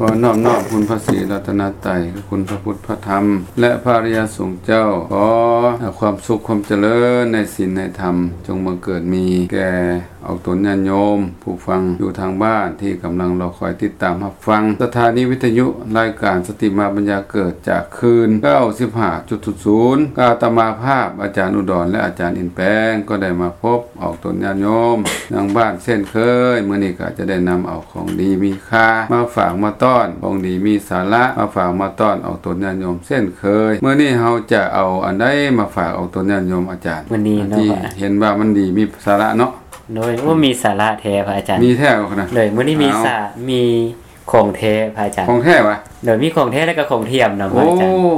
ຂໍນອບນ້ອມຄຸນພະສີລັດຕະນະໄຕ ຄືຄຸນພະພຸດ ພະທຳ ແລະ ພະອະລິຍະສົງເຈົ້າ. ຂໍຄວາມສຸກຄວາມຈະເລີນໃນສິນໃນທຳ ຈົ່ງບັງເກີດມີແກ່ອອກຕົນຍາດໂຍມຜູ້ຟັງຢູ່ທາງບ້ານ ທີ່ກຳລັງລໍຄອຍຕິດຕາມຮັບຟັງສະຖານີວິທະຍຸລາຍການສະຕິມາປັນຍາເກີດ ຈາກຄື້ນ ເກົ້າສິບຫ້າຈຸດສູນສູນ ອາດຕະມາພາບ ອາຈານອຸດອນ ແລະ ອາຈານອິນແປງ ກໍໄດ້ມາພົບອອກຕົນຍາດໂຍມທາງບ້ານເຊັ່ນເຄີຍ. ມື້ນີ້ກໍຈະໄດ້ນຳເອົາ ຂອງດີມີຄ່າມາຝາກມາຕ້ອນ, ຂອງດີມີສາລະມາຝາກມາຕ້ອນອອກຕົນຍາດໂຍມເຊັ່ນເຄີຍ. ມື້ນີ້ເຮົາຈະເອົາອັນໃດມາຝາກອອກຕົນຍາດໂຍມອາຈານ? ມື້ນີ້ເນາະ ທີ່ເຫັນວ່າມັນດີມີສາລະເນາະ. ໂດຍ ໂອ້ ມີສາລະແທ້ພະອາຈານ. ມີແທ້ບໍ່ຂະນະ? ໂດຍ ມື້ນີ້ມີສາ ມີຂອງແທ້ພະອາຈານ. ຂອງແທ້ຫວາ? ໂດຍ ມີຂອງແທ້ແລ້ວກໍຂອງທຽມນຳພະອາຈານ. ໂອ້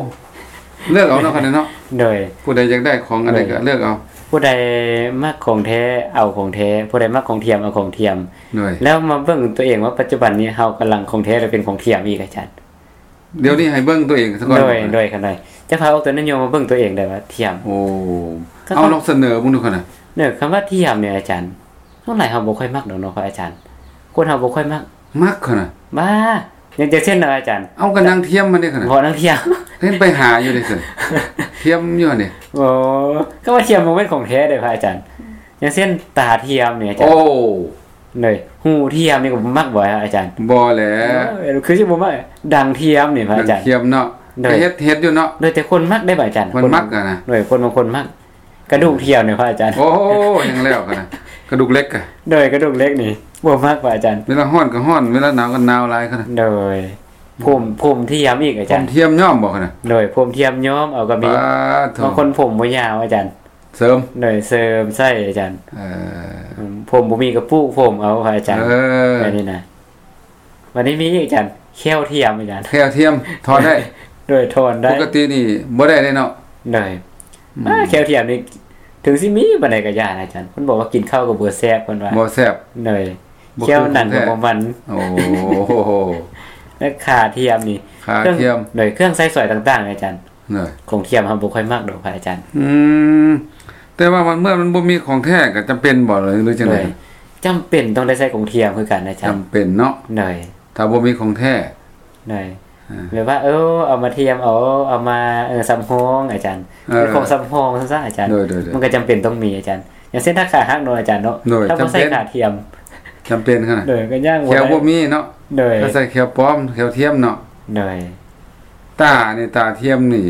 ເລືອກເອົາເນາະ ຄັນເນາະ. ໂດຍ ຜູ້ໃດຢາກໄດ້ຂອງອັນໃດກໍເລືອກເອົາ. ຜູ້ໃດມັກຂອງແທ້ເອົາຂອງແທ້, ຜູ້ໃດມັກຂອງທຽມເອົາຂອງທຽມ. ໂດຍ ແລ້ວມາເບິ່ງຕົວເອງວ່າປັດຈຸບັນນີ້ເຮົາກຳລັງຂອງແທ້ຫຼືເປັນຂອງທຽມອີກອາຈານ? ດຽວນີ້ໃຫ້ເບິ່ງຕົວເອງຊະກ່ອນ. ໂດຍ ໂດຍ ຄັນໃດ ຈະພາອອກຕົນຍາດໂຍມມາເບິ່ງຕົວເອງໄດ້ວ່າທຽມ. ໂອ້ ເອົາລອງສະເໜີເບິ່ງດູຄັນນະ. ເນີ ຄຳວ່າທຽມນີ້ອາຈານ ສ່ວນຫຼາຍເຮົາບໍ່ຄ່ອຍມັກດອກເນາະພະອາຈານ. ຄົນເຮົາບໍ່ຄ່ອຍມັກ. ມັກຂະນະ. ບ້າ ຢ່າງ ຢ່າງເຊັ່ນນະອາຈານ. ເອົາ ກໍນາງທຽມມັນເດ້ຂະນະ. ບໍ່ ນາງທຽມ. ເຫັນໄປຫາຢູ່ເດ້ຊັ້ນ ທຽມຢູ່ຫັ້ນເດ້. ໂອ້ ກໍວ່າທຽມບໍ່ແມ່ນຂອງແທ້ເດ້ພະອາຈານ. ຢ່າງເຊັ່ນຕາທຽມນີ້ອາຈານ. ໂອ້ ໂດຍ ຫູທຽມນີ້ກໍບໍ່ມັກບໍ່ອາຈານ? ບໍ່ແຫຼະ. ເອີ ຄືຊິບໍ່ມັກ. ດັງທຽມນີ້ພະອາຈານ. ດັງທຽມເນາະ. ໂດຍ ເຮັດ ເຮັດຢູ່ເນາະ. ໂດຍ ແຕ່ຄົນມັກເດ້ພະອາຈານ. ຄົນມັກອະນະ. ໂດຍ ຄົນບາງຄົນມັກ. ກະດູກທຽມນີ້ພະອາຈານ. ໂອ້ ຍັງແລ້ວກັນນະ ກະດູກເຫຼັກກະ. ໂດຍ ກະດູກເຫຼັກນີ້ບໍ່ມັກພະອາຈານ. ເວລາຮ້ອນກໍຮ້ອນ ເວລາໜາວກໍໜາວຫຼາຍຂະນະ. ໂດຍ ຜົມ ຜົມທຽມອີກອາຈານ. ຜົມທຽມຍ້ອມບໍ່ຂະນະ? ໂດຍ ຜົມທຽມຍ້ອມເອົາກໍມີ. ບາດໂທ້ ບາງຄົນຜົມບໍ່ຍາວອາຈານ. ເສີມ. ໂດຍ ເສີມໃສ່ອາຈານ. ເອີ ອືມ ຜົມບໍ່ມີກໍປູກຜົມເອົາພະອາຈານ. ເອີ ແບບນີ້ນະ. ບັດນີ້ມີອີກອາຈານ ແຂ້ວທຽມອາຈານ. ແຂ້ວທຽມຖອນໄດ້. ໂດຍ ຖອນໄດ້. ປົກກະຕິນີ້ບໍ່ໄດ້ເດ້ເນາະ. ໂດຍ ອືມ ອ່າ ແຂ້ວທຽມນີ້ ເຖິງຊິມີປານໃດກໍຢ່ານະອາຈານ. ເພິ່ນບອກວ່າກິນເຂົ້າກໍບໍ່ແຊບ ເພິ່ນວ່າ. ບໍ່ແຊບ. ໂດຍ ບໍ່ຄືຂອງແທ້. ແຂ້ວໜັງກໍບໍ່ມັນ. ໂອ້ ແລະ ຂາທຽມນີ້ ຂາທຽມ. ໂດຍ ເຄື່ອງໃຊ້ສອຍຕ່າງໆອາຈານ. ໂດຍ ຂອງທຽມເຮົາບໍ່ຄ່ອຍມັກດອກພະອາຈານ. ອືມ ແຕ່ວ່າມັນ ເມື່ອມັນບໍ່ມີຂອງແທ້ກໍຈຳເປັນບໍ່ ຫຼືຈັ່ງໃດ? ໂດຍ ຈຳເປັນຕ້ອງໄດ້ໃຊ້ຂອງທຽມຄືກັນອາຈານ. ຈຳເປັນເນາະ. ໂດຍ ຖ້າບໍ່ມີຂອງແທ້. ໂດຍ ອ່າ ແບບວ່າ ເອີ ເອົາມາທຽມເອົາ ເອົາມາ ເອີ ສຳຮອງອາຈານ. ເອີ ເປັນຂອງສຳຮອງຊັ້ນຊະອາຈານ. ໂດຍໆໆ ມັນກໍຈຳເປັນຕ້ອງມີອາຈານ. ຢ່າງເຊັ່ນຖ້າຂາຫັກເນາະອາຈານເນາະ. ໂດຍ ຖ້າບໍ່ໃສ່ຂາທຽມ ຈຳເປັນຂະໜາດ. ໂດຍ ກໍຍ່າງບໍ່ໄດ້ ແຂ້ວບໍ່ມີເນາະ. ໂດຍ ກໍໃສ່ແຂ້ວປອມ ແຂ້ວທຽມເນາະ. ໂດຍ ຕານີ້ ຕາທຽມນີ້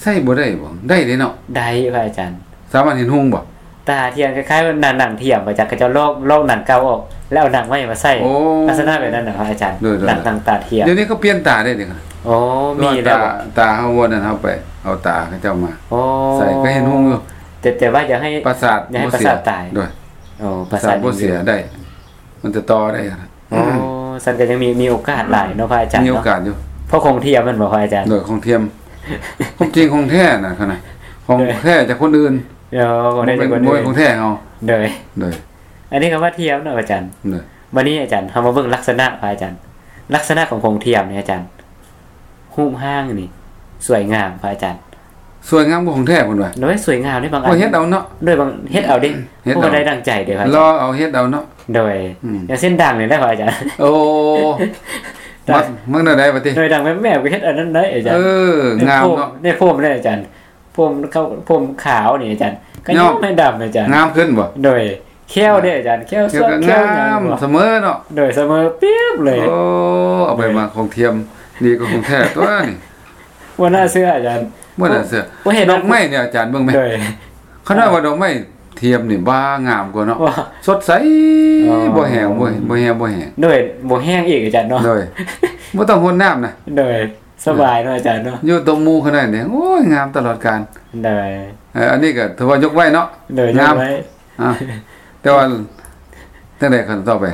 ໃຊ້ບໍ່ໄດ້ບໍ່? ໄດ້ເດ້ເນາະ. ໄດ້ພະອາຈານ. ສາມາດເຫັນຮຸ່ງບໍ່? ຕາທຽມຄ້າຍໆວ່າໜັງທຽມ ອາຈານ ເຂົາເຈົ້າລອກ ລອກໜັງເກົ່າອອກ ແລ້ວເອົາໜັງໃໝ່ມາໃສ່. ໂອ້ ລັກສະນະແບບນັ້ນນະພະອາຈານ. ໂດຍໆໆ ໜັງ ໜັງຕາທຽມ. ດຽວນີ້ເຂົາປ່ຽນຕາໄດ້ເດ້. ໂອ້ ມີແລ້ວ. ຕາ ຕາເຮົາບໍ່ນັ້ນ ເຮົາໄປເອົາຕາເຂົາເຈົ້າມາ ໂອ້ ໃສ່ ກໍເຫັນຮຸ່ງຢູ່. ແຕ່ ແຕ່ວ່າຢ່າໃຫ້ ປະສາດ ຢ່າໃຫ້ປະສາດຕາຍ. ໂດຍ ໂອ້ ປະສາດບໍ່ເສຍໄດ້ ມັນຈະຕໍ່ໄດ້. ໂອ້ ຊັ້ນກໍຍັງມີ ມີໂອກາດຫຼາຍເນາະພະອາຈານເນາະ. ມີໂອກາດຢູ່ ເພາະຂອງທຽມແມ່ນບໍ່ພະອາຈານ? ໂດຍ ຂອງທຽມ. ຂອງຈິງຂອງແທ້ນະ ຂະໜາດຂອງແທ້ຈາກຄົນອື່ນ. ໂອ້ ຂອງແທ້ຈາກຄົນອື່ນ ບໍ່ແມ່ນຂອງແທ້ເຮົາ. ໂດຍ ໂດຍ ອັນນີ້ກໍວ່າທຽມເນາະອາຈານ. ໂດຍ ບັດນີ້ອາຈານ ເຮົາມາເບິ່ງລັກສະນະພະອາຈານ. ລັກສະນະຂອງຂອງທຽມນີ້ອາຈານ ຮູບຮ່າງນີ້ສວຍງາມພະອາຈານ. ສວຍງາມກວ່າຂອງແທ້ເພິ່ນວ່າ. ໂດຍ ສວຍງາມເດ້ ບາງອັນ ໂອ້ ເຮັດເອົາເນາະ. ໂດຍ ບາງເຮັດເອົາເດ້ ເຮັດເອົາ ບໍ່ໄດ້ດັ່ງໃຈເດ້ພະອາຈານ. ລໍເອົາເຮັດເອົາເນາະ. ໂດຍ ອືມ ຢ່າງເຊັ່ນດັງນີ້ໄດ້ພະອາຈານ. ໂອ້ ມັກ ມັກແນວໃດບັດນີ້? ໂດຍ ດັງແບບແມ່ກໍເຮັດອັນນັ້ນໄດ້ອາຈານ. ເອີ ງາມເນາະ. ໃນໂພມ ໃນໂພມເດ້ອາຈານ. ໂພມຂາວ ໂພມຂາວນີ້ອາຈານ ກໍຍ້ອມໃຫ້ດຳອາຈານ. ງາມຂຶ້ນບໍ່? ໂດຍ ແຂ້ວເດ້ອາຈານ ແຂ້ວສວຍ ແຂ້ວງາມ ສະເໝີເນາະ. ໂດຍ ສະເໝີປຽບເລີຍ. ໂອ້ ເອົາໄປມາຂອງທຽມດີກວ່າຂອງແທ້ຕົວນີ້. ບໍ່ໜ້າເຊື່ອອາຈານ ບໍ່ໜ້າເຊື່ອ. ບໍ່ເຫັນດອກໄມ້ນີ້ອາຈານເບິ່ງແມ. ໂດຍ ຂະໜາດວ່າດອກໄມ້ທຽມນີ້ບ້າງາມກວ່າເນາະ. ສົດໃສ ອໍ ບໍ່ແຫ້ງ ບໍ່ ບໍ່ແຫ້ງ ບໍ່ແຫ້ງ. ໂດຍ ບໍ່ແຫ້ງອີກອາຈານເນາະ. ໂດຍ ບໍ່ຕ້ອງຫົດນ້ຳນະ. ໂດຍ ສະບາຍເນາະອາຈານເນາະ. ຢູ່ຕົບໝູ່ຂະໜາດນີ້ ໂອ້ຍ ງາມຕະຫຼອດການ. ໂດຍ ເອີ ອັນນີ້ກໍຖືວ່າຍົກໄວ້ເນາະ. ໂດຍ ງາມ ຍົກໄວ້. ອ່າ ແຕ່ວ່າຈັ່ງໃດຄັນຕໍ່ໄປ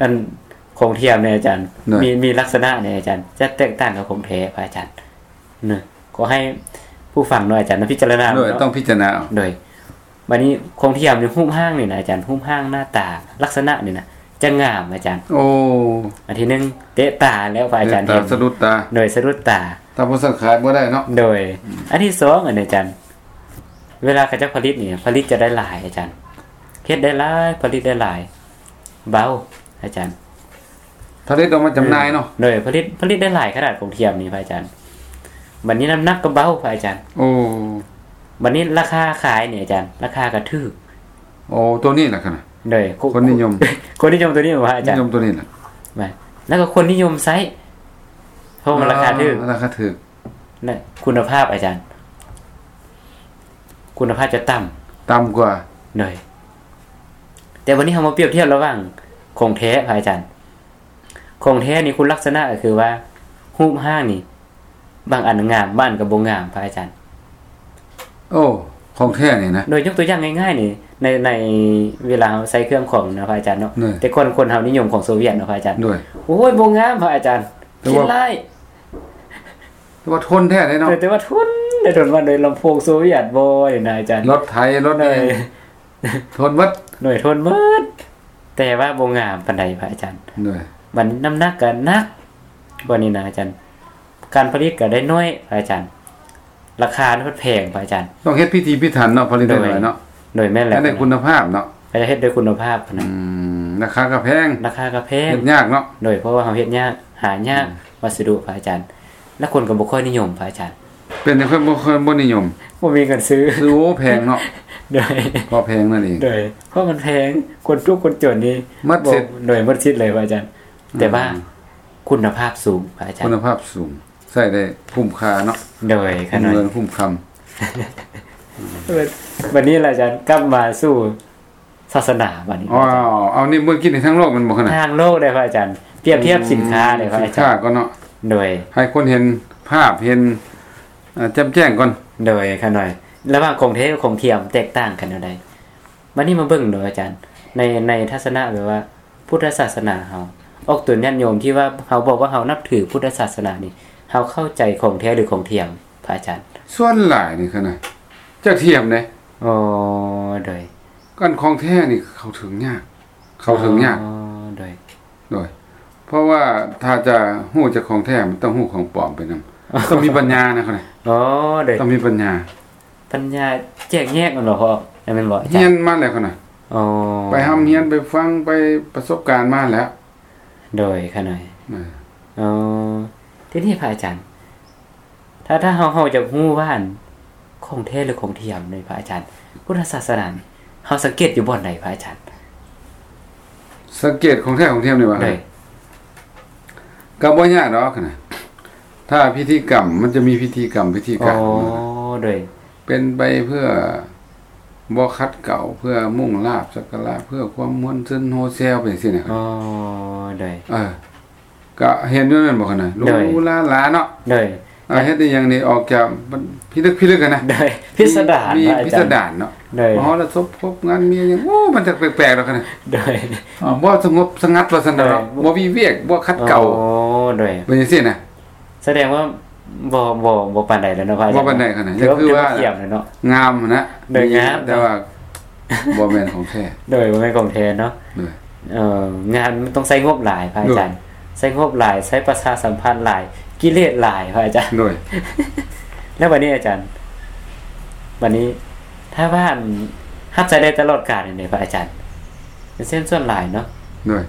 ອັນຂອງທຽມນີ້ອາຈານ ໂດຍ ມີ ມີລັກສະນະນີ້ອາຈານ ຈະແຕກຕ່າງກັບຂອງແທ້ພະອາຈານເນາະ. ຂໍໃຫ້ຜູ້ຟັງເນາະອາຈານ ນຳພິຈາລະນາເນາະ. ໂດຍ ຕ້ອງພິຈາລະນາເອົາ. ໂດຍ ບັດນີ້ຂອງທຽມນີ້ ຮູບຮ່າງນີ້ນະອາຈານ ຮູບຮ່າງໜ້າຕາ ລັກສະນະນີ້ນະ ຈະງາມອາຈານ. ໂອ້ ອັນທີໜຶ່ງ ເຕະຕາແລ້ວພະອາຈານ ເຕະຕາ ເຫັນ ສະດຸດຕາ. ໂດຍ ສະດຸດຕາ. ຖ້າບໍ່ຊັ້ນຂາຍບໍ່ໄດ້ເນາະ. ໂດຍ ອືມ ອັນທີສອງ ອັນນີ້ອາຈານ ເວລາເຂົາເຈົ້າຜະລິດນີ້ ຜະລິດຈະໄດ້ຫຼາຍອາຈານ ເຮັດໄດ້ຫຼາຍ ຜະລິດໄດ້ຫຼາຍ ເບົາອາຈານ. ທ ຜະລິດອອກມາຈຳໜ່າຍເນາະ. ໂດຍ ຜະລິດ ຜະລິດໄດ້ຫຼາຍຂະໜາດຂອງທຽມນີ້ພະອາຈານ. ບັດນີ້ນ້ຳໜັກກໍເບົາພະອາຈານ. ໂອ້ ບັດນີ້ລາຄາຂາຍນີ້ອາຈານ ລາຄາກໍຖືກ. ໂອ້ ໂຕນີ້ລະຂະໜາດ ໂດຍ ຄົນນິຍົມ ຄົນນິຍົມໂຕນີ້ບໍ່ພະອາຈານ? ນິຍົມໂຕນີ້ລະ ແມ່ນ ແລ້ວກໍຄົນນິຍົມໃຊ້ ເພາະວ່າລາຄາຖືກ ອ່າ ລາຄາຖືກ ແລະ ຄຸນນະພາບອາຈານ ຄຸນນະພາບຈະຕ່ຳ ຕ່ຳກວ່າ. ໂດຍ ແຕ່ວັນນີ້ເຮົາມາປຽບທຽບລະຫວ່າງຂອງແທ້ພະອາຈານ. ຂອງແທ້ນີ້ຄຸນລັກສະນະກໍຄືວ່າ ຮູບຮ່າງນີ້ ບາງອັນງາມ ບາງອັນກໍບໍ່ງາມພະອາຈານ. ໂອ້ ຂອງແທ້ນີ້ນະ. ໂດຍ ຍົກຕົວຢ່າງງ່າຍໆນີ້ ໃນ ໃນເວລາເຮົາໃຊ້ເຄື່ອງຂອງນະພະອາຈານເນາະ. ໂດຍ ແຕ່ກ່ອນຄົນເຮົານິຍົມຂອງໂຊວຽດເນາະພະອາຈານ. ໂດຍ ໂອ້ຍ ບໍ່ງາມພະອາຈານ ແຕ່ວ່າ ຂີ້ຮ້າຍ ແຕ່ວ່າທົນແທ້ເດ້ເນາະ. ໂດຍ ແຕ່ວ່າທົນ ໄດ້ທົນວ່າໂດຍລຳໂພງໂຊວຽດບໍ່ນີ້ນະອາຈານ. ລົດໄຖ ລົດ ໂດຍ ນີ້ ທົນໝົດ. ໂດຍ ທົນໝົດ ແຕ່ວ່າບໍ່ງາມປານໃດພະອາຈານ. ໂດຍ ບັດນີ້ນ້ຳໜັກກໍໜັກ ບັດນີ້ນະອາຈານ ການຜະລິດກໍໄດ້ໜ້ອຍພະອາຈານ ລາຄາມັນແພງພະອາຈານ. ຕ້ອງເຮັດພິຖີພິຖັນເນາະ ຜະລິດໄດ້ໜ້ອຍເນາະ. ໂດຍ ໂດຍ ແມ່ນແລ້ວ ໃຫ້ໄດ້ຄຸນນະພາບເນາະ ກໍຈະເຮັດດ້ວຍຄຸນນະພາບນະ. ອືມ ລາຄາກໍແພງ ລາຄາກໍແພງ ເຮັດຍາກເນາະ. ໂດຍ ເພາະວ່າເຮົາເຮັດຍາກ ຫາຍາກ ອືມ ວັດສະດຸພະອາຈານ ແລ້ວຄົນກໍບໍ່ຄ່ອຍນິຍົມພະອາຈານ. ເປັນຫຍັງເພິ່ນບໍ່ຄ່ອຍ ບໍ່ນິຍົມ? ບໍ່ມີເງິນຊື້ ຊື້ ໂອ້ ແພງເນາະ. ໂດຍ ເພາະແພງນັ້ນເອງ. ໂດຍ ເພາະມັນແພງ ຄົນທຸກຄົນຈົນນີ້ໝົດສິດ. ໂດຍ ໝົດສິດເລີຍພະອາຈານ. ແຕ່ວ່າ ອືມ ຄຸນນະພາບສູງພະອາຈານ ຄຸນນະພາບສູງ ໃຊ້ໄດ້ຄຸ້ມຄ່າເນາະ. ໂດຍ ຄຸ້ມເງິນຄຸ້ມຄຳ. ບັດນີ້ລະອາຈານ ກັບມາສູ່ ສາສະໜາບັດນີ້. ອໍ ເອົານີ້ເບິ່ງກິນໃນທາງໂລກແມ່ນບໍ່ຂະນະ? ທາງໂລກເດ້ພະອາຈານ ປຽບທຽບສິນຄ້າເດ້ພະອາຈານ. ສິນຄ້າກ່ອນເນາະ. ໂດຍ ໃຫ້ຄົນເຫັນພາບ ເຫັນ ເອີ ແຈ່ມແຈ້ງກ່ອນ. ໂດຍ ຂະນ້ອຍ ລະຫວ່າງຂອງແທ້ກັບຂອງທຽມແຕກຕ່າງກັນແນວໃດ? ບັດນີ້ມາເບິ່ງເນາະອາຈານ ໃນ ໃນທັດສະນະແບບວ່າ ພຸດທະສາສະໜາເຮົາ ອອກຕົນຍາດໂຍມທີ່ວ່າເຮົາບອກວ່າເຮົານັບຖືພຸດທະສາສະໜານີ້ ເຮົາເຂົ້າໃຈຂອງແທ້ ຫຼື ຂອງທຽມ ພະອາຈານ? ສ່ວນຫຼາຍນີ້ຂະນະ ຈະທຽມເດ້. ອໍ ໂດຍ ອັນຂອງແທ້ນີ້ເຂົ້າເຖິງຍາກ ເຂົ້າເຖິງຍາກ. ອໍ ໂດຍ ໂດຍ ເພາະວ່າຖ້າຈະຮູ້ຈາກຂອງແທ້ ມັນຕ້ອງຮູ້ຂອງປອມໄປນຳ ຕ້ອງມີປັນຍານະຂະນະ. ອໍ ໂດຍ ຕ້ອງມີປັນຍາ ປັນຍາແຈກແຍກແມ່ນບໍ່ພໍ່? ແມ່ນບໍ່ອາຈານ? ຮຽນມາແລ້ວຂະນະ. ອໍ ໄປຮ່ຳຮຽນ ໄປຟັງ ໄປປະສົບການມາແລ້ວ. ໂດຍ ຂະນ້ອຍ. ເອີ ອໍ ທີນີ້ພະອາຈານ ຖ້າ ຖ້າເຮົາ ເຮົາຢາກຮູ້ວ່າ ອັນ ຂອງແທ້ ຫຼື ຂອງທຽມນີ້ພະອາຈານ ພຸດທະສາສະໜານີ້ ເຮົາສັງເກດຢູ່ບ່ອນໃດພະອາຈານ? ສັງເກດຂອງແທ້ຂອງທຽມນີ້ຫວາ? ໂດຍ ກໍບໍ່ຍາກດອກນະ ຖ້າພິທີກຳ ມັນຈະມີພິທີກຳ ພິທີການ. ອໍ ໂດຍ ເປັນໄປເພື່ອບໍ່ຂັດເກົາ ເພື່ອມຸ່ງລາບສັກກາລະ ເພື່ອຄວາມມ່ວນຊື່ນໂຮແຊວ ເປັນຈັ່ງຊີ້ນະ. ອໍ ໂດຍ ເອີ ກະເຫັນຢູ່ແມ່ນບໍ່ຂະນະ? ໂດຍ ຫຼູຫຼາຫຼາເນາະ. ໂດຍ ເຮັດອີ່ຫຍັງນີ້ອອກຈາກພິລຶກພິລຶກຫັ້ນນະ. ໂດຍ ພິສະດານ ມີ ມີ ອາຈານ ພິສະດານເນາະ. ໂດຍ ມະຫໍລະສົບ ຄົບງານ ມີຫຍັງ ໂອ້ ມັນຈະແປກໆດອກຂະນະ. ໂດຍ ບໍ່ສະຫງົບສະຫງັດວ່າຊັ້ນເນາະ. ໂດຍ ບໍ່ວິເວກ ບໍ່ຂັດເກົາ. ອໍ ໂດຍ ເປັນຈັ່ງຊີ້ນະ. ສະແດງວ່າບໍ່ ບໍ່ ບໍ່ປານໃດແລ້ວເນາະພະອາຈານ. ບໍ່ປານໃດຂະນະ ກໍຄືວ່າງາມຫັ້ນນະ. ໂດຍ ງາມ ແຕ່ວ່າບໍ່ແມ່ນຂອງແທ້. ໂດຍ ບໍ່ແມ່ນຂອງແທ້ເນາະ. ໂດຍ ເອີ ງານມັນຕ້ອງໃຊ້ງົບຫຼາຍພະອາຈານ. ໂດຍ ໃຊ້ງົບຫຼາຍ ໃຊ້ປະຊາສຳພັນຫຼາຍ ກິເລດຫຼາຍພະອາຈານ. ໂດຍ ແລ້ວບັດນີ້ອາຈານ ບັດນີ້ ຖ້າວ່າ ອັນ ຮັບໃຊ້ໄດ້ຕະຫຼອດການນີ້ເດ ພະອາຈານ ເຊັ່ນສ່ວນຫຼາຍເນາະ. ໂດຍ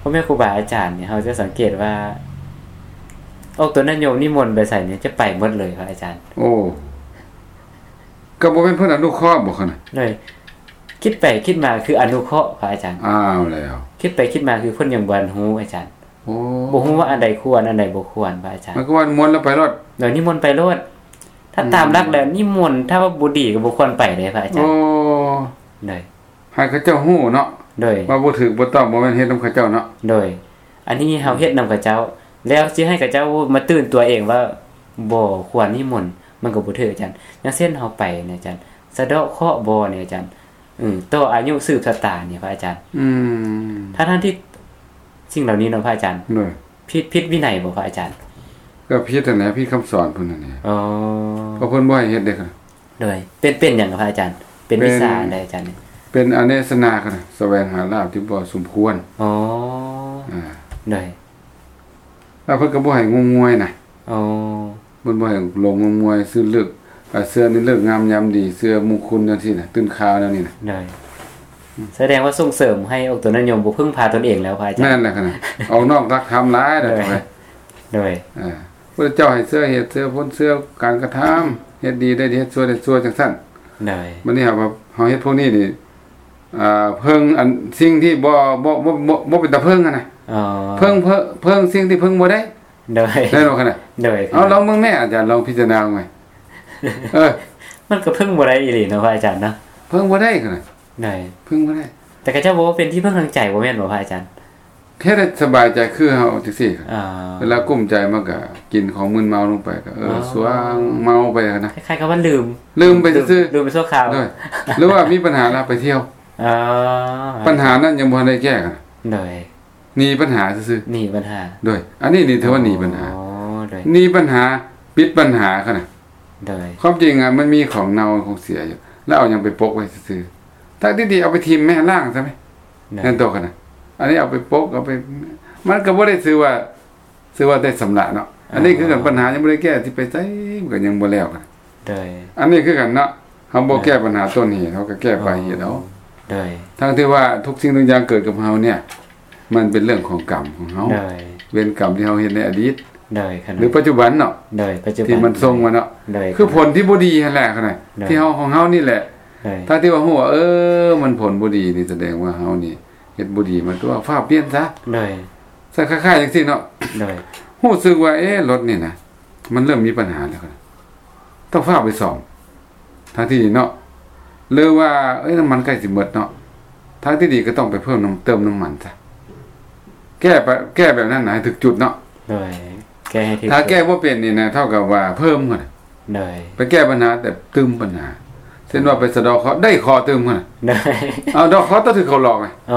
ພໍ່ແມ່ຄູບາອາຈານນີ້ ເຮົາຈະສັງເກດວ່າ ອອກຕົນຍາດໂຍມນິມົນໄປໃສນີ້ ຈະໄປໝົດເລີຍພະອາຈານ. ໂອ້ ກໍບໍ່ແມ່ນເພິ່ນອະນຸເຄາະບໍ່ຂະນະ? ໂດຍ ຄິດໄປຄິດມາຄືອະນຸເຄາະພະອາຈານ. ອ້າວແລ້ວ ຄິດໄປຄິດມາຄືເພິ່ນຍັງບໍ່ທັນຮູ້ອາຈານ. ໂອ້ ບໍ່ຮູ້ວ່າອັນໃດຄວນ ອັນໃດບໍ່ຄວນພະອາຈານ. ໝາຍຄວາມວ່ານິມົນແລ້ວໄປໂລດ. ໂດຍ ນິມົນໄປໂລດ. ຖ້າຕາມຫຼັກແລ້ວ ອືມ ນິມົນ ຖ້າວ່າບໍ່ດີກໍບໍ່ຄວນໄປເດ້ພະອາຈານ. ໂອ້ ໂດຍ ໃຫ້ເຂົາເຈົ້າຮູ້ເນາະ. ໂດຍ ວ່າບໍ່ຖືກບໍ່ຕ້ອງ ບໍ່ແມ່ນເຮັດນຳເຂົາເຈົ້າເນາະ. ໂດຍ ອັນນີ້ເຮົາເຮັດນຳເຂົາເຈົ້າ ແລ້ວຊິໃຫ້ເຂົາເຈົ້າມາຕື່ນຕົວເອງວ່າບໍ່ຄວນນິມົນ ມັນກໍບໍ່ຖືກອາຈານ. ຢ່າງເຊັ່ນເຮົາໄປນີ້ອາຈານ ສະເດາະເຄາະບໍ່ນີ້ອາຈານ ເອີ ຕໍ່ອາຍຸສືບຊະຕານີ້ພະອາຈານ. ອືມ ທັງໆທີ່ສິ່ງເຫຼົ່ານີ້ເນາະພະອາຈານ. ໂດຍ ຜິດ ຜິດວິໄນບໍ່ພະອາຈານ? ກໍຜິດຫັ້ນແຫຼະ ຜິດຄຳສອນເພິ່ນຫັ້ນແຫຼະ. ອໍ ເພາະເພິ່ນບໍ່ໃຫ້ເຮັດເດ້. ໂດຍ ເປັນ ເປັນຫຍັງພະອາຈານ? ເປັນວິຊາອັນໃດອາຈານ? ເປັນອະເນສະນາ ສະແຫວງຫາລາບທີ່ບໍ່ສົມຄວນ. ອໍ ອ່າ ໂດຍ ແລ້ວເພິ່ນກໍບໍ່ໃຫ້ງົມງວາຍນະ. ອໍ ເພິ່ນບໍ່ໃຫ້ຫຼົງງົມງວາຍ ຊື່ເລີກ ເຊື່ອໃນເລີກງາມຍາມດີ ເຊື່ອມຸງຄຸນຈັ່ງຊີ້ນະ ຕື່ນຂ່າວແນວນີ້ນະ. ໂດຍ ສະແດງວ່າສົ່ງເສີມໃຫ້ອອກຕົນຍາດໂຍມບໍ່ເພິ່ງພາຕົນເອງແລ້ວ ພະອາຈານ. ແມ່ນແລ້ວຂະນະ ອອກນອກຫຼັກທຳຫຼາຍແລ້ວ. ໂດຍ ໂດຍ ເອີ ພະເຈົ້າໃຫ້ເຊື່ອເຫດເຊື່ອຜົນ ເຊື່ອການກະທຳ ເຮັດດີໄດ້ດີ ເຮັດຊົ່ວໄດ້ຊົ່ວ ຈັ່ງຊັ້ນ. ໂດຍ ບັດນີ້ເຮົາ ເຮົາເຮັດພວກນີ້ນີ້ ອ່າ ເພິ່ງອັນສິ່ງທີ່ບໍ່ ບໍ່ ບໍ່ ບໍ່ ບໍ່ເປັນຕາເພິ່ງຫັ້ນນະ. ອໍ ເພິ່ງ ເພິ່ງ ເພິ່ງສິ່ງທີ່ເພິ່ງບໍ່ໄດ້. ໂດຍ ແມ່ນບໍ່ຂະນະ? ໂດຍ ເອົາ ລອງເບິ່ງແມ້ອາຈານ ລອງພິຈາລະນາເບິ່ງແມ້. ເອີ ມັນກໍເພິ່ງບໍ່ໄດ້ອີ່ຫຼີເນາະ ພະອາຈານເນາະ. ເພິ່ງບໍ່ໄດ້ຂະນະ. ໂດຍ ເພິ່ງບໍ່ໄດ້. ແຕ່ເຂົາເຈົ້າບອກວ່າເປັນທີ່ເພິ່ງທາງໃຈ ບໍ່ແມ່ນບໍ່ ພະອາຈານ? ແຄ່ໄດ້ສະບາຍໃຈຄືເຮົາຈັ່ງຊີ້. ອ່າ ເວລາກຸ້ມໃຈມັນກະກິນຂອງມຶນເມົາລົງໄປ ກະ ເອີ ອໍ ສວາງເມົາໄປຫັ້ນນະ. ຄ້າຍໆກັບວ່າລືມ ລືມໄປຊື່ໆ ລືມໄປຊົ່ວຄາວ. ໂດຍ ຫຼືວ່າມີບັນຫາລະໄປທ່ຽວ. ອໍ ບັນຫານັ້ນຍັງບໍ່ທັນໄດ້ແກ້. ໂດຍ ໜີບັນຫາຊື່ໆ ໜີບັນຫາ. ໂດຍ ອັນນີ້ນີ້ຖືວ່າໜີບັນຫາ. ອໍ ໂດຍ ໜີບັນຫາ ປິດບັນຫາຂະນະ. ໂດຍ ຄວາມຈິງອະ ມັນມີຂອງເນົ່າຂອງເສຍຢູ່ ແລ້ວເອົາຫຍັງໄປປົກໄວ້ຊື່ໆ ທັງທີ່ດີເອົາໄປຖິ້ມແມ້ ລ້າງຊະແມ້. ໂດຍ ແມ່ນຕົວຂະນະ. ອັນນີ້ເອົາໄປປົກ ເອົາໄປ ມັນກໍບໍ່ໄດ້ຊື່ວ່າ ຊື່ວ່າໄດ້ຊຳລະເນາະ. ອັນນີ້ຄືກັນ ອໍ ບັນຫາຍັງບໍ່ໄດ້ແກ້ ຊິໄປໃສມັນກໍຍັງບໍ່ແລ້ວ. ໂດຍ ອັນນີ້ຄືກັນເນາະ ເຮົາບໍ່ ໂດຍ ແກ້ບັນຫາຕົ້ນເຫດ ເຮົາກໍແກ້ປາຍເຫດເອົາ. ອໍ ໂດຍ ທັງທີ່ວ່າທຸກສິ່ງທຸກຢ່າງເກີດກັບເຮົາເນີ້ຍ ມັນເປັນເລື່ອງຂອງກຳຂອງເຮົາ. ໂດຍ ເວນກຳທີ່ເຮົາເຮັດໃນອະດີດ. ໂດຍ ຂະນະ ຫຼືປັດຈຸບັນເນາະ. ໂດຍ ປັດຈຸບັນ ທີ່ມັນສົ່ງມາເນາະ. ໂດຍ ຄືຜົນທີ່ບໍ່ດີຫັ້ນແຫຼະຂະນະ ໂດຍ ທີ່ເຮົາ ຂອງເຮົານີ້ແຫຼະ. ໂດຍ ຖ້າທີ່ວ່າຮູ້ວ່າ ເອີ ມັນຜົນບໍ່ດີນີ້ ສະແດງວ່າເຮົານີ້ເຮັດບໍ່ດີມາຕົວະ ຟ້າວປ່ຽນຊະ. ໂດຍ ໃສ່ຄ້າຍໆຈັ່ງຊີ້ເນາະ. ໂດຍ ຮູ້ສຶກວ່າ ເອ ລົດນີ້ນະ ມັນເລີ່ມມີບັນຫາແລ້ວ ຕ້ອງຟ້າວໄປສ້ອມ ທາງທີ່ດີເນາະ. ຫຼືວ່າ ເອີຍ ນ້ຳມັນໃກ້ຊິໝົດເນາະ ທາງທີ່ດີກໍຕ້ອງໄປເພີ່ມນ້ຳ ເຕີມນ້ຳມັນຊະ. ແກ້ໄປ ແກ້ແບບນັ້ນນະ ໃຫ້ຖືກຈຸດເນາະ. ໂດຍ ແກ້ໃຫ້ຖືກ ຖ້າແກ້ບໍ່ເປັນນີ້ນະ ເທົ່າກັບວ່າເພີ່ມຫັ້ນນະ. ໂດຍ ໄປແກ້ບັນຫາແຕ່ຕື່ມບັນຫາ ເຊັ່ນວ່າໄປສະເດາະເຄາະ ໄດ້ເຄາະຕື່ມຫັ້ນນະ. ໂດຍ ເອົາ ເດາະເຄາະຕ້ອງຖືກເຂົາຫຼອກນະ. ອໍ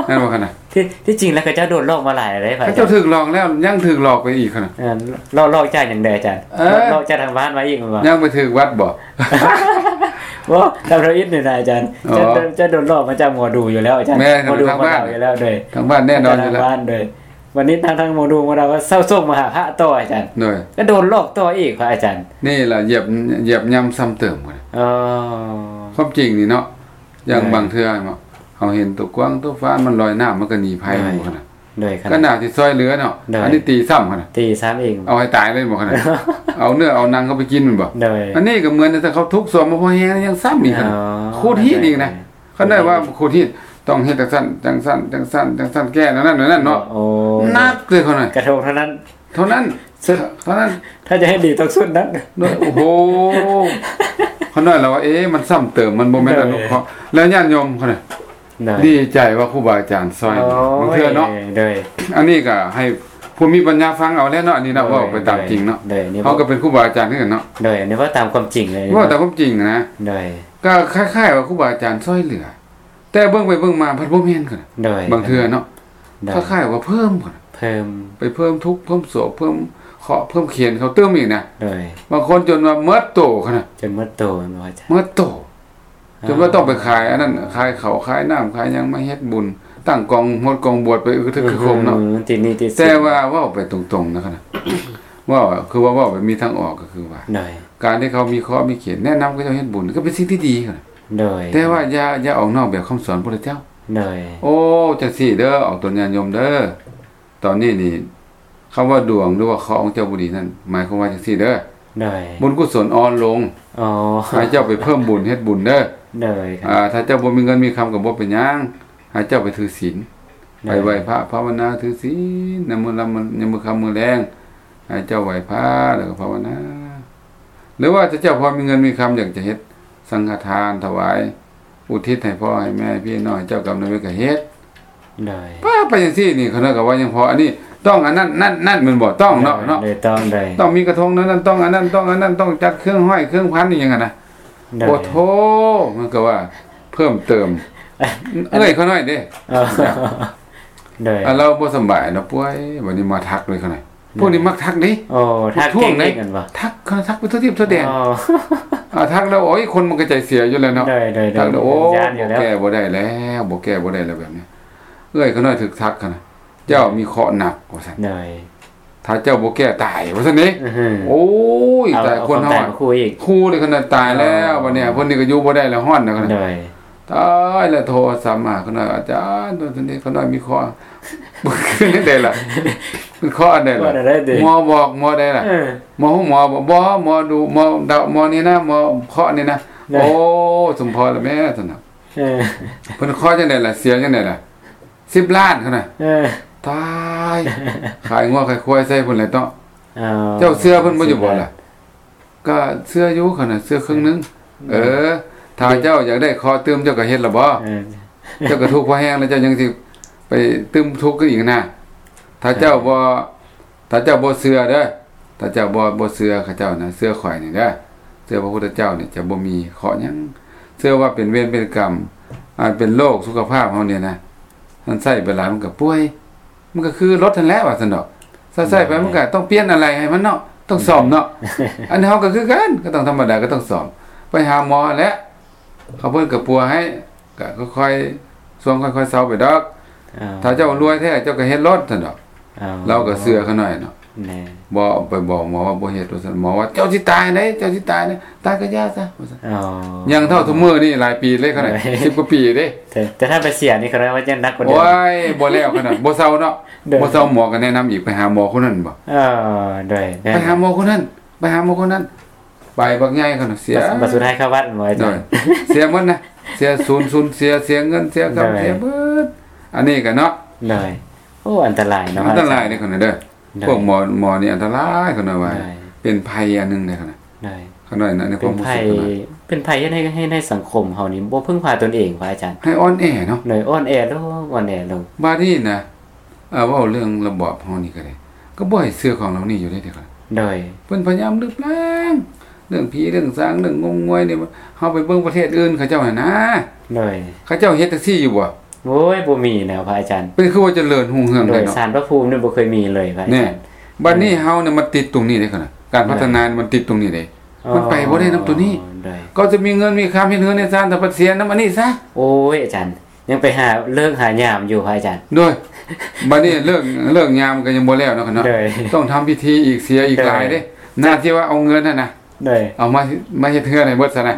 ແມ່ນບໍ່ຂະນະ? ທີ່ ທີ່ຈິງແລ້ວເຂົາເຈົ້າໂດນຫຼອກມາຫຼາຍແລ້ວເດ້ ເຂົາເຈົ້າຖືກຫຼອກແລ້ວ ຍັງຖືກຫຼອກໄປອີກຂະນະ. ເອີ ຫຼອກ ຫຼອກຈາກຫຍັງເດີອາຈານ? ເອີ ຫຼອກ ຫຼອກຈາກທາງບ້ານມາອີກແມ່ນບໍ່? ຍັງໄປຖືກວັດບໍ່? ບໍ່ ທຳອິດນີ້ນະອາຈານ. ອໍ ຈະ ຈະໂດນຫຼອກມາຈາກໝໍດູຢູ່ແລ້ວອາຈານ. ແມ່ນ ໝໍດູ ທາງບ້ານ ໝໍດູຢູ່ແລ້ວ. ໂດຍ ທາງບ້ານແນ່ນອນຢູ່ແລ້ວ. ໂດຍ ວັນນີ້ທາງ ທາງໝໍດູມາວ່າເຊົາສົ່ງມາຫາພະຕໍ່ອາຈານ. ໂດຍ ກໍໂດນຫຼອກຕໍ່ອີກພະອາຈານ. ນີ້ລະ ຢຽບ ຢຽບຍ່ຳຊ້ຳເຕີມ. ອໍ ຄວາມຈິງນີ້ເນາະ ຢ່າງ ໂດຍ ບາງເທື່ອເນາະ ເຮົາເຫັນຕົວກວາງຕົວຟານມັນລອຍນ້ຳ ມັນກໍໜີໄພ. ໂດຍ ບໍ່ຂະນະ? ໂດຍ ຂະນະ ກໍໜ້າຊິຊ່ອຍເຫຼືອເນາະ. ໂດຍ ອັນນີ້ຕີຊ້ຳຂະນະ. ຕີຊ້ຳອີກ ເອົາໃຫ້ຕາຍເລີຍບໍ່ຂະນະ? ເອົາເນື້ອເອົາໜັງເຂົາໄປກິນແມ່ນບໍ່? ໂດຍ ອັນນີ້ກໍເໝືອນ ຖ້າເຂົາທຸກສວມມາພໍແຮງ ຍັງຊ້ຳອີກຂະນະ. ອໍ ຂູດຮີດອີກນະ. ໂດຍ ຄັນໄດ້ວ່າຂູດຮີດ ຕ້ອງເຮັດຈັ່ງຊັ້ນ ຈັ່ງຊັ້ນ ຈັ່ງຊັ້ນ ຈັ່ງຊັ້ນ ແກ້ນັ້ນນັ້ນນັ້ນເນາະ. ໂອ້ ໜັກເລີຍຂະນະ. ກະທົງເທົ່ານັ້ນ ເທົ່ານັ້ນ ເທົ່ານັ້ນ. ຖ້າຈະໃຫ້ດີຕ້ອງຊຸດນັ້ນ. ໂດຍ ໂອ້ໂຫ ຂະນ້ອຍລາວວ່າ ເອ ມັນຊ້ຳເຕີມ ມັນບໍ່ແມ່ນ ໂດຍ ອະນຸເຄາະ. ແລ້ວຍາດໂຍມຂະນ້ອຍ ໂດຍ ດີໃຈວ່າຄູບາອາຈານຊ່ອຍ. ໂອ້ຍ ບາງເທື່ອເນາະ. ໂດຍ ອັນນີ້ກໍໃຫ້ຜູ້ມີປັນຍາຟັງເອົາແຫຼະເນາະ ອັນນີ້ເນາະ. ໂດຍ ເວົ້າໄປຕາມຈິງເນາະ. ໂດຍ ເຮົາກໍເປັນຄູບາອາຈານຄືກັນເນາະ. ໂດຍ ອັນນີ້ເວົ້າຕາມຄວາມຈິງເລີຍ ເວົ້າຕາມຄວາມຈິງນະ. ໂດຍ ກໍຄ້າຍໆວ່າຄູບາອາຈານຊ່ອຍເຫຼືອ ແຕ່ເບິ່ງໄປເບິ່ງມາພັດບໍ່ແມ່ນຂະນະ. ໂດຍ ບາງເທື່ອເນາະ. ໂດຍ ຄ້າຍໆວ່າເພີ່ມຂະນະ. ເພີ່ມ ໄປເພີ່ມທຸກ ເພີ່ມໂສກ ເພີ່ມເຄາະ ເພີ່ມເຂນເຂົາຕື່ມອີກນະ. ໂດຍ ບາງຄົນຈົນວ່າໝົດໂຕຂະນະ. ຈົນໝົດໂຕແມ່ນບໍ່ອາຈານ? ໝົດໂຕ ອໍ ຈົນວ່າຕ້ອງໄປຂາຍອັນນັ້ນ ຂາຍເຂົ້າຂາຍນ້ຳຂາຍຫຍັງມາເຮັດບຸນ ຕັ້ງກອງຫົດກອງບວດໄປ ອື ຄືຖືກຄືຄົມເນາະ. ອື ຕິດໜີ້ຕິດສິນ. ແຕ່ວ່າເວົ້າໄປຕົງໆນະຂະນະ ເວົ້າ ຄືວ່າເວົ້າແບບມີທາງອອກກໍຄືວ່າ ໂດຍ ການທີ່ເຂົາມີເຄາະມີເຂນ ແນະນຳເຂົາເຈົ້າເຮັດບຸນ ກໍເປັນສິ່ງທີ່ດີຂະນະ. ໂດຍ ແຕ່ວ່າຢ່າ ຢ່າອອກນອກແບບຄຳສອນພຸດທະເຈົ້າ. ໂດຍ ໂອ້ ຈັ່ງຊີ້ເດີ ອອກຕົນຍາດໂຍມເດີ ຕອນນີ້ນີ້ ຄຳວ່າດວງ ຫຼືວ່າເຄາະຂອງເຈົ້າບໍ່ດີນັ້ນ ໝາຍຄວາມວ່າຈັ່ງຊີ້ເດີ. ໂດຍ ບຸນກຸສົນອ່ອນລົງ. ອໍ ໃຫ້ເຈົ້າໄປເພີ່ມບຸນເຮັດບຸນເດີ. ໂດຍ ອ່າ ຖ້າເຈົ້າບໍ່ມີເງິນມີຄຳກໍບໍ່ເປັນຫຍັງ ໃຫ້ເຈົ້າໄປຖືສິນ. ໂດຍ ໄປໄຫວ້ພະພາວະນາຖືສິນ ໃນມື້ລຳ ໃນມື້ຄ່ຳມື້ແລງ ໃຫ້ເຈົ້າໄຫວ້ພະ ແລ້ວກໍພາວະນາ. ຫຼືວ່າຖ້າເຈົ້າພໍມີເງິນມີຄຳ ຢາກຈະເຮັດສັງຄະທານຖວາຍ ອຸທິດໃຫ້ພໍ່ໃຫ້ແມ່ພີ່ນ້ອງເຈົ້າກຳນຳເວນກໍເຮັດ. ໂດຍ ປ້າ ໄປຈັ່ງຊີ້ນີ້ ຂະນ້ອຍກໍວ່າຍັງພໍ. ອັນນີ້ຕ້ອງອັນນັ້ນ ນັ້ນ ນັ້ນແມ່ນບໍ່? ຕ້ອງເນາະ ໂດຍ ເນາະ ໂດຍ ຕ້ອງ ໂດຍ ຕ້ອງມີກະທົງນັ້ນ ຕ້ອງອັນນັ້ນ ຕ້ອງອັນນັ້ນ ຕ້ອງຈັດເຄື່ອງຫ້ອຍເຄື່ອງພັນອີ່ຫຍັງຫັ້ນນະ. ໂດຍ ໂອ້ໂທ ມັນກໍວ່າເພີ່ມເຕີມ ເອື້ອຍຂະນ້ອຍເດ້. ອໍ ໂດຍ ອ່າ ລາວບໍ່ສະບາຍເນາະ ປ່ວຍ ບັດນີ້ມາທັກເລີຍຂະນ້ອຍ. ໂດຍ ພວກນີ້ມັກທັກເດ້. ໂອ້ ທັກເກັ່ງເດ້ ທັກ ທັກໄປທົ່ວທິດທົ່ວແດນ. ອໍ ອ່າ ທັກແລ້ວ ໂອ້ຍ ຄົນມັນກໍໃຈເສຍຢູ່ແລ້ວເນາະ. ໂດຍ ໂດຍ ທັກແລ້ວ ໂອ້ ຢ້ານຢູ່ແລ້ວ ບໍ່ແກ້ບໍ່ໄດ້ແລ້ວ ບໍ່ແກ້ບໍ່ໄດ້ແລ້ວແບບນີ້. ເອື້ອຍຂະນ້ອຍຖືກທັກຫັ້ນນະ ເຈົ້າມີເຄາະໜັກວ່າຊັ້ນ. ໂດຍ ຖ້າເຈົ້າບໍ່ແກ້ຕາຍວ່າຊັ້ນເດ້. ໂອ້ຍ ຕາຍ ຄົນເຮົາ ເອົາຄວາມຕາຍມາຂູ່ອີກ ຂູ່ເລີຍຂະນ້ອຍ ຕາຍແລ້ວ. ອໍ ບັດນີ້ເພິ່ນນີ້ກໍຢູ່ບໍ່ໄດ້ແລ້ວ ຮ້ອນແລ້ວ. ໂດຍ ຕາຍແລ້ວ ໂທສັບມາ ຂ້ານ້ອຍ ອາຈານ ໂຕນີ້ຂ້ານ້ອຍມີເຄາະ ຄືຈັ່ງໃດລະ? ເປັນເຄາະອັນໃດລະ? ໝໍບອກ ໝໍໃດລະ? ເອີ ໝໍຮູ້ໝໍບໍ່? ໝໍດູ ໝໍເດົາ ໝໍນີ້ນະ ໝໍເຄາະນີ້ນະ. ໂອ້ ສົມພໍລະແມ່ ຊັ້ນນະ. ເອີ ເພິ່ນເຄາະຈັ່ງໃດລະ? ເສຍຈັ່ງໃດລະ? ສິບລ້ານ ຂ້ານ້ອຍ. ເອີ ຕາຍ ຂາຍງົວຂາຍຄວາຍໃສ່ພຸ້ນແຫຼະເນາະ. ເຈົ້າເຊື່ອເພິ່ນບໍ່ຢູ່ບໍ່ລະ? ກໍເຊື່ອຢູ່ ຂ້ານ້ອຍ ເຊື່ອເຄິ່ງໜຶ່ງ. ເອີ ຖ້າເຈົ້າຢາກໄດ້ເຄາະຕື່ມ ເຈົ້າກໍເຮັດລະບໍ? ເຈົ້າກໍທຸກພໍແຮງແລ້ວ ເຈົ້າຍັງຊິໄປຕື່ມທຸກຄືອີກນະ? ຖ້າເຈົ້າບໍ່ ຖ້າເຈົ້າບໍ່ເຊື່ອເດີ ຖ້າເຈົ້າບໍ່ ບໍ່ເຊື່ອເຂົາເຈົ້ານະ ເຊື່ອຂ້ອຍນີ້ເດີ ເຊື່ອພະພຸດທະເຈົ້ານີ້ ຈະບໍ່ມີເຄາະຫຍັງ. ເຊື່ອວ່າເປັນເວນເປັນກຳ ອາ ເປັນໂລກສຸຂະພາບເຮົານີ້ນະ ມັນໃຊ້ໄປຫຼາຍມັນກໍປ່ວຍ ມັນກໍຄືລົດຫັ້ນແຫຼະວ່າຊັ້ນດອກ. ໃຊ້ໄປມັນກໍຕ້ອງປ່ຽນອາໄຫຼ່ໃຫ້ມັນເນາະ ຕ້ອງສ້ອມເນາະ. ອັນເຮົາກໍຄືກັນ ກໍຕ້ອງທຳມະດາ ກໍຕ້ອງສ້ອມ ໄປຫາໝໍຫັ້ນແຫຼະ ເຂົາເພິ່ນກໍປົວໃຫ້ ກໍຄ່ອຍໆ ຊ່ວງຄ່ອຍໆເຊົາໄປດອກ. ຖ້າເຈົ້າລວຍແທ້ ເຈົ້າກໍເຮັດໂລດຊັ້ນດອກ. ລາວກໍເຊື່ອຂ້ານ້ອຍເນາະ. ບໍ່ໄປບອກໝໍວ່າບໍ່ເຮັດວ່າຊັ້ນ ໝໍວ່າ ເຈົ້າຊິຕາຍເດ້ ເຈົ້າຊິຕາຍເດ້ ຕາຍກໍຢ່າຊະວ່າຊັ້ນ. ຍັງເທົ່າທຸກມື້ນີ້ຫຼາຍປີເລີຍ ຂະໜາດສິບກວ່າປີເດ້. ແຕ່ ແຕ່ຖ້າໄປເສຍນີ້ ຂະໜາດວ່າຍັງໜັກກວ່າເດີມ. ໂອ້ຍ ບໍ່ແລ້ວ ຂະໜາດບໍ່ເຊົາເນາະ. ບໍ່ເຊົາ ໝໍກໍແນະນຳອີກ ໄປຫາໝໍຄົນນັ້ນບໍ? ເອີ ໂດຍ ໄປຫາໝໍຄົນນັ້ນ ໄປຫາໝໍຄົນນັ້ນ ໄປບັກໃຫຍ່ ຂະໜາດເສຍ ບັດສຸດທ້າຍເຂົ້າວັດ ໝໍອາຈານ. ເສຍໝົດນະ ເສຍສູນ ສູນເສຍ ເສຍເງິນ ເສຍຄຳ ເສຍເບິດ. ອັນນີ້ກໍເນາະ ໂດຍ ໂອ້ ອັນຕະລາຍເນາະ ອັນຕະລາຍເດ້ ຂະໜາດເດີ. ພວກໝໍ ໝໍນີ້ອັນຕະລາຍ ຂະໜາດວ່າ ເປັນໄພອັນໜຶ່ງເດ້ ຂະໜາດ ຂະໜາດໃນຄວາມຮູ້ສຶກ ເປັນໄພ ເປັນໄພເຮັດໃຫ້ ໃຫ້ ໃຫ້ສັງຄົມເຮົານີ້ບໍ່ເພິ່ງພາຕົນເອງ ພະອາຈານ. ໃຫ້ອ່ອນແອເນາະ ໂດຍ ອ່ອນແອລົງ ອ່ອນແອລົງ. ບາດນີ້ນະ ເວົ້າເລື່ອງລະບອບເຮົານີ້ກໍໄດ້ ກໍບໍ່ໃຫ້ເຊື່ອຂອງເຫຼົ່ານີ້ຢູ່ເດ້ ເດ້. ໂດຍ ເພິ່ນພະຍາຍາມລຶບລ້າງເລື່ອງຜີເລື່ອງສາງ ເລື່ອງງົມງວາຍນີ້. ເຮົາໄປເບິ່ງປະເທດອື່ນເຂົາເຈົ້າຫັ້ນນະ ໂດຍ ເຂົາເຈົ້າເຮັດຈັ່ງຊີ້ຢູ່ບໍ່? ໂອ້ຍ ບໍ່ມີແລ້ວພະອາຈານ. ເປັນຄືວ່າຈະເລີນຮຸ່ງເຮືອງເດ້ເນາະ. ໂດຍ ສານພະພູມນີ້ບໍ່ເຄີຍມີເລີຍພະອາຈານ. ແນ່ ບາດນີ້ເຮົານີ້ມັນຕິດຕົງນີ້ເດ້ ຂະໜາດການພັດທະນາມັນຕິດຕົງນີ້ເດ້. ມັນໄປບໍ່ໄດ້ນຳຕົວນີ້. ກໍຈະມີເງິນມີຄຳ ເຮັດເຮືອນເຮັດຊານ ແຕ່ພັດເສຍນຳອັນນີ້ຊະ. ໂອ້ຍ ອາຈານ ຍັງໄປຫາເລີກຫາຍາມຢູ່ພະອາຈານ. ໂດຍ ບາດນີ້ເລີກ ເລີກຍາມກໍຍັງບໍ່ແລ້ວເນາະ ຂະໜາດເນາະ. ໂດຍ ຕ້ອງທຳພິທີອີກ ເສຍອີກຫຼາຍເດ້. ໜ້າທີ່ວ່າເອົາເງິນຫັ້ນນະ ໂດຍ ເອົາມາ ມາເຮັດເຮືອນໃຫ້ເບິດຊະນະ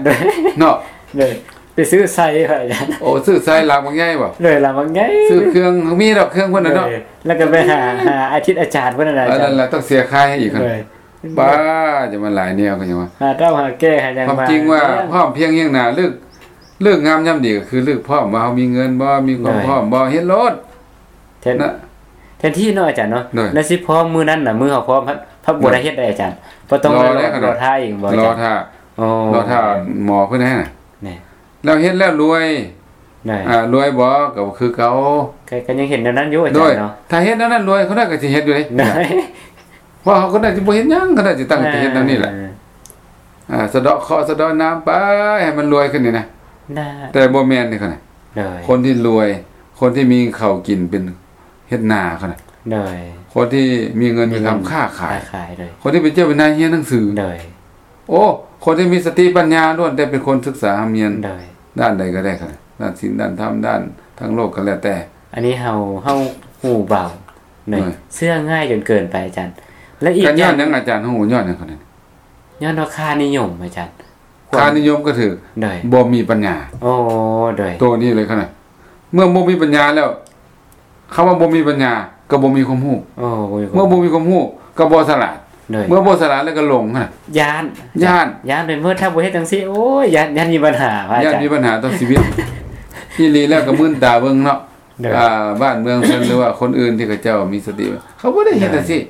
ເນາະ. ໂດຍ ໄປຊື້ໄຊພະອາຈານ. ໂອ້ ຊື້ໄຊຫຼັງບັກໃຫຍ່ບໍ? ໂດຍ ຫຼັງບັກໃຫຍ່. ຊື້ເຄື່ອງ ມີດອກເຄື່ອງເພິ່ນນະເນາະ. ໂດຍ ແລ້ວກໍໄປຫາ ຫາອາທິດອາຈານເພິ່ນນະ ອາຈານ. ນັ້ນລະ ຕ້ອງເສຍຄ່າໃຫ້ອີກ. ໂດຍ ປ້າ ຈະມາຫຼາຍແນວກໍຍັງວ່າ ຫາເຕົ້າຫາແກ່ຫາຫຍັງ. ຄວາມຈິງວ່າ ພ້ອມພຽງຮຽງໜ້າ ເລີກ ເລີກງາມຍາມດີກໍຄືເລີກພ້ອມວ່າເຮົາມີເງິນບໍ່ ມີຄວາມພ້ອມບໍ່ ເຮັດໂລດ. ແທນ ແທນທີ່ເນາະອາຈານເນາະ ໂດຍ ແລ້ວຊິພ້ອມມື້ນັ້ນນະ ມື້ເຮົາພ້ອມ ພັດ ພັດບໍ່ໄດ້ເຮັດໃດອາຈານ. ບໍ່ຕ້ອງລໍ ລໍຖ້າອີກບໍ່ອາຈານ? ລໍຖ້າ ລໍຖ້າໝໍເພິ່ນໃຫ້ນະ. ແລ້ວເຮັດແລ້ວລວຍ ອ່າ ລວຍບໍ່ ກໍຄືເກົ່າ. ກໍ ກໍຍັງເຫັນແນວນັ້ນຢູ່ອາຈານເນາະ. ໂດຍ ຖ້າເຮັດແນວນັ້ນລວຍ ເຂົາໜ້ອຍກໍຊິເຮັດຢູ່ເດ້. ໂດຍ ເພາະເຂົາໜ້ອຍຊິບໍ່ເຮັດຫຍັງ ເຂົາໜ້ອຍຊິຕັ້ງໃຈເຮັດແນວນີ້ແຫຼະ. ອ່າ ສະເດາະເຄາະສະເດາະນາມໄປ ໃຫ້ມັນລວຍຂຶ້ນນີ້ນະ. ແຕ່ບໍ່ແມ່ນເດ້ ຄົນທີ່ລວຍ ຄົນທີ່ມີເຂົ້າກິນເປັນເຮັດນາ ຄົນທີ່ມີເງິນມີຄຳຄ້າຂາຍ ຄົນທີ່ເປັນເຈົ້າເປັນນາຍຮຽນໜັງສື. ໂອ້ ຄົນທີ່ມີສະຕິປັນຍາລ້ວນແຕ່ເປັນຄົນສຶກສາຮ່ຳຮຽນ ດ້ານໃດກໍໄດ້ ດ້ານສິນ ດ້ານທຳ ດ້ານທາງໂລກກໍແລ້ວແຕ່. ອັນນີ້ເຮົາ ເຮົາຫູເບົາ ເຊື່ອງ່າຍຈົນເກີນໄປອາຈານ. ແລະອີກຢ່າງ ຍ້ອນຫຍັງອາຈານ ເຮົາຫູ ຍ້ອນຫຍັງ? ຍ້ອນວ່າຄ່ານິຍົມອາຈານ. ຄ່ານິຍົມກໍຖືກ ບໍ່ມີປັນຍາ. ໂອ້ ໂດຍ ໂຕນີ້ເລີຍຂະໜາດ ເມື່ອບໍ່ມີປັນຍາແລ້ວ ຄຳວ່າບໍ່ມີປັນຍາກໍບໍ່ມີຄວາມຮູ້. ໂອ້ ບໍ່ມີຄວາມ ເມື່ອບໍ່ມີຄວາມຮູ້ກໍບໍ່ສະຫຼາດ. ໂດຍ ເມື່ອບໍ່ສະຫຼາດແລ້ວກໍຫຼົງຫັ້ນນະ. ຢ້ານ ຢ້ານ ຢ້ານໄປໝົດ ຖ້າບໍ່ເຮັດຈັ່ງຊີ້ ໂອ້ຍ ຢ້ານ ຢ້ານມີບັນຫາ ພະອາຈານ. ຢ້ານມີບັນຫາຕໍ່ຊີວິດ. ອີ່ຫຼີແລ້ວກໍມື່ນຕາເບິ່ງເນາະ. ໂດຍ ອ່າ ບ້ານເມືອງເພິ່ນ ຫຼືວ່າຄົນອື່ນທີ່ເຂົາເຈົ້າມີສະຕິ ເຂົາບໍ່ໄດ້ເຮັດຈັ່ງຊີ້. ໂດຍ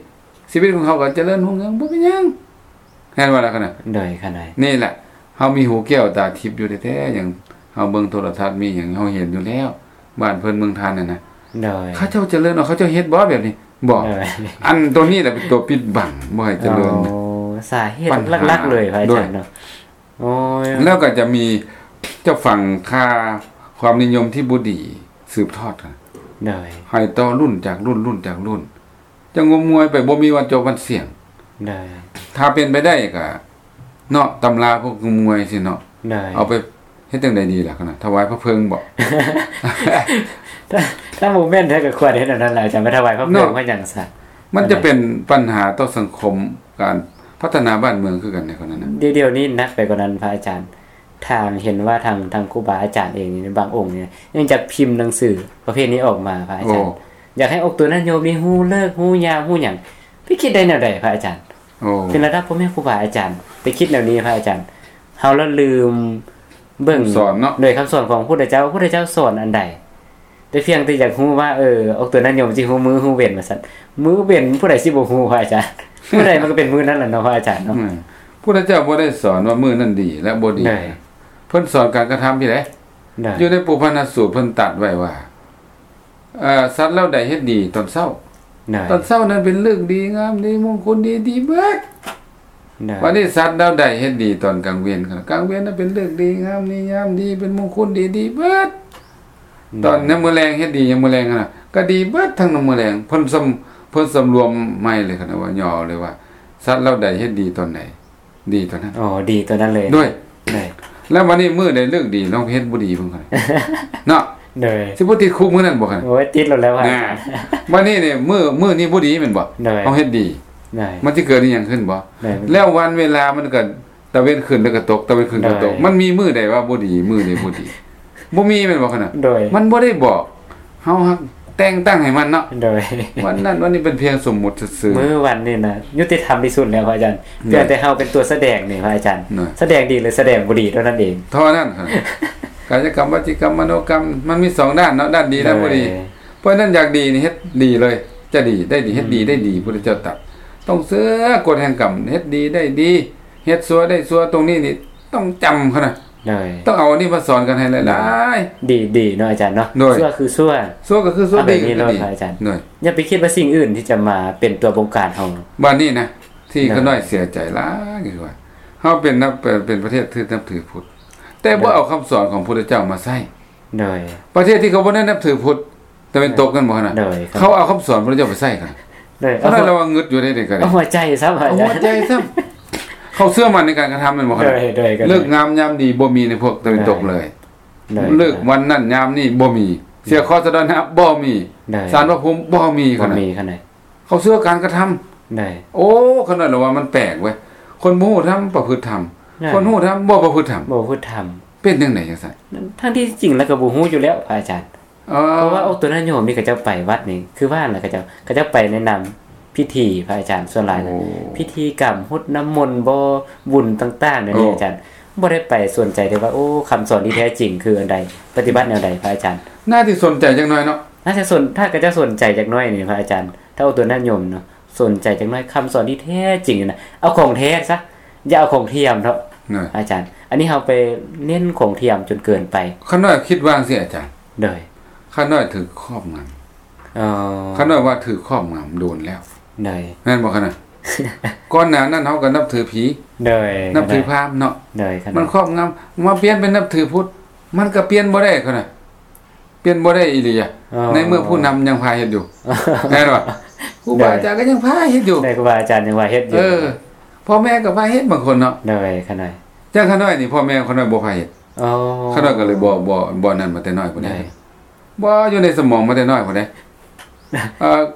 ຊີວິດຂອງເຂົາກໍຈະເລີນຮຸ່ງເຮືອງ ບໍ່ເປັນຫຍັງ. ແມ່ນບໍ່ລະຂະໜາດ? ໂດຍ ຂະໜາດ ນີ້ແຫຼະ ເຮົາມີຫູແກ້ວຕາທິບຢູ່ແທ້ໆ ຫຍັງ ເຮົາເບິ່ງໂທລະທັດ ມີຫຍັງ ເຮົາເຫັນຢູ່ແລ້ວ ບ້ານເພິ່ນເມືອງທ່ານນັ້ນນະ. ໂດຍ ເຂົາເຈົ້າຈະເລີນ ເຂົາເຈົ້າເຮັດບໍ່ແບບນີ້? ບໍ່. ໂດຍ ອັນໂຕນີ້ແຫຼະເປັນຕົວປິດບັງ ບໍ່ໃຫ້ຈະເລີນ. ໂອ້ ສາເຫດຫຼັກໆເລີຍ ພະອາຈານເນາະ. ໂດຍ ໂອ້ຍ ແລ້ວກໍຈະມີ ຈະຝັງຄ່າຄວາມນິຍົມທີ່ບໍ່ດີສືບທອດກັນ. ໂດຍ ໃຫ້ຕໍ່ລຸ້ນຈາກລຸ້ນ ລຸ້ນຈາກລຸ້ນ ຈັ່ງງົມງວາຍໄປ ບໍ່ມີວັນຈົບວັນສິ້ນ. ໂດຍ ຖ້າເປັນໄປໄດ້ກໍເນາະ ຕຳລາພວກງົມງວາຍຊີ້ເນາະ. ໂດຍ ເອົາໄປເຮັດຈັ່ງໃດດີລະຂະໜາດ ຖວາຍພະເພີງບໍ? ຖ້າ ຖ້າບໍ່ແມ່ນແທ້ກໍຄວນເຮັດອັນນັ້ນແຫຼະ ຈະໄປຖວາຍພະເພີງ ເພາະຫຍັງຊະ? ມັນຈະເປັນປັນຫາຕໍ່ສັງຄົມ ການພັດທະນາບ້ານເມືອງຄືກັນໃນຂະນະນັ້ນ. ດຽວ ດຽວນີ້ໜັກໄປກວ່ານັ້ນພະອາຈານ. ທາງ ເຫັນວ່າທາງ ທາງຄູບາອາຈານເອງນີ້ ບາງອົງນີ້ ຍັງຈະພິມໜັງສືປະເພດນີ້ອອກມາ ພະອາຈານ. ໂອ້ ຢາກໃຫ້ອອກຕົນະໂຍມນີ້ຮູ້ເລີກ ຮູ້ຍາມ ຮູ້ຫຍັງ. ໄປຄິດໄດ້ແນວໃດ ພະອາຈານ? ໂອ້ ເປັນລະດັບພໍ່ແມ່ຄູບາອາຈານ ໄປຄິດແນວນີ້ ພະອາຈານ. ເຮົາລະລືມເບິ່ງ ຄຳສອນເນາະ ໂດຍຄຳສອນຂອງພຸດທະເຈົ້າ ພຸດທະເຈົ້າສອນອັນໃດ? ແຕ່ພຽງແຕ່ຢາກຮູ້ວ່າ ເອີ ອອກຕົນະໂຍມຊິຮູ້ມື້ຮູ້ເວັນວ່າຊັ້ນ. ມື້ເວັນຜູ້ໃດຊິບໍ່ຮູ້ ພະອາຈານ? ມື້ໃດມັນກໍເປັນມື້ນັ້ນລະເນາະ ພະອາຈານເນາະ. ອືມ ພຸດທະເຈົ້າບໍ່ໄດ້ສອນວ່າມື້ນັ້ນດີ ແລະ ບໍ່ດີ. ເພິ່ນສອນການກະທຳພີ້ໃດ. ຢູ່ໃນປຸບພັນນະສູດ ເພິ່ນຕັດໄວ້ວ່າ ເອີ ສັດເຫຼົ່າໃດເຮັດດີຕອນເຊົ້າ ຕອນເຊົ້ານັ້ນເປັນເລີກດີງາມດີ ມົງຄຸນດີ ດີເບິດ. ບັດນີ້ສັດເຫຼົ່າໃດເຮັດດີຕອນກາງເວັນ ກາງເວັນນັ້ນເປັນເລີກດີງາມດີ ຍາມດີ ເປັນມົງຄຸນດີ ດີເບິດ. ຕອນຍາມມື້ແລງເຮັດດີຍາມມື້ແລງຫັ້ນນະ ກໍດີເບິດທັງຍາມມື້ແລງ. ເພິ່ນສຳ ເພິ່ນສຳລວມໃໝ່ເລີຍ ຄັນວ່າຫຍໍ້ເລີຍວ່າ ສັດເຫຼົ່າໃດເຮັດດີຕອນໃດ ດີຕອນນັ້ນ. ອໍ ດີຕອນນັ້ນເລີຍ. ໂດຍ ໂດຍ ແລ້ວບັດນີ້ມື້ໃດເລີກດີ ລອງເຮັດບໍ່ດີເບິ່ງ ເນາະ. ໂດຍ ຊິບໍ່ຕິດຄຸກມື້ນັ້ນບໍ່? ໂອ້ຍ ຕິດໂລດແລ້ວ. ບັດນີ້ນີ້ ມື້ ມື້ນີ້ບໍ່ດີແມ່ນບໍ່? ໂດຍ ເຮົາເຮັດດີ ໂດຍ ມັນຊິເກີດອີ່ຫຍັງຂຶ້ນບໍ່? ໂດຍ ແລ້ວວັນເວລາມັນກໍຕາເວັນຂຶ້ນແລ້ວກໍຕົກ ຕາເວັນຂຶ້ນກໍຕົກ. ໂດຍ ມັນມີມື້ໃດວ່າບໍ່ດີ ມື້ໃດບໍ່ດີ? ບໍ່ມີແມ່ນບໍ່? ຂະນະ ໂດຍ ມັນບໍ່ໄດ້ບອກ ເຮົາຮັກແຕ່ງຕັ້ງໃຫ້ມັນເນາະ. ໂດຍ ວັນນັ້ນວັນນີ້ເປັນພຽງສົມມຸດຊື່ໆ. ມື້ວັນນີ້ນະຍຸຕິທຳທີ່ສຸດແລ້ວ ພະອາຈານ. ໂດຍ ພຽງແຕ່ເຮົາເປັນຕົວສະແດງນີ້ ພະອາຈານ. ໂດຍ ສະແດງດີ ຫຼື ສະແດງບໍ່ດີເທົ່ານັ້ນເອງ ເທົ່ານັ້ນ. ກາຍະກຳ ວະຈີກຳ ມະໂນກຳ ມັນມີສອງດ້ານເນາະ ດ້ານດີ ດ້ານບໍ່ດີ. ໂດຍ ເພາະນັ້ນຢາກດີນີ້ເຮັດດີເລີຍ ຈະດີ ໄດ້ດີ ເຮັດດີ ອືມ ໄດ້ດີ. ພຸດທະເຈົ້າຕັດ ຕ້ອງເຊື່ອກົດແຫ່ງກຳ ເຮັດດີໄດ້ດີ ເຮັດຊົ່ວໄດ້ຊົ່ວ. ຕົງນີ້ນີ້ຕ້ອງຈຳເຂົານະ. ໂດຍ ຕ້ອງເອົາອັນນີ້ມາສອນກັນໃຫ້ຫຼາຍໆ. ໂດຍ ດີໆ ເນາະອາຈານເນາະ. ໂດຍ ຊົ່ວຄືຊົ່ວ ຊົ່ວກໍຄືຊົ່ວ ດີກໍຄືດີ ອາຈານ. ໂດຍ ຢ່າໄປຄິດວ່າສິ່ງອື່ນທີ່ຈະມາເປັນຕົວບົງການເຮົາ. ບາດນີ້ນະ ທີ່ຂ້ານ້ອຍເສຍໃຈຫຼາຍຄືວ່າ ເຮົາເປັນ ເປັນປະເທດທີ່ນັບຖືພຸດ ແຕ່ບໍ່ເອົາຄຳສອນຂອງພຸດທະເຈົ້າມາໃຊ້. ໂດຍ ປະເທດທີ່ເຂົາບໍ່ໄດ້ນັບຖືພຸດ ຕາເວັນຕົກນັ້ນບໍ່ຫັ້ນນະ. ໂດຍ ເຂົາເອົາຄຳສອນພະເຈົ້າໄປໃຊ້ກັນ. ໂດຍ ເອົາ ລະວ່າງຶດຢູ່ໃດໆ ກໍໄດ້ ເອົາຫົວໃຈຊ້ຳ ເອົາຫົວໃຈຊ້ຳ. ເຂົາເຊື່ອໝັ້ນໃນການກະທຳແມ່ນບໍ່? ໂດຍ ໂດຍ ເລີກງາມຍາມດີບໍ່ມີໃນພວກຕາເວັນຕົກເລີຍ. ໂດຍ ເລີກວັນນັ້ນຍາມນີ້ບໍ່ມີ. ເສຍເຄາະສະເດາະນາະບໍ່ມີ. ໂດຍ ສານພະພູມບໍ່ມີ. ບໍ່ມີຂະໜາດ ເຂົາເຊື່ອການກະທຳ. ໂດຍ ໂອ້ ຂະນ້ອຍລະວ່າມັນແປກເວີຍ ຄົນບໍ່ຮູ້ທຳປະພຶດທຳ. ໂດຍ ຄົນຮູ້ທຳບໍ່ປະພຶດທຳ ບໍ່ປະພຶດທຳ. ເປັນຈັ່ງໃດຈັ່ງຊັ້ນ? ທັງທີ່ຈິງແລ້ວກໍບໍ່ຮູ້ຢູ່ແລ້ວ ພະອາຈານ. ເອີ ເພາະວ່າອອກຕົນະໂຍມນີ້ ເຂົາເຈົ້າໄປວັດນີ້ ຄືວ່ານະ ເຂົາເຈົ້າ ເຂົາເຈົ້າໄປໃນນາມພິທີ ພະອາຈານ. ສ່ວນຫຼາຍນະ ໂອ້ ພິທີກຳ ຫົດນ້ຳມົນບໍ ບຸນຕ່າງໆ ແນວນີ້ ໂອ້ ອາຈານ ບໍ່ໄດ້ໄປສົນໃຈເລີຍວ່າ ໂອ້ ຄຳສອນທີ່ແທ້ຈິງຄືອັນໃດ ປະຕິບັດແນວໃດ ພະອາຈານ. ໜ້າທີ່ສົນໃຈຈັກໜ້ອຍເນາະ. ໜ້າຈະສົນ ຖ້າເຂົາເຈົ້າສົນໃຈຈັກໜ້ອຍນີ້ ພະອາຈານ ຖ້າອອກຕົນະໂຍມເນາະ ສົນໃຈຈັກໜ້ອຍ ຄຳສອນທີ່ແທ້ຈິງນະ ເອົາຂອງແທ້ຊະ ຢ່າເອົາຂອງທຽມເນາະ ອາຈານ. ອັນນີ້ເຮົາໄປເນັ້ນຂອງທຽມຈົນເກີນໄປ. ຂ້ານ້ອຍຄິດວ່າຈັ່ງຊີ້ ອາຈານ. ໂດຍ ຂ້ານ້ອຍຖືກຄອບງຳ. ອໍ ຂ້ານ້ອຍວ່າຖືກຄອບງຳໂດນແລ້ວ. ໂດຍ ແມ່ນບໍ່ຂະນະ? ກ່ອນໜ້ານັ້ນເຮົາກໍນັບຖືຜີ. ໂດຍ ນັບຖືພາມເນາະ. ໂດຍ ມັນຄອບງຳ ມາປ່ຽນເປັນນັບຖືພຸດ ມັນກໍປ່ຽນບໍ່ໄດ້ຂະນະ. ປ່ຽນບໍ່ໄດ້ອີ່ຫຼີ ອໍ ໃນເມື່ອຜູ້ນຳຍັງພາເຮັດຢູ່. ແມ່ນບໍ່? ຄູບາອາຈານກໍຍັງພາເຮັດຢູ່. ໃນຄູບາອາຈານຍັງພາເຮັດຢູ່. ເອີ ພໍ່ແມ່ກໍພາເຮັດບາງຄົນເນາະ. ໂດຍ ຂະນ້ອຍ ຈັ່ງຂະນ້ອຍນີ້ ພໍ່ແມ່ຂະນ້ອຍບໍ່ພາເຮັດ. ອໍ ຂະນ້ອຍກໍເລີຍບໍ່ ບໍ່ ບໍ່ນັ້ນມາແຕ່ນ້ອຍພຸ້ນເດ້. ໂດຍ ບໍ່ຢູ່ໃນສະໝອງມາແຕ່ນ້ອຍພຸ້ນເດ້. ເອີ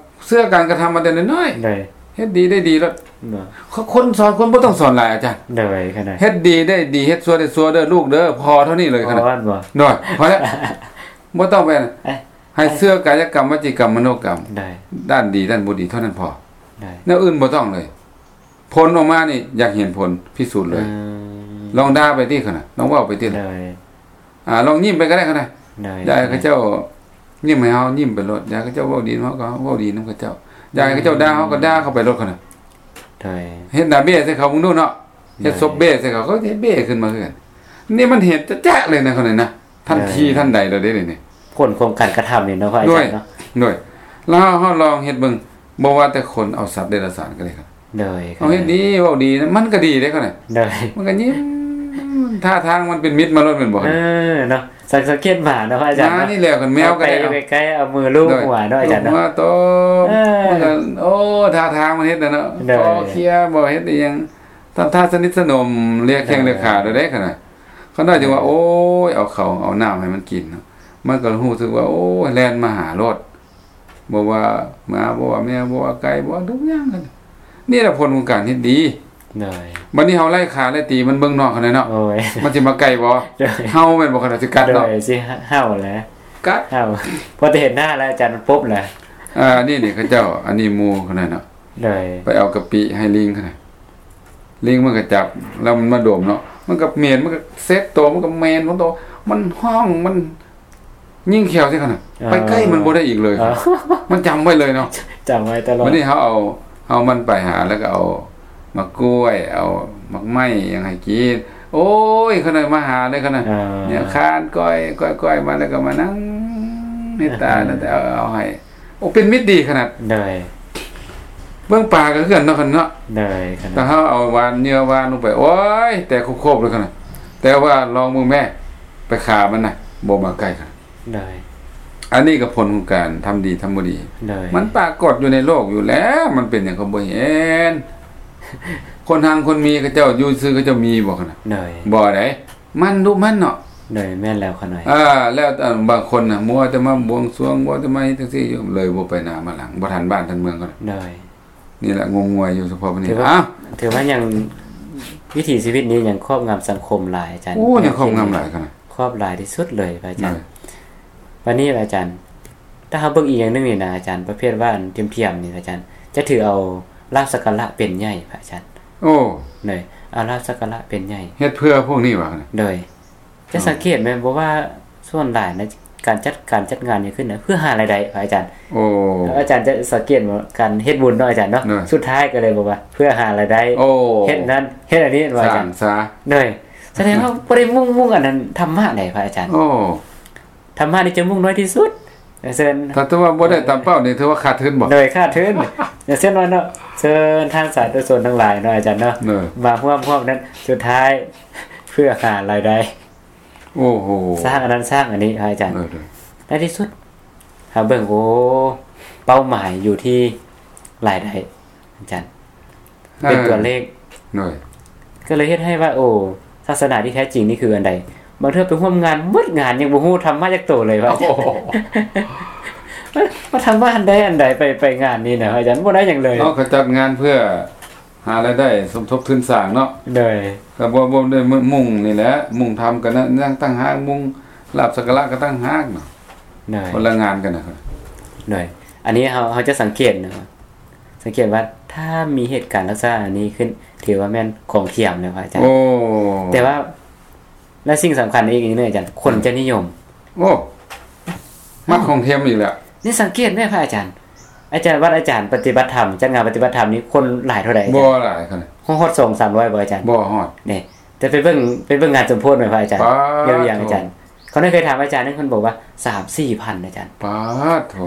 ເຊື່ອການກະທຳມາແຕ່ນ້ອຍໆ. ໂດຍ ເຮັດດີໄດ້ດີໂລດ. ຄົນສອນຄົນບໍ່ຕ້ອງສອນຫຼາຍ ອາຈານ. ໂດຍ ຂະນ້ອຍ ເຮັດດີໄດ້ດີ ເຮັດຊົ່ວໄດ້ຊົ່ວເດີລູກເດີ ພໍເທົ່ານີ້ເລີຍຂະນ້ອຍ. ໂດຍ ພໍແລ້ວ ບໍ່ຕ້ອງໄປ ເອີ ໃຫ້ເຊື່ອກາຍະກຳ ວະຈີກຳ ມະໂນກຳ. ໂດຍ ດ້ານດີດ້ານບໍ່ດີເທົ່ານັ້ນພໍ. ໂດຍ ແນວອື່ນບໍ່ຕ້ອງເລີຍ. ຜົນອອກມານີ້ຢາກເຫັນຜົນ ພິສູດເລີຍ. ອືມ ລອງດ່າໄປຕິຂະນະ ລອງເວົ້າໄປຕິ. ໂດຍ ອ່າ ລອງຍິ້ມໄປກໍໄດ້ຂະນະ. ໂດຍ ຢາກໃຫ້ເຂົາເຈົ້າຍິ້ມໃຫ້ເຮົາຍິ້ມໄປໂລດ ຢາກໃຫ້ເຂົາເຈົ້າເວົ້າດີນຳເຮົາກໍເວົ້າດີນຳເຂົາເຈົ້າ. ໂດຍ ຢາກໃຫ້ເຂົາເຈົ້າດ່າເຮົາກໍດ່າເຂົາໄປໂລດຂະນະ. ໂດຍ ເຮັດໜ້າເບ້ໃສ່ເຂົາເບິ່ງດູເນາະ. ໂດຍ ເຮັດສົບເບ້ໃສ່ເຂົາ ເຂົາເຮັດເບ້ຂຶ້ນມາຄືກັນ. ນີ້ມັນເຫັນຈະໆເລີຍນະ ຂະນ້ອຍນະ. ທັນທີທັນໃດໂລດເດ້ນີ້ ຜົນຂອງການກະທຳນີ້ເນາະ ພະອາຈານເນາະ. ໂດຍ ໂດຍ ແລ້ວເຮົາລອງເຮັດເບິ່ງ ບໍ່ວ່າແຕ່ຄົນ ເອົາສັດເດຍລະສານກໍໄດ້. ໂດຍ ເຮົາເຮັດດີເວົ້າດີນະ ມັນກໍດີເດ້ຂະນ້ອຍ. ໂດຍ ມັນກໍຍິ້ມ ທ່າທາງມັນເປັນມິດມາໂລດແມ່ນບໍ່? ເອີ ເນາະ ສັງ ສັງເກດໝາເນາະ ພະອາຈານເນາະ. ມານີ້ແຫຼະ ຄັນແມວກໍໄດ້ ໄປໃກ້ໆ ເອົາມືລູບຫົວເນາະ ອາຈານເນາະ. ເອີ ໂອ້ ທ່າທາງມັນເຮັດນະເນາະ. ໂດຍ ຄໍເຄຍບໍ່ ເຮັດອີ່ຫຍັງ ທຳທ່າສະໜິດສະໜົມ ເລຍແຂ້ງເລຍຂາໂດຍເດ້ຂະນ້ອຍ. ຂະນ້ອຍຈຶ່ງວ່າ ໂອ້ຍ ເອົາເຂົ້າເອົານ້ຳໃຫ້ມັນກິນເນາະ ມັນກໍຮູ້ສຶກວ່າ ໂອ້ຍ ແລ່ນມາຫາໂລດ. ບໍ່ວ່າໝາ ບໍ່ວ່າແມວ ບໍ່ວ່າໄກ່ ບໍ່ວ່າທຸກຢ່າງ. ນີ້ແຫຼະຜົນຂອງການເຮັດດີ. ໂດຍ ບັດນີ້ເຮົາໄລ່ຂ້າໄລ່ຕີມັນເບິ່ງນອກຫັ້ນແຫຼະເນາະ ໂອ້ຍ ມັນຊິມາໃກ້ບໍ່? ໂດຍ ເຮົາແມ່ນບໍ່? ຂະໜາດຊິກັດເນາະ ໂດຍ ຊິເຫົ່າແຫຼະ ກັດ ເຫົ່າ ພໍແຕ່ເຫັນໜ້າແລ້ວອາຈານປຸບແຫຼະ ອ່າ ອັນນີ້ນີ້ເຂົາເຈົ້າ ອັນນີ້ໝູ່ຂະໜາດເນາະ ໂດຍ ໄປເອົາກະປິໃຫ້ລິງຂະໜາດ ລິງມັນກໍຈັບ ແລ້ວມັນມາດົມເນາະ ມັນກໍເໝັນ ມັນກໍເຊັດໂຕ ມັນກໍເໝັນຂອງໂຕ ມັນຮ້ອງ ມັນ ຍິງແຂ້ວໃສ່ຂະໜາດ ອ່າ ໄປໃກ້ມັນບໍ່ໄດ້ອີກເລີຍ ອ່າ ມັນຈຳໄວ້ເລີຍເນາະ ຈຳໄວ້ຕະຫຼອດ ບັດນີ້ເຮົາເອົາ ເອົາມັນໄປຫາ ແລ້ວກໍເອົາໝາກກ້ວຍ ເອົາໝາກໄມ້ຫຍັງໃຫ້ກິນ ໂອ້ຍ ຂະໜາດມາຫາເລີຍຂະໜາດ ອ່າ ເນຍຄານກ້ອຍ ກ້ອຍ ກ້ອຍມາ ແລ້ວກໍມານັ່ງໃນຕາ ອ່າ ແລ້ວແຕ່ເອົາ ເອົາໃຫ້ ໂອ້ ເປັນມິດດີຂະໜາດ ໂດຍ ເບິ່ງປາກໍຄືກັນເນາະ ຂະໜາດເນາະ ໂດຍ ຂະໜາດ ແຕ່ເຮົາເອົາຫວານ ເຫຍື່ອຫວານລົງໄປ ໂອ້ຍ ແຕກໂຄບໆເລີຍຂະໜາດ ແຕ່ວ່າລອງເບິ່ງແມ້ ໄປຂ້າມັນນະ ບໍ່ມາໃກ້ຂະໜາດ ໂດຍ ອັນນີ້ກໍຜົນຂອງການທຳດີທຳບໍ່ດີ ໂດຍ ມັນປາກົດຢູ່ໃນໂລກຢູ່ແລ້ວ ມັນເປັນຫຍັງກໍບໍ່ເຫັນ ຄົນຮັ່ງຄົນມີເຂົາເຈົ້າຢູ່ຊື່ເຂົາເຈົ້າມີບໍ່ຂະໜາດ ໂດຍ ບໍ່ໃດ ມັນດຸມັນເນາະ ໂດຍ ແມ່ນແລ້ວຂະໜ້ອຍ ອ່າ ແລ້ວ ເອີ ບາງຄົນນະ ມັວແຕ່ມາບວງສວງ ມັວແຕ່ມາເຮັດຈັ່ງຊີ້ຢູ່ ເລີຍບໍ່ໄປໜ້າມາຫຼັງ ບໍ່ທັນບ້ານທັນເມືອງເຂົາ ໂດຍ ນີ້ແຫຼະງົມງວາຍຢູ່ສະເພາະນີ້ ຖືວ່າ ອ້າວ ຖືວ່າຍັງ ວິຖີຊີວິດນີ້ຍັງຄອບງຳສັງຄົມຫຼາຍອາຈານ ໂອ້ ຍັງຄອບງຳຫຼາຍຂະໜາດ ຄອບຫຼາຍທີ່ສຸດເລີຍພະອາຈານ ໂດຍ ບັດນີ້ອາຈານ ຖ້າເຮົາເບິ່ງອີກຢ່າງໜຶ່ງນີ້ນະອາຈານ ປະເພດວ່າອັນທຽມໆນີ້ອາຈານ ຈະຖືເອົາລາບສັກກາລະເປັນໃຫຍ່ພະອາຈານ ໂອ້ ໂດຍ ເອົາລາບສັກກາລະເປັນໃຫຍ່ ເຮັດເພື່ອພວກນີ້ຫວາ ໂດຍ ຈະສັງເກດແມ່ນບໍ່ວ່າສ່ວນຫຼາຍໃນການຈັດ ການຈັດງານຫຍັງຂຶ້ນນະ ເພື່ອຫາລາຍໄດ້ພະອາຈານ ໂອ້ ອາຈານຈະສັງເກດວ່າການເຮັດບຸນເນາະອາຈານເນາະ ໂດຍ ສຸດທ້າຍກໍເລີຍບອກວ່າເພື່ອຫາລາຍໄດ້ ໂອ້ ເຮັດນັ້ນເຮັດອັນນີ້ວ່າອາຈານ ສ້າງສາ ໂດຍ ສະແດງວ່າບໍ່ໄດ້ມຸ່ງ ມຸ່ງອັນນັ້ນທຳມະໃດພະອາຈານ ໂອ້ ທຳມະນີ້ຈະມຸ່ງນ້ອຍທີ່ສຸດ ຢ່າງເຊັ່ນ ຖ້າຖືວ່າບໍ່ໄດ້ຕາມເປົ້ານີ້ຖືວ່າຂາດທຶນບໍ່? ໂດຍ ຂາດທຶນ ຢ່າງເຊັ່ນວ່າເນາະ ເຊີນທ່ານສາທຸຊົນທັງຫຼາຍເນາະອາຈານເນາະ ໂດຍ ມາຮ່ວມ ຮ່ວມນັ້ນ ສຸດທ້າຍເພື່ອຫາລາຍໄດ້ ໂອ້ໂຫ ສ້າງອັນນັ້ນສ້າງອັນນີ້ພະອາຈານ ໂດຍ ໂດຍ ໃນທີ່ສຸດເຮົາເບິ່ງ ໂອ້ ເປົ້າໝາຍຢູ່ທີ່ລາຍໄດ້ອາຈານ ເອີ ເປັນຕົວເລກ ໂດຍ ກໍເລີຍເຮັດໃຫ້ວ່າ ໂອ້ ສາສະໜາທີ່ແທ້ຈິງນີ້ຄືອັນໃດ? ບາງເທື່ອໄປຮ່ວມງານໝົດງານຍັງບໍ່ຮູ້ທຳມະຈັກໂຕເລີຍວ່າ ໂອ້ໂຫ ວ່າທຳມະອັນໃດອັນໃດ ໄປ ໄປງານນີ້ນະອາຈານ ບໍ່ໄດ້ຫຍັງເລີຍ ເນາະ ເຂົາຈັດງານເພື່ອຫາລາຍໄດ້ສົມທົບທຶນສ້າງເນາະ ໂດຍ ກໍບໍ່ ບໍ່ໄດ້ມຸ່ງນີ້ແຫຼະ ມຸ່ງທຳກໍຍັງຕ່າງຫາກ ມຸ່ງລາບສັກກາລະກໍຕ່າງຫາກເນາະ ໂດຍ ຄົນລະງານກັນນະ ໂດຍ ອັນນີ້ເຮົາ ເຮົາຈະສັງເກດເນາະ ສັງເກດວ່າຖ້າມີເຫດການລັກສະນະນີ້ຂຶ້ນ ຖືວ່າແມ່ນຂອງທຽມແລ້ວພະອາຈານ ໂອ້ ແຕ່ວ່າ ແລະສິ່ງສຳຄັນອີກເນາະອາຈານ ຄົນຈະນິຍົມ ໂອ້ ມັກຂອງທຽມອີກແລ້ວ ນີ້ສັງເກດແມ່ພະອາຈານ ອາຈານ ວັດອາຈານປະຕິບັດທຳ ຈັດງານປະຕິບັດທຳນີ້ຄົນຫຼາຍເທົ່າໃດອາຈານ? ບໍ່ຫຼາຍຂະໜາດ ຮອດສອງສາມຮ້ອຍບໍ່ອາຈານ? ບໍ່ຮອດ ນີ້ ແຕ່ໄປເບິ່ງ ໄປເບິ່ງງານສົມໂພດແມ່ນພະອາຈານ ປາດ ເອີ ຢ່າງອາຈານ ເຂົານັ້ນເຄີຍຖາມອາຈານ ເພິ່ນບອກວ່າສາມສີ່ພັນອາຈານ ປາດໂທ້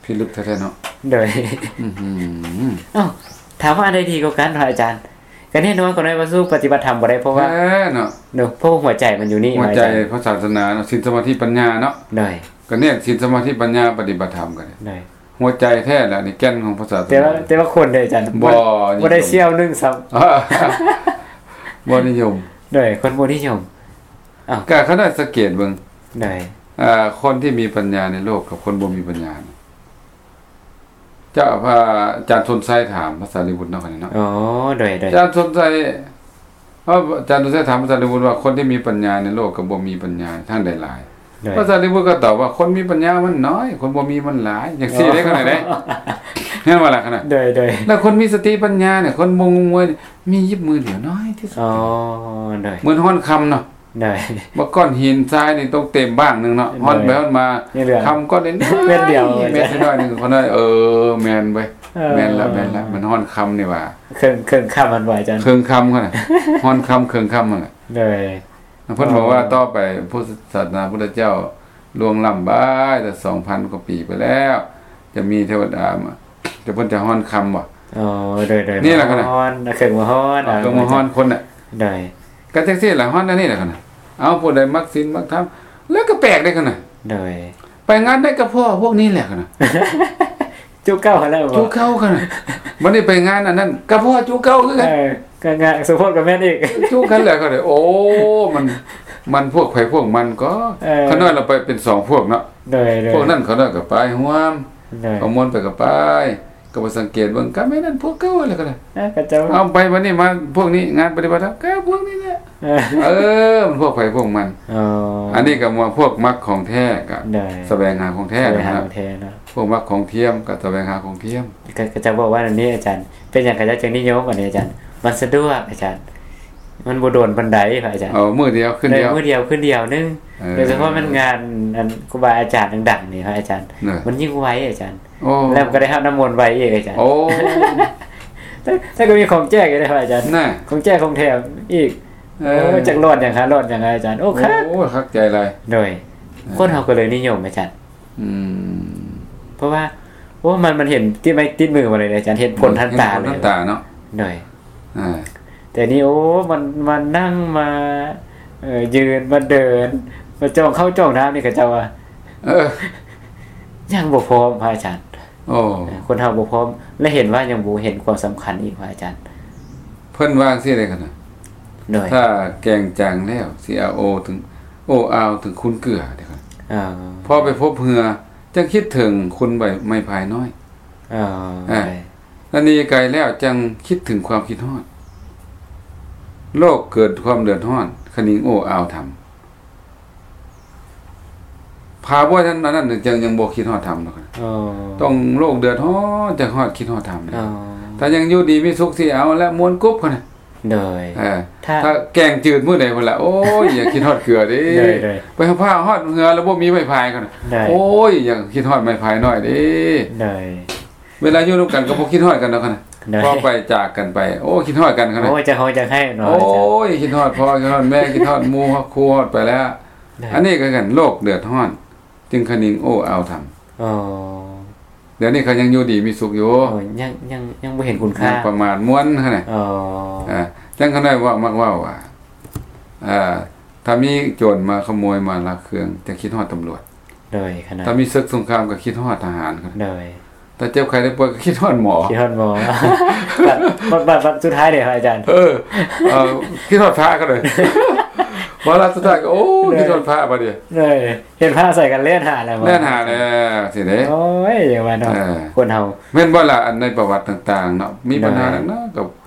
ພິລຶກແທ້ໆເນາະ ໂດຍ ອື ເອົ້າ ຖາມວ່າອັນໃດດີກວ່າກັນພະອາຈານ? ກໍແນ່ນອນ ກໍນ້ອຍວ່າສູ້ປະຕິບັດທຳບໍ່ໄດ້ ເພາະວ່າ ແທ້ເນາະ ເນາະ ເພາະວ່າຫົວໃຈມັນຢູ່ນີ້ ຫົວໃຈ ອາຈານ ຂອງສາສະໜາເນາະ ສິນ ສະມາທິ ປັນຍາເນາະ ໂດຍ ກໍແນ່ ສິນ ສະມາທິ ປັນຍາ ປະຕິບັດທຳກັນ ໂດຍ ຫົວໃຈແທ້ລະ ນີ້ແກ່ນຂອງພະສາສະໜາ ແຕ່ວ່າ ແຕ່ວ່າຄົນເດ້ອາຈານ ບໍ່ ບໍ່ໄດ້ສ່ຽວໜຶ່ງຊ້ຳ ບໍ່ນິຍົມ ໂດຍ ຄົນບໍ່ນິຍົມ ເອົ້າ ກໍຂະໜາດສັງເກດເບິ່ງ ໂດຍ ອ່າ ຄົນທີ່ມີປັນຍາໃນໂລກກັບຄົນບໍ່ມີປັນຍາ ເຈົ້າ ພະອາຈານສົນໄຊຖາມພະສາລີບຸດເນາະ ຄັນນີ້ເນາະ ອໍ ໂດຍ ໂດຍ ອາຈານສົນໄຊ ເອີ ອາຈານສົນໄຊຖາມພະສາລີບຸດວ່າ ຄົນທີ່ມີປັນຍາໃນໂລກກັບບໍ່ມີປັນຍາ ທາງໃດຫຼາຍ? ໂດຍ ພະສາລີບຸດກໍຕອບວ່າ ຄົນມີປັນຍາມັນໜ້ອຍ ຄົນບໍ່ມີມັນຫຼາຍ ຈັ່ງຊີ້ເດ້ ອໍ ຂະໜາດໃດ ແມ່ນບໍ່ລະຂະໜາດ ໂດຍ ໂດຍ ແລ້ວຄົນມີສະຕິປັນຍານີ້ ຄົນບໍ່ງົມງວຍ ມີຢູ່ມືດຽວ ໜ້ອຍທີ່ສຸດ ອໍ ໂດຍ ເໝືອນຮ່ອນຄຳເນາະ ໂດຍ ວ່າກ້ອນຫີນຊາຍນີ້ຕົກເຕັມບ້າງໜຶ່ງເນາະ ໂດຍ ຮ່ອນໄປຮ່ອນມາ ຄຳກ້ອນນີ້ ເມັດດຽວ ເມັດນ້ອຍໜຶ່ງ ເຂົານ້ອຍ ເອີ ແມ່ນເວີຍ ເອີ ແມ່ນລະ ແມ່ນລະ ມັນຮ່ອນຄຳນີ້ຫວ່າ ເຄິ່ງ ເຄິ່ງຄຳຫັ້ນບໍ່ອາຈານ? ເຄິ່ງຄຳຫັ້ນນະ ຮ່ອນຄຳເຄິ່ງຄຳຫັ້ນລະ ໂດຍ ເພິ່ນບອກວ່າ ອໍ ຕໍ່ໄປພຸດທະສາສະໜາພຸດທະເຈົ້າລ່ວງລ້ຳໄປແຕ່ສອງພັນກວ່າປີໄປແລ້ວ ຈະມີເທວະດາມາ ແຕ່ເພິ່ນຈະຮ່ອນຄຳບໍ່? ອໍ ໂດຍ ໂດຍ ນີ້ລະ ມາຮ່ອນ ເຄື່ອງມາຮ່ອນ ເອົາເຄື່ອງມາຮ່ອນຄົນນະ ໂດຍ ກໍຈັ່ງຊີ້ລະ ຮ່ອນອັນນີ້ລະ ເອົາ ຜູ້ໃດມັກສິນມັກທຳ ແລ້ວກໍແປກເດ້ ຂະໜາດ ໂດຍ ໄປງານໃດກໍພໍ້ພວກນີ້ແຫຼະ ຂະໜາດ ຈຸເກົ່າຫັ້ນແຫຼະ ຈຸເກົ່າ ຂະໜາດ ບັດນີ້ໄປງານອັນນັ້ນກໍພໍ້ຈຸເກົ່າຄືກັນ ເອີ ກໍງານສົມໂພດກໍແມ່ນອີກ ຈຸກັນແຫຼະ ຂະໜາດ ໂອ້ ມັນ ມັນພວກໃຜພວກມັນກໍ ເອີ ຂະໜາດລະໄປເປັນສອງພວກເນາະ ໂດຍ ໂດຍ ພວກນັ້ນຂະໜາດກໍໄປຮ່ວມ ໂດຍ ຂະມວນໄປກໍໄປ ໄປສັງເກດເບິ່ງ ກໍແມ່ນອັນພວກເກົ່າຫັ້ນແຫຼະກໍໄດ້ ເອີ ເຂົາເຈົ້າ ເອົາໄປບັດນີ້ມາພວກນີ້ ງານປະຕິບັດທຳກໍພວກນີ້ແຫຼະ ເອີ ເອີ ມັນພວກໃຜພວກມັນ. ອໍ ອັນນີ້ກໍວ່າພວກມັກຂອງແທ້ກໍ ໂດຍ ສະແຫວງຫາຂອງແທ້ ສະແຫວງຫາ ນະ ຂອງແທ້ເນາະ ພວກມັກຂອງທຽມກໍສະແຫວງຫາຂອງທຽມ. ເຂົາ ເຂົາເຈົ້າບອກວ່າອັນນີ້ອາຈານ ເປັນຫຍັງເຂົາເຈົ້າຈຶ່ງນິຍົມອັນນີ້ອາຈານ? ມັນສະດວກອາຈານ ມັນບໍ່ດົນປານໃດພະອາຈານ. ເອີ ມື້ດຽວຄືນດຽວ ມື້ດຽວຄືນດຽວໜຶ່ງ. ເອີ ໂດຍສະເພາະແມ່ນງານອັນຄູບາອາຈານດັງໆນີ້ພະອາຈານ ໂດຍ ມັນຍິ່ງໄວອາຈານ. ໂອ້ ແລ້ວມັນກໍໄດ້ຮັບນ້ຳມົນໄວອີກອາຈານ. ໂອ້ ແຕ່ ແຕ່ກໍມີຂອງແຈກຢູ່ເດ້ພະອາຈານ ນະ ຂອງແຈກຂອງແຖມອີກ. ເອີ ໂອ້ ຈັກຫຼອດຫຍັງຄະ ຫຼອດຫຍັງອາຈານ. ໂອ້ ໂອ້ ຄັກ ໂອ້ ຄັກໃຈຫຼາຍ. ໂດຍ ເອີ ຄົນເຮົາກໍເລີຍນິຍົມອາຈານ. ອືມ ເພາະວ່າ ໂອ້ ມັນ ມັນເຫັນຕິດໄມ້ຕິດມືມາເລີຍອາຈານ ເຫັນຜົນທັນຕາເລີຍ ເຫັນຜົນທັນຕາເນາະ. ໂດຍ ອ່າ ແຕ່ນີ້ ໂອ້ ມັນ ມານັ່ງ ມາ ເອີ ຢືນ ມາເດີນ ມາຈອງເຂົ້າຈອງນ້ຳນີ້ ເຂົາເຈົ້າວ່າ ເອີ ຍັງບໍ່ພ້ອມພະອາຈານ. ໂອ້ ເອີ ຄົນເຮົາບໍ່ພ້ອມ ແລະ ເຫັນວ່າຍັງບໍ່ເຫັນຄວາມສຳຄັນອີກພະອາຈານ. ເພິ່ນວ່າຈັ່ງຊີ້ເດ້ ຄັນນະ ໂດຍ ຖ້າແກງຈາງແລ້ວ ຊິເອົາໂອເຖິງ ໂອ້ອາວເຖິງຄູນເກືອເດ້. ອໍ ພໍໄປພົບເຫື່ອ ຈັ່ງຄິດເຖິງຄຸນໃບໄມ້ພາຍນ້ອຍ. ອໍ ອ່າ ໂດຍ ລະໜີໄກແລ້ວຈັ່ງຄິດເຖິງຄວາມຄິດຮອດ ໂລກເກີດຄວາມເດືອດຮ້ອນ ຄະນິງໂອ້ອາວທຳ. ຖ້າບໍ່ທັນອັນນັ້ນ ຈັ່ງຍັງບໍ່ຄິດຮອດທຳດອກ. ອໍ ຕ້ອງໂລກເດືອດຮ້ອນ ຈັ່ງຮອດ ຄິດຮອດທຳ. ອໍ ຖ້າຍັງຢູ່ດີມີສຸກ ຊິເອົາແລະ ມ່ວນກຸບຫັ້ນນະ. ໂດຍ ເອີ ຖ້າ ຖ້າແກງຈືດມື້ໃດພຸ້ນລະ ໂອ້ຍ ຢາກຄິດຮອດເກືອເດ້. ໂດຍ ໂດຍ ໄປຫາພາຮອດເຫື່ອແລ້ວບໍ່ມີໄມ້ພາຍຫັ້ນນະ. ໂດຍ ໂອ້ຍ ຢາກຄິດຮອດໄມ້ພາຍນ້ອຍເດ້. ໂດຍ ເວລາຢູ່ນຳກັນກໍບໍ່ຄິດຮອດກັນດອກຫັ້ນນະ. ໂດຍ ພໍໄປຈາກກັນໄປ ໂອ້ ຄິດຮອດກັນຫັ້ນນະ. ໂອ້ຍ ຈະຮ້ອງຈະໄຫ້ເນາະ. ໂອ້ຍ ຄິດຮອດພໍ່ ຄິດຮອດແມ່ ຄິດຮອດໝູ່ ຮອດຄູ່ ຮອດໄປແລ້ວ. ໂດຍ ອັນນີ້ກໍຄືກັນ ໂລກເດືອດຮ້ອນ ຈຶ່ງຄະນິງໂອ້ອາວທຳ. ອໍ ດຽວນີ້ເຂົາຍັງຢູ່ດີມີສຸກຢູ່. ໂອ້ ຍັງ ຍັງ ຍັງບໍ່ເຫັນຄຸນຄ່າ ຍັງປະໝາດມ່ວນຫັ້ນນະ. ອໍ ອ່າ ຈັ່ງຂະນ້ອຍເວົ້າ ມັກເວົ້າວ່າ ອ່າ ຖ້າມີໂຈນມາຂະໂມຍມາລັກເຄື່ອງ ຈະຄິດຮອດຕຳຫຼວດ. ໂດຍ ຂະນ້ອຍ ຖ້າມີເສິກສົງຄາມກໍຄິດຮອດທະຫານ. ໂດຍ ຖ້າເຈັບໄຂ້ໄດ້ປ່ວຍກໍຄິດຮອດໝໍ ຄິດຮອດໝໍ. ບັດ ບັດ ບັດ ບັດສຸດທ້າຍເດ້ພະອາຈານ. ເອີ ເອີ ຄິດຮອດພະກໍໄດ້ ວາລະສຸດທ້າຍກໍ ໂອ້ ໂດຍ ຄິດຮອດພະບາດນີ້. ໂດຍ ເຫັນພະໃສ່ກັນແລ່ນຫາແລ້ວ ແລ່ນຫາແລ້ວຊິເດ້. ໂອ້ຍ ຢ່າວ່າເນາະ ເອີ ຄົນເຮົາ ແມ່ນບໍ່ລະ? ອັນໃນປະຫວັດຕ່າງໆເນາະ ມີບັນຫາ ໂດຍ ໜັກໆ ກໍ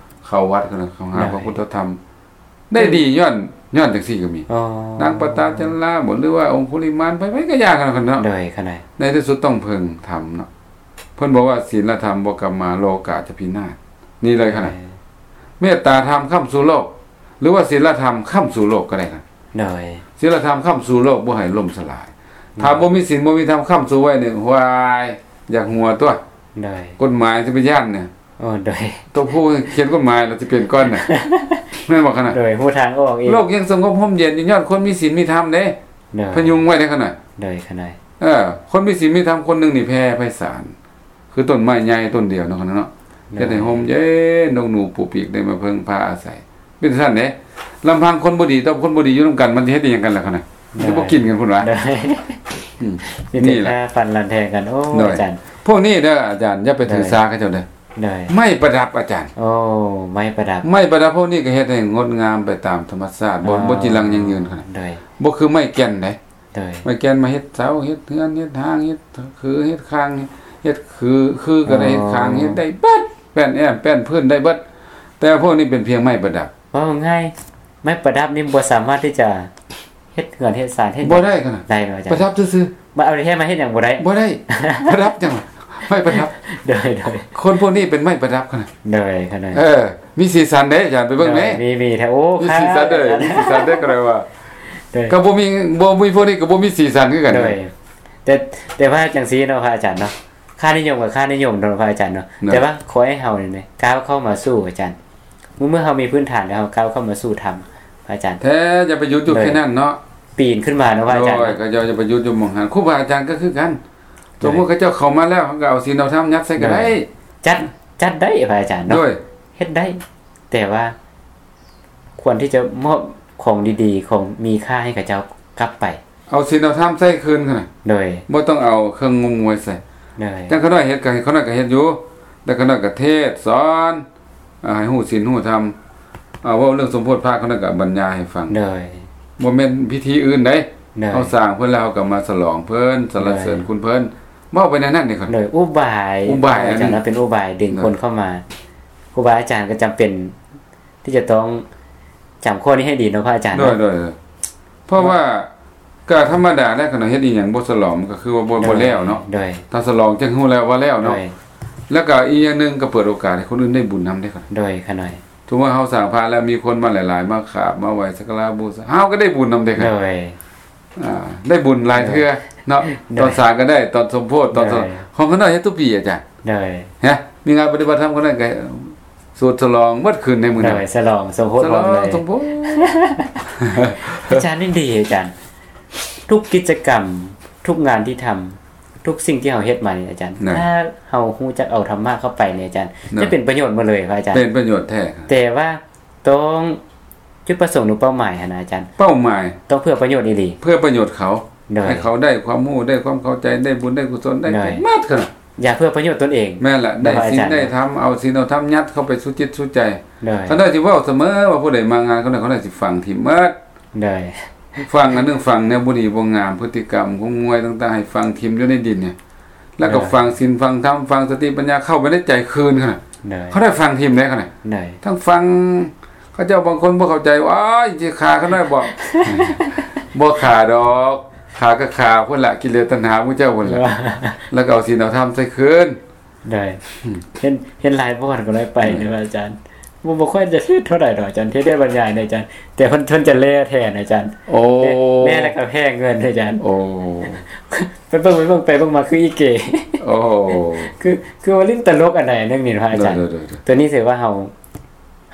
ເຂົ້າວັດ ເຂົ້າຫາ ໂດຍ ພະພຸດທະທຳ ໄດ້ດີຍ້ອນ ຍ້ອນຈັ່ງຊີ້ກໍມີ. ອໍ ນາງປະຕາຈັນລາບໍ ຫຼືວ່າອົງຄຸລິມານ ໃຜໆກໍຢ່າກັນເນາະ. ໂດຍ ຂະນ້ອຍ ໃນທີ່ສຸດຕ້ອງເພິ່ງທຳເນາະ. ເພິ່ນບອກວ່າ ສິນລະທຳບໍ່ກັບມາ ໂລກາຈະພິນາດ. ນີ້ເລີຍຂະນ້ອຍ ໂດຍ ເມດຕາທຳຄ້ຳຊູໂລກ ຫຼືວ່າສິນລະທຳຄ້ຳຊູໂລກກໍໄດ້. ໂດຍ ສິນລະທຳຄ້ຳຊູໂລກ ບໍ່ໃຫ້ລົ້ມສະຫຼາຍ. ໂດຍ ຖ້າບໍ່ມີສິນ ບໍ່ມີທຳຄ້ຳຊູໄວ້ນີ້ ຫວາຍ ຢາກຫົວຕົວະ. ໂດຍ ກົດໝາຍຊິໄປຢ້ານນະ. ໂອ້ ໂດຍ ຕົວຜູ້ຂຽນກົດໝາຍລະຊິເປັນກ່ອນນະ ແມ່ນບໍ່ຂະນ້ອຍ? ໂດຍ ຮູ້ທາງອອກອີກ. ໂລກຍັງສະຫງົບຮົ່ມເຢັນຢູ່ ຍ້ອນຄົນມີສິນມີທຳເດ້. ໂດຍ ພະຍຸງໄວ້ເດ້ຂະນ້ອຍ. ໂດຍ ຂະນ້ອຍ ເອີ ຄົນມີສິນມີທຳຄົນໜຶ່ງນີ້ແຜ່ໄພສານ ຄືຕົ້ນໄມ້ໃຫຍ່ຕົ້ນດຽວເນາະຂະນ້ອຍເນາະ. ໂດຍ ເຮັດໃຫ້ຮົ່ມເຢັນ ນົກໜູປູປີກໄດ້ມາເພິ່ງພາອາໄສ. ເປັນຊັ້ນເດ້ ລຳພັງຄົນບໍ່ດີຕໍ່ຄົນບໍ່ດີຢູ່ນຳກັນ ມັນຊິເຮັດອີ່ຫຍັງກັນລະຂະນ້ອຍ? ໂດຍ ມັນຊິບໍ່ກິນກັນພຸ້ນຫວາ? ໂດຍ ອືມ ມີແຕ່ ນີ້ແຫຼະ ຂ້າຟັນລັນແທງກັນ. ໂອ້ ໂດຍ ອາຈານ ພວກນີ້ເດີອາຈານ ຢ່າໄປຖືສາເຂົາເຈົ້າເດີ. ໂດຍ ໄມ້ປະດັບອາຈານ. ໂອ້ ໄມ້ປະດັບ ໄມ້ປະດັບພວກນີ້ກໍເຮັດໃຫ້ງົດງາມໄປຕາມທຳມະຊາດ ບໍ່ ອໍ ບໍ່ຈີລັງຢັ້ງຢືນຂະໜາດ. ໂດຍ ບໍ່ຄືໄມ້ແກ່ນເດ້. ໂດຍ ໄມ້ແກ່ນມາເຮັດເສົາ ເຮັດເຮືອນ ເຮັດຮ່າງ ເຮັດຄື ເຮັດຄາງ ເຮັດຄື ຄືກໍໄດ້ ອໍ ເຮັດຄາງ ເຮັດໄດ້ເບິດ ແປ້ນແອ້ມ ແປ້ນພື້ນ ໄດ້ເບິດ. ແຕ່ພວກນີ້ເປັນພຽງໄມ້ປະດັບ. ເວົ້າງ່າຍ ໄມ້ປະດັບນີ້ບໍ່ສາມາດທີ່ຈະເຮັດເຮືອນເຮັດຊານເຮັດ ບໍ່ໄດ້ຂະໜາດ ໄດ້ບໍ່ອາຈານ? ປະດັບຊື່ໆ. ມາເອົາແທ້ມາເຮັດຫຍັງບໍ່ໄດ້. ບໍ່ໄດ້ ປະດັບຫຍັງ? ໄມ້ປະດັບ. ໂດຍ ໂດຍ ຄົນພວກນີ້ເປັນໄມ້ປະດັບຂະໜາດ. ໂດຍ ຂະໜາດ ເອີ ມີສີສັນເດ້ອາຈານ ໄປເບິ່ງແມ້. ໂດຍ ມີ ມີແທ້. ໂອ້ ມີສີສັນເດ້ ມີສີສັນເດ້ ກໍໄດ້ວ່າ. ໂດຍ ກໍບໍ່ມີ ບໍ່ມີພວກນີ້ກໍບໍ່ມີສີສັນຄືກັນ. ໂດຍ ແຕ່ ແຕ່ວ່າຈັ່ງຊີ້ເນາະ ພະອາຈານເນາະ ຄ່ານິຍົມກໍຄ່ານິຍົມເນາະ ພະອາຈານເນາະ. ໂດຍ ແຕ່ວ່າຂໍໃຫ້ເຮົານີ້ນະ ກ້າວເຂົ້າມາສູ່ ອາຈານ ເມື່ອ ເມື່ອເຮົາມີພື້ນຖານແລ້ວ ເຮົາກ້າວເຂົ້າມາສູ່ທຳ ພະອາຈານ. ແທ້ ຢ່າໄປຢຸດຢູ່ ໂດຍ ແຄ່ນັ້ນເນາະ ປີນຂຶ້ນມາເນາະ ພະອາຈານ. ໂດຍ ເນາະ ກໍຢ່າ ຢ່າໄປຢຸດຢູ່ໝ່ອງຫັ້ນ. ຄູບາອາຈານກໍຄືກັນ. ໂດຍ ສົມມຸດເຂົາເຈົ້າເຂົ້າມາແລ້ວ ເຮົາກໍເອົາສິນເອົາທຳຍັດໃສ່ກໍໄດ້. ໂດຍ ຈັດ ຈັດໄດ້ ພະອາຈານເນາະ. ໂດຍ ເຮັດໄດ້ ແຕ່ວ່າຄວນທີ່ຈະມອບຂອງດີໆ ຂອງມີຄ່າໃຫ້ເຂົາເຈົ້າກັບໄປ. ເອົາສິນເອົາທຳໃສ່ຄືນຂະໜາດ. ໂດຍ ບໍ່ຕ້ອງເອົາເຄື່ອງງົມງວຍໃສ່. ໂດຍ ຈັ່ງຂະນ້ອຍເຮັດ ກໍໃຫ້ຂະນ້ອຍກໍເຮັດຢູ່ ແຕ່ຂະນ້ອຍກໍເທດສອນ ອ່າ ໃຫ້ຮູ້ສິນຮູ້ທຳ. ເວົ້າເລື່ອງສົມໂພດພະ ຂະນ້ອຍກໍບັນຍາຍໃຫ້ຟັງ. ໂດຍ ບໍ່ແມ່ນພິທີອື່ນໃດ. ໂດຍ ເຮົາສ້າງເພິ່ນແລ້ວ ເຮົາກໍມາສະຫຼອງເພິ່ນ ສັນລະເສີນ ໂດຍ ຄຸນເພິ່ນ. ເວົ້າໄປແນວນັ້ນເດ້ ໂດຍອຸບາຍ ອຸບາຍ ອາຈານ ເປັນອຸບາຍດຶງຄົນເຂົ້າມາ. ຄູບາອາຈານກໍຈຳເປັນທີ່ຈະຕ້ອງຈຳຂໍ້ນີ້ໃຫ້ດີເນາະ ພະອາຈານ ໂດຍ ໂດຍ ເພາະວ່າກໍທຳມະດາແລ້ວ ຄັນເຮົາເຮັດອີ່ຫຍັງບໍ່ສະຫຼອງ ມັນກໍຄືວ່າບໍ່ ບໍ່ແລ້ວເນາະ. ໂດຍ ຖ້າສະຫຼອງຈຶ່ງຮູ້ແລ້ວວ່າແລ້ວເນາະ. ໂດຍ ແລ້ວກໍອີກຢ່າງໜຶ່ງ ກໍເປີດໂອກາດໃຫ້ຄົນອື່ນໄດ້ບຸນນຳເດ້. ໂດຍ ຂ້ານ້ອຍ ສົມມຸດວ່າເຮົາສ້າງພະແລ້ວ ມີຄົນມາຫຼາຍໆ ມາຂາບມາໄຫວ້ສັກກາລະບູຊາ ເຮົາກໍໄດ້ບຸນນຳເດ້. ໂດຍ ອ່າ ໄດ້ບຸນຫຼາຍເທື່ອເນາະ. ໂດຍ ຕອນສ້າງກໍໄດ້ ຕອນສົມໂພດ ຕອນ ໂດຍ ຂອງຂ້ານ້ອຍເຮັດທຸກປີ ອາຈານ. ໂດຍ ຮະ ມີງານປະຕິບັດທຳ ຂ້ານ້ອຍກໍສູດສະຫຼອງໝົດຄືນໃນມື້ນັ້ນ. ໂດຍ ສະຫຼອງສົມໂພດ ໂດຍ ພ້ອມເລີຍ ສົມໂພດ. ອາຈານ ນີ້ດີອາຈານ ທຸກກິດຈະກຳ ທຸກງານທີ່ທຳ ທຸກສິ່ງທີ່ເຮົາເຮັດມານີ້ອາຈານ ໂດຍ ຖ້າເຮົາຮູ້ຈັກເອົາທຳມະເຂົ້າໄປນີ້ອາຈານ ໂດຍ ຈະເປັນປະໂຫຍດໝົດເລີຍ ພະອາຈານ. ເປັນປະໂຫຍດແທ້ ແຕ່ວ່າຕ້ອງ ຈຸດປະສົງ ຫຼື ເປົ້າໝາຍຫັ້ນນະອາຈານ ເປົ້າໝາຍຕ້ອງເພື່ອປະໂຫຍດອີ່ຫຼີ ເພື່ອປະໂຫຍດເຂົາ. ໂດຍ ໃຫ້ເຂົາໄດ້ຄວາມຮູ້ ໄດ້ຄວາມເຂົ້າໃຈ ໄດ້ບຸນໄດ້ກຸສົນ ໄດ້ ໂດຍ ໝົດ ຄື ຢ່າເພື່ອປະໂຫຍດຕົນເອງ. ແມ່ນລະ ໄດ້ສິນ ອາຈານ ໄດ້ທຳ ເອົາສິນເອົາທຳຍັດເຂົ້າໄປສູ່ຈິດສູ່ໃຈ. ໂດຍ ຂ້ານ້ອຍຊິເວົ້າສະເໝີວ່າ ຜູ້ໃດມາງານຂ້ານ້ອຍ ຂ້ານ້ອຍຊິຝັງຖິ້ມໝົດ. ໂດຍ ຝັງອັນໜຶ່ງ ຝັງແນວບໍ່ດີບໍ່ງາມ ພຶດຕິກຳຂອງງວຍຕ່າງໆ ໃຫ້ຝັງຖິ້ມຢູ່ໃນດິນນີ້ ແລ້ວກໍ ໂດຍ ຝັງສິນຝັງທຳ ຝັງສະຕິປັນຍາເຂົ້າໄປໃນໃຈຄືນ. ໂດຍ ຂ້ານ້ອຍຝັງຖິ້ມໄດ້ ຂ້ານ້ອຍ ໂດຍ ທັງຝັງ ເຂົາເຈົ້າບາງຄົນບໍ່ເຂົ້າໃຈ ໂອ້ຍ ຊິຂ້າຂ້ານ້ອຍບໍ? ບໍ່ຂ້າດອກ ຂ້າກໍຂ້າພຸ້ນລະ ກິເລດຕັນຫາໝູ່ເຈົ້າພຸ້ນລະ ແລ້ວກໍເອົາສິນເອົາທຳໃສ່ຄືນ. ໂດຍ ເຫັນ ເຫັນຫຼາຍບ່ອນກໍໄດ້ໄປ ໂດຍ ເນາະອາຈານ. ບໍ່ ບໍ່ຄ່ອຍຈະຖືກເທົ່າໃດດອກອາຈານ ເທດແຕ່ບັນຍາຍນີ້ອາຈານ ແຕ່ເພິ່ນ ເພິ່ນຈະແລ່ແທນອາຈານ. ໂອ້ ແລ່ ແລ່ແລ້ວກໍແພ້ເງິນອາຈານ. ໂອ້ ໄປເບິ່ງ ໄປເບິ່ງ ໄປເບິ່ງມາຄືອີເກ. ໂອ້ ຄື ຄືວ່າຫຼິ້ນຕະຫຼົກອັນໃດອັນໜຶ່ງນີ້ພະອາຈານ. ໂດຍ ໂດຍ ໂດຍ ໂດຍ ຕົວນີ້ຖືວ່າເຮົາ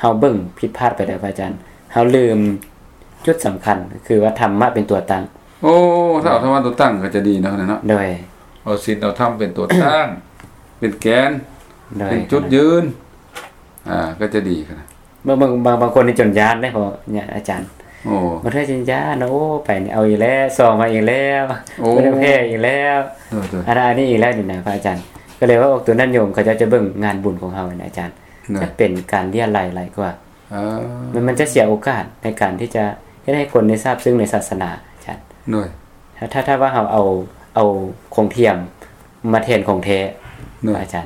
ເຮົາເບິ່ງຜິດພາດໄປແລ້ວພະອາຈານ ເຮົາລືມຈຸດສຳຄັນ ຄືວ່າທຳມະເປັນຕົວຕັ້ງ. ໂອ້ ຖ້າເອົາທຳມະຕົວຕັ້ງກໍຈະດີເນາະ ເນາະ. ໂດຍ ເອົາສິນເອົາທຳເປັນຕົວຕັ້ງ ເປັນແກນ ໂດຍ ເປັນຈຸດຢືນ ອ່າ ກໍຈະດີຂະໜາດ. ບາງ ບາງ ບາງ ບາງຄົນນີ້ຈົນຢ້ານເດ້ ເພາະອາຈານ ໂອ້ ບາງເທື່ອຈົນຢ້ານ ໂອ້ ໄປນີ້ເອົາອີກແລ້ວ ຊອງມາອີກແລ້ວ ໂອ້ ເພິ່ນແພ້ອີກແລ້ວ ໂດຍ ໂດຍ ອັນນັ້ນອັນນີ້ອີກແລ້ວນີ້ນະພະອາຈານ. ກໍເລີຍວ່າອອກຕົວນັ້ນໂຍມ ເຂົາເຈົ້າຈະເບິ່ງງານບຸນຂອງເຮົານະອາຈານ ໂດຍ ຈະເປັນການເລຍໄລຫຼາຍກວ່າ. ເອີ ມັນ ມັນຈະເສຍໂອກາດໃນການທີ່ຈະເຮັດໃຫ້ຄົນໄດ້ຊາບຊຶ້ງໃນສາສະໜາອາຈານ. ໂດຍ ຖ້າ ຖ້າ ຖ້າວ່າເຮົາເອົາ ເອົາຂອງທຽມມາແທນຂອງແທ້ ໂດຍ ອາຈານ.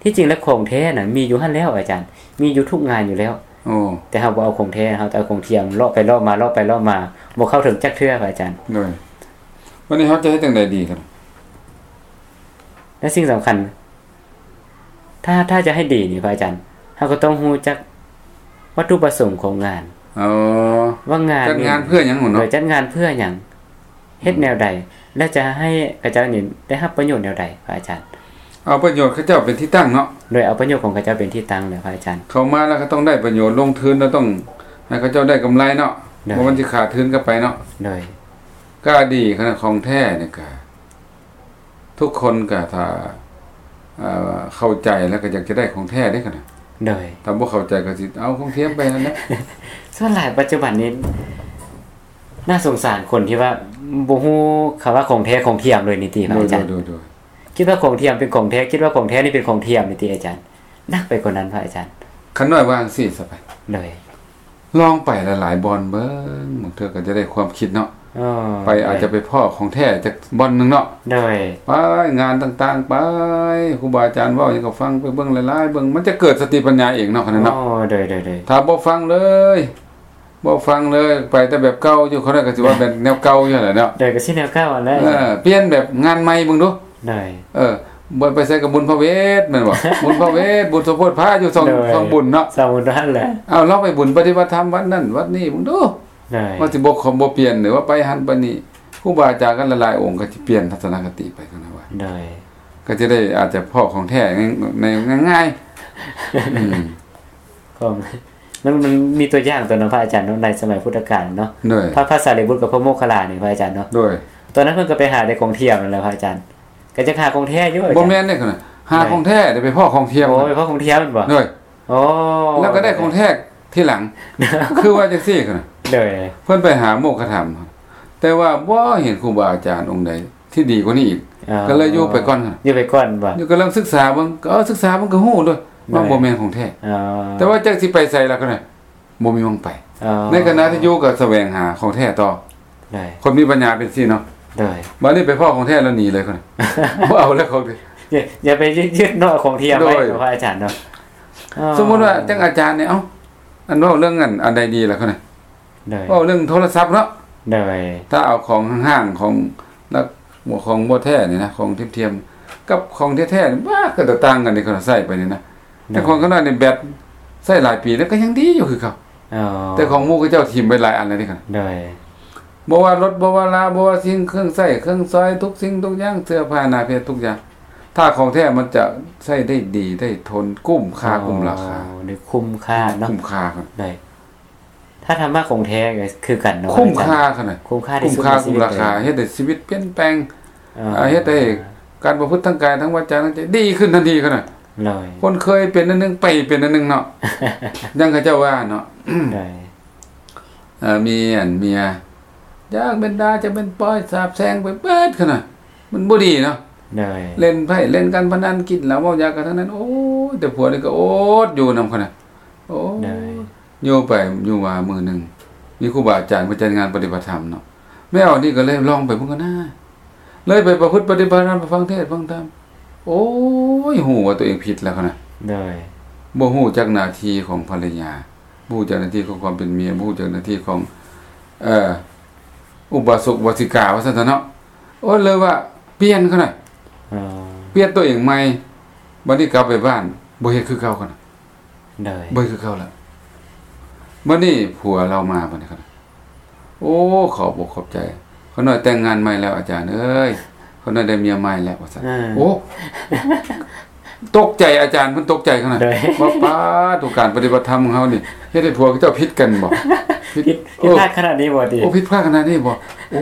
ທີ່ຈິງແລ້ວຂອງແທ້ນະມີຢູ່ຫັ້ນແລ້ວອາຈານ ມີຢູ່ທຸກງານຢູ່ແລ້ວ. ໂອ້ ແຕ່ເຮົາບໍ່ເອົາຂອງແທ້ ເຮົາແຕ່ເອົາຂອງທຽມ ເລາະໄປເລາະມາ ເລາະໄປເລາະມາ ບໍ່ເຂົ້າເຖິງຈັກເທື່ອພະອາຈານ. ໂດຍ ບັດນີ້ເຮົາຈະເຮັດຈັ່ງໃດດີຄັນ ແລະສິ່ງສຳຄັນ ຖ້າ ຖ້າຈະໃຫ້ດີນີ້ພະອາຈານ ເຮົາກໍຕ້ອງຮູ້ຈັກວັດຖຸປະສົງຂອງງານ. ອໍ ວ່າງານ ຈັດງານເພື່ອຫຍັງເນາະ? ໂດຍ ຈັດງານເພື່ອຫຍັງ ເຮັດແນວໃດ ແລະຈະໃຫ້ເຂົາເຈົ້ານີ້ໄດ້ຮັບປະໂຫຍດແນວໃດພະອາຈານ? ເອົາປະໂຫຍດເຂົາເຈົ້າເປັນທີ່ຕັ້ງເນາະ. ໂດຍ ເອົາປະໂຫຍດຂອງເຂົາເຈົ້າເປັນທີ່ຕັ້ງແລ້ວພະອາຈານ. ເຂົ້າມາແລ້ວກໍຕ້ອງໄດ້ປະໂຫຍດ ລົງທຶນແລ້ວຕ້ອງໃຫ້ເຂົາເຈົ້າໄດ້ກຳໄລເນາະ. ໂດຍ ບໍ່ມັນຊິຂາດທຶນກັນໄປເນາະ. ໂດຍ ກໍດີຂະໜາດຂອງແທ້ນີ້ກະ ທຸກຄົນກໍຖ້າ ເອີ ເຂົ້າໃຈແລ້ວກໍຢາກຈະໄດ້ຂອງແທ້ເດ້ຂະນະ. ໂດຍ ຖ້າບໍ່ເຂົ້າໃຈກໍຊິເອົາຂອງທຽມໄປຫັ້ນແຫຼະ. ສ່ວນຫຼາຍປັດຈຸບັນນີ້ໜ້າສົງສານຄົນທີ່ວ່າບໍ່ຮູ້ຄຳວ່າຂອງແທ້ຂອງທຽມເລີຍນີ້ຕິພະອາຈານ. ໂດຍ ໂດຍ ໂດຍ ຄິດວ່າຂອງທຽມເປັນຂອງແທ້ ຄິດວ່າຂອງແທ້ນີ້ເປັນຂອງທຽມນີ້ຕິອາຈານ. ໜັກໄປກວ່ານັ້ນພະອາຈານ. ຂ້ານ້ອຍວ່າຈັ່ງຊີ້ຊະໄປ. ໂດຍ ລອງໄປຫຼາຍໆບ່ອນເບິ່ງ ບາງເທື່ອກໍຈະໄດ້ຄວາມຄິດເນາະ. ອໍ ໄປ ໂດຍ ອາດຈະໄປພໍ້ຂອງແທ້ຈັກບ່ອນໜຶ່ງເນາະ. ໂດຍ ໄປງານຕ່າງໆ ໄປ ຄູບາອາຈານເວົ້າຫຍັງກໍຟັງ ໄປເບິ່ງຫຼາຍໆເບິ່ງ ມັນຈະເກີດສະຕິປັນຍາເອງເນາະ. ອໍ ໂດຍ ໂດຍ ໂດຍ ຖ້າບໍ່ຟັງເລີຍ ບໍ່ຟັງເລີຍ ໄປແຕ່ແບບເກົ່າຢູ່ ເຂົາກໍຊິວ່າແບບແນວເກົ່າຢູ່ຫັ້ນແຫຼະເນາະ. ໂດຍ ກໍຊິແນວເກົ່າຫັ້ນແຫຼະ. ເອີ ປ່ຽນແບບງານໃໝ່ເບິ່ງດູ. ໂດຍ ເອີ ບໍ່ໄປໃສກໍບຸນພະເວດແມ່ນບໍ່? ບຸນພະເວດ ບຸນສົມໂພດພະຢູ່ຊ່ອງ ໂດຍ ຊ່ອງບຸນເນາະ ຊ່ອງບຸນຫັ້ນແຫຼະ. ເອົາລອງໄປບຸນປະຕິບັດທຳວັດນັ້ນວັດນີ້ເບິ່ງດູ. ໂດຍ ວ່າຊິບໍ່ ບໍ່ປ່ຽນ ຫຼືວ່າໄປຫັ້ນໄປນີ້ ຄູບາອາຈານກັນຫຼາຍໆອົງກໍຊິປ່ຽນທັດສະນະຄະຕິໄປກັນນະວ່າ. ໂດຍ ກໍຈະໄດ້ອາດຈະພໍ້ຂອງແທ້ໃນ ໃນງ່າຍໆ. ອືມ ຂອງ ມັນ ມັນມີຕົວຢ່າງຕົວໜຶ່ງພະອາຈານເນາະ ໃນສະໄໝພຸດທະການເນາະ. ໂດຍ ພະ ພະສາລີບຸດກັບພະໂມກຄັນລານີ້ພະອາຈານເນາະ. ໂດຍ ຕອນນັ້ນເພິ່ນກໍໄປຫາແຕ່ຂອງທຽມນັ້ນແຫຼະພະອາຈານ ກໍຈະຫາຂອງແທ້ຢູ່ອາຈານ. ບໍ່ແມ່ນເດ້ ຫາຂອງແທ້ໄດ້ໄປພໍ້ຂອງທຽມ. ໂອ້ ໄປພໍ້ຂອງທຽມແມ່ນບໍ່? ໂດຍ ໂອ້ ແລ້ວກໍໄດ້ຂອງແທ້ທີຫຼັງ ຄືວ່າຈັ່ງຊີ້. ໂດຍ ເພິ່ນໄປຫາໂມກຄະທຳ ແຕ່ວ່າບໍ່ເຫັນຄູບາອາຈານອົງໃດ ທີ່ດີກວ່ານີ້ອີກ. ອໍ ກໍເລີຍຢູ່ໄປກ່ອນ ຢູ່ໄປກ່ອນບໍ່? ຢູ່ກຳລັງສຶກສາເບິ່ງ ເອີ ສຶກສາເບິ່ງກໍຮູ້ໂລດວ່າ ໂດຍ ບໍ່ແມ່ນຂອງແທ້. ອໍ ແຕ່ວ່າຈັກຊິໄປໃສລະກໍໄດ້ ບໍ່ມີໝ່ອງໄປ. ອໍ ໃນຂະນະທີ່ຢູ່ກໍສະແຫວງຫາຂອງແທ້ຕໍ່. ໂດຍ ຄົນມີປັນຍາເປັນຊີ້ເນາະ. ໂດຍ ບາດນີ້ໄປພໍ້ຂອງແທ້ແລ້ວໜີເລີຍ ບໍ່ເອົາແລ້ວຂອງ ຢ່າ ຢ່າໄປຍຶດເນາະ ຂອງທຽມໄວ້ ໂດຍ ເນາະ ພະອາຈານເນາະ. ອໍ ສົມມຸດວ່າຈັ່ງອາຈານນີ້ ເອົ້າ ອັນເວົ້າເລື່ອງອັນ ອັນໃດດີລະ ໂດຍ ເວົ້າເລື່ອງໂທລະສັບເນາະ ໂດຍ ຖ້າເອົາຂອງຫ້າງໆ ຂອງລັກ ຂອງບໍ່ແທ້ນີ້ນະ ຂອງທຽມໆ ກັບຂອງແທ້ໆ ນີ້ ບາດ ກໍຕ່າງກັນເດ້ ຂ້ອຍໃຊ້ໄປນີ້ນະ ແຕ່ຂອງຂ້ານ້ອຍນີ້ແບັດໃຊ້ຫຼາຍປີແລ້ວກໍຍັງດີຢູ່ຄືເກົ່າ. ອໍ ແຕ່ຂອງໝູ່ເຂົາເຈົ້າຖິ້ມໄປຫຼາຍອັນແລ້ວເດ້ ໂດຍ ບໍ່ວ່າລົດ ບໍ່ວ່າລາ ບໍ່ວ່າສິ່ງເຄື່ອງໃຊ້ເຄື່ອງສອຍ ທຸກສິ່ງທຸກຢ່າງ ເສື້ອຜ້າໜ້າເພັດ ທຸກຢ່າງ ຖ້າຂອງແທ້ມັນຈະໃຊ້ໄດ້ດີ ໄດ້ທົນ ຄຸ້ມຄ່າ ອໍ ຄຸ້ມລາຄາ ໄດ້ຄຸ້ມຄ່າເນາະ ຄຸ້ມຄ່າ ໂດຍ ຖ້າທຳມະຂອງແທ້ກໍຄືກັນເນາະ ຄຸ້ມຄ່າ ອາຈານ ຂະໜາດ ຄຸ້ມຄ່າທີ່ສຸດ ຄຸ້ມຄ່າ ໃນຊີວິດ ຄຸ້ມລາຄາ ເລີຍ ເຮັດໃຫ້ຊີວິດປ່ຽນແປງ ອໍ ອາ ເຮັດໃຫ້ການປະພຶດທາງກາຍ ທາງວາຈາ ທາງໃຈດີຂຶ້ນທັນທີ ຂະໜາດ ໂດຍ ຄົນເຄີຍເປັນອັນໜຶ່ງ ໄປເປັນອັນໜຶ່ງເນາະ ຢ່າງເຂົາເຈົ້າວ່າເນາະ ໂດຍ ເອີ ມີອັນເມຍ ຈັກແມ່ນດ່າ ຈັກແມ່ນປ້ອຍ ສາບແຊ່ງໄປເບິດ ຂະໜາດ ມັນບໍ່ດີເນາະ ໂດຍ ຫຼິ້ນໄພ້ ຫຼິ້ນການພະນັນ ກິນເຫຼົ້າເມົາຢາກັນທັງນັ້ນ ໂອ້ຍ ແຕ່ຜົວນີ້ກໍອົດຢູ່ນຳ ຂະໜາດ ໂອ້ຍ ໂດຍ ຢູ່ໄປຢູ່ມາມື້ໜຶ່ງ ມີຄູບາອາຈານເພິ່ນຈັດງານປະຕິບັດທຳເນາະ ແມ່ອອກນີ້ກໍເລີຍລອງໄປເບິ່ງກ່ອນນາ ເລີຍໄປປະພຶດປະຕິບັດທຳ ໄປຟັງເທດຟັງທຳ ໂອ້ຍ ຮູ້ວ່າຕົວເອງຜິດແລ້ວ ຂະໜາດ ໂດຍ ບໍ່ຮູ້ຈັກໜ້າທີ່ຂອງພັນລະຍາ ບໍ່ຮູ້ຈັກໜ້າທີ່ຂອງຄວາມເປັນເມຍ ບໍ່ຮູ້ຈັກໜ້າທີ່ຂອງ ເອີ ອຸບາສົກອຸບາສິກາ ວ່າຊັ້ນເຖາະເນາະ ໂອ້ຍ ເລີຍວ່າປ່ຽນ ຂະໜາດ ອໍ ປ່ຽນຕົວເອງໃໝ່ ບັດນີ້ກັບໄປບ້ານ ບໍ່ເຮັດຄືເກົ່າ ຂະໜາດ ໂດຍ ບໍ່ເຮັດຄືເກົ່າລະ ບັດນີ້ຜົວລາວມາ ບັດນີ້ ຂະໜາດ ໂອ້ ຂອບອົກຂອບໃຈ ຂ້ານ້ອຍແຕ່ງງານໃໝ່ແລ້ວ ອາຈານເອີຍ ຂ້ານ້ອຍໄດ້ເມຍໃໝ່ແລ້ວ ວ່າຊັ້ນ ເອີ ໂອ້ ຕົກໃຈ ອາຈານເພິ່ນຕົກໃຈ ຂະໜາດ ໂດຍ ວ່າ ປາດໂທ ການປະຕິບັດທຳຂອງເຮົານີ້ ເຮັດໃຫ້ຜົວເຂົາເຈົ້າຜິດກັນບໍ? ຜິດ ຜິດ ເອີ ຜິດພາດຂະໜາດນີ້ບໍຕິ? ໂອ້ ຜິດພາດຂະໜາດນີ້ບໍ? ໂອ້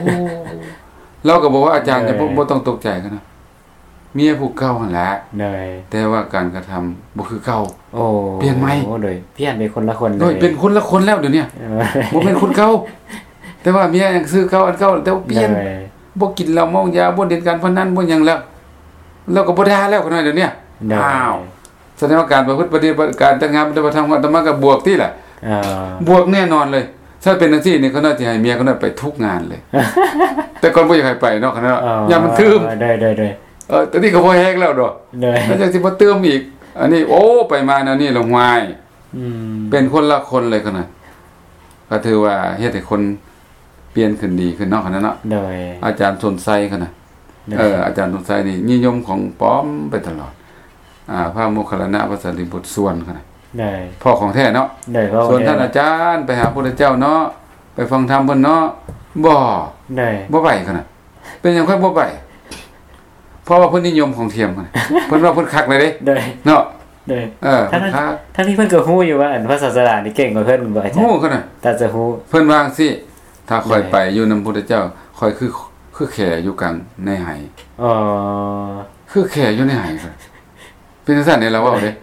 ລາວກໍບອກວ່າ ອາຈານ ໂດຍ ຢ່າ ບໍ່ ບໍ່ຕ້ອງຕົກໃຈ ຂະໜາດ ເມຍຜູ້ເກົ່າຫັ້ນແຫຼະ ໂດຍ ແຕ່ວ່າການກະທຳບໍ່ຄືເກົ່າ ໂອ້ ປ່ຽນໃໝ່ ໂອ້ ໂດຍ ປ່ຽນເປັນຄົນລະຄົນ ໂດຍ ເລີຍ ເປັນຄົນລະຄົນແລ້ວດຽວນີ້ ເອີ ບໍ່ແມ່ນຄົນເກົ່າ ແຕ່ວ່າເມຍຍັງຊື່ເກົ່າ ອັນເກົ່າ ແຕ່ວ່າປ່ຽນ ໂດຍ ບໍ່ກິນເຫຼົ້າເມົາຢາ ບໍ່ຫຼິ້ນການພະນັນ ບໍ່ຫຍັງແລ້ວ ແລ້ວກໍບໍ່ດ່າແລ້ວ ຂະໜາດດຽວນີ້ ໂດຍ ອ້າວ ສະແດງວ່າການປະພຶດປະຕິບັດ ການຈັດງານປະຕິບັດທຳຂອງອາດຕະມາກໍບວກຕິລະ ເອີ ບວກແນ່ນອນເລີຍ. ຖ້າເປັນຈັ່ງຊີ້ນີ້ ຂ້ານ້ອຍຊິໃຫ້ເມຍຂ້ານ້ອຍໄປທຸກງານເລີຍ ແຕ່ກ່ອນບໍ່ຢາກໃຫ້ໄປເນາະ ຂ້ານ້ອຍ ເອີ ຢ້ານມັນຕື່ມ ໂດຍໆໆ ເອີ ຕອນນີ້ກໍພໍແຮງແລ້ວເນາະ ໂດຍ ແລ້ວຍັງຊິມາຕື່ມອີກ ອັນນີ້ ໂອ້ ໄປມາແນວນີ້ລະ ຫ້ວຍ ອືມ ເປັນຄົນລະຄົນເລີຍ ຂ້ານ້ອຍ ກໍຖືວ່າເຮັດໃຫ້ຄົນ ປ່ຽນຂຶ້ນດີຂຶ້ນເນາະ ຂະໜາດເນາະ ໂດຍ ອາຈານສົນໄຊ ຂະໜາດ ໂດຍ ເອີ ອາຈານສົນໄຊນີ້ນິຍົມຂອງປອມໄປຕະຫຼອດ ອາ ພະໂມກຄັນລານະ ພະສາລີບຸດ ສ່ວນ ຂະໜາດ ໂດຍ ພໍ້ຂອງແທ້ເນາະ ໂດຍ ພໍ້ຂອງແທ້ ສ່ວນທ່ານອາຈານໄປຫາພຸດທະເຈົ້າເນາະ ໄປຟັງທຳເພິ່ນເນາະ ບໍ່ ໂດຍ ບໍ່ໄປ ຂະໜາດ ເປັນຫຍັງຂ້ອຍບໍ່ໄປ? ເພາະວ່າເພິ່ນນິຍົມຂອງທຽມ ເພິ່ນວ່າເພິ່ນຄັກແລ້ວເດ້ ໂດຍ ເນາະ ໂດຍ ເອີ ທັງ ເພິ່ນຄັກ ທັງທີ່ເພິ່ນກໍຮູ້ຢູ່ວ່າ ອັນ ພະສາສະດານີ້ເກັ່ງກວ່າເພິ່ນ ບໍ່ ອາຈານ ຮູ້ຂະໜາດ ຕາຈະຮູ້ ເພິ່ນວ່າຈັ່ງຊີ້ ຖ້າຂ້ອຍ ໂດຍ ໄປຢູ່ນຳພຸດທະເຈົ້າ ຂ້ອຍຄື ຄືແຂຢູ່ກາງໃນໄຫ ອໍ ຄືແຂຢູ່ໃນໄຫ ເປັນຈັ່ງຊັ້ນເດ້ ລາວເວົ້າເດ້ ໂດຍ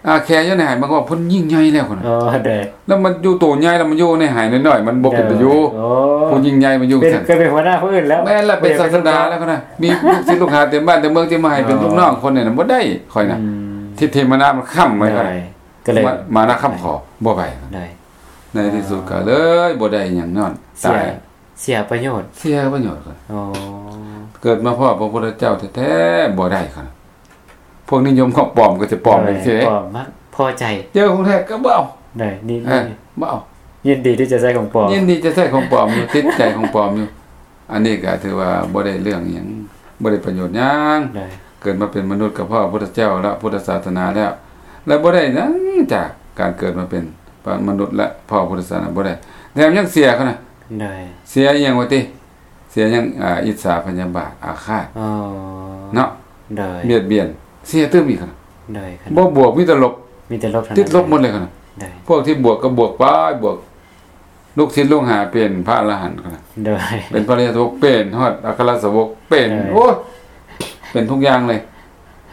ອາ ແຂຢູ່ໃນໄຫ ມັນກໍວ່າເພິ່ນຍິ່ງໃຫຍ່ແລ້ວ ພຸ້ນນະ ອໍ ໂດຍ ແລ້ວມັນຢູ່ໂຕໃຫຍ່ ແລ້ວມັນຢູ່ໃນໄຫນ້ອຍໆ ມັນບໍ່ເປັນຕາຢູ່ ໂດຍ ໂອ້ ຜູ້ຍິ່ງໃຫຍ່ມາຢູ່ ເປັນ ຊັ້ນ ກໍເປັນຫົວໜ້າຜູ້ອື່ນແລ້ວ ແມ່ນລະ ເປັນ ບໍ່ຢາກເປັນ ສາສະດາແລ້ວ ພຸ້ນນະ ມີລູກສິດລູກຫາເຕັມບ້ານເຕັມເມືອງ ຊິມາໃຫ້ເປັນ ອໍ ລູກນ້ອງຄົນນີ້ນະ ບໍ່ໄດ້ ຂ້ອຍນະ ອືມ ທິດທິມານາມັນຄ້ຳໄວ້ ໂດຍ ຂ້ອຍ ກໍເລີຍ ມານາຄ້ຳຂໍ ບໍ່ໄປ ໂດຍ ໃນທີ່ສຸດກໍເລີຍບໍ່ໄດ້ຫຍັງຍ້ອນ ເສຍ ຕາຍ ເສຍປະໂຫຍດ ເສຍປະໂຫຍດ ອໍ ເກີດມາພໍ້ພະພຸດທະເຈົ້າແທ້ໆ ບໍ່ໄດ້ ຂ້ອຍນະ ພວກນິຍົມຂອງປອມກໍຈະປອມ ໂດຍ ຈັ່ງຊີ້ເດ້ ປອມມັກພໍໃຈ ເຈີຂອງແທ້ກໍບໍ່ເອົາ ໂດຍ ນີ້ ເອີ ນີ້ ບໍ່ເອົາ ຍິນດີທີ່ຈະໃຊ້ຂອງປອມ ຍິນດີຈະໃຊ້ຂອງປອມຢູ່ ຕິດໃຈຂອງປອມຢູ່ ອັນນີ້ກໍຖືວ່າບໍ່ໄດ້ເລື່ອງຫຍັງ ບໍ່ໄດ້ປະໂຫຍດຫຍັງ ໂດຍ ເກີດມາເປັນມະນຸດກໍພໍ້ພະພຸດທະເຈົ້າແລ້ວ ພຸດທະສາສະໜາແລ້ວ ແລະ ບໍ່ໄດ້ຫຍັງຈາກການເກີດມາເປັນມະນຸດ ແລະ ພໍ້ພຸດທະສາສະໜາ ບໍ່ໄດ້ ແຖມຍັງເສຍ ຂະໜາດ ໂດຍ ເສຍອີ່ຫຍັງວະຕິ? ເສຍຫຍັງ ອາ ອິດສາພະຍາບາດອາຄາດ ອໍ ເນາະ ໂດຍ ບຽດບຽນ ເສຍຕື່ມອີກ ໂດຍ ບໍ່ບວກ ມີແຕ່ລົບ ມີແຕ່ລົບ ຕິດລົບໝົດເລີຍ ໂດຍ ພວກທີ່ບວກກໍບວກໄປ ບວກ ລູກສິດລູກຫາເປັນພະອະລະຫັນ ໂດຍ ເປັນພະອະລິຍະສາວົກ ເປັນຮອດອັກຄະລະສາວົກ ເປັນ ໂດຍ ໂອ້ຍ ເປັນທຸກຢ່າງເລີຍ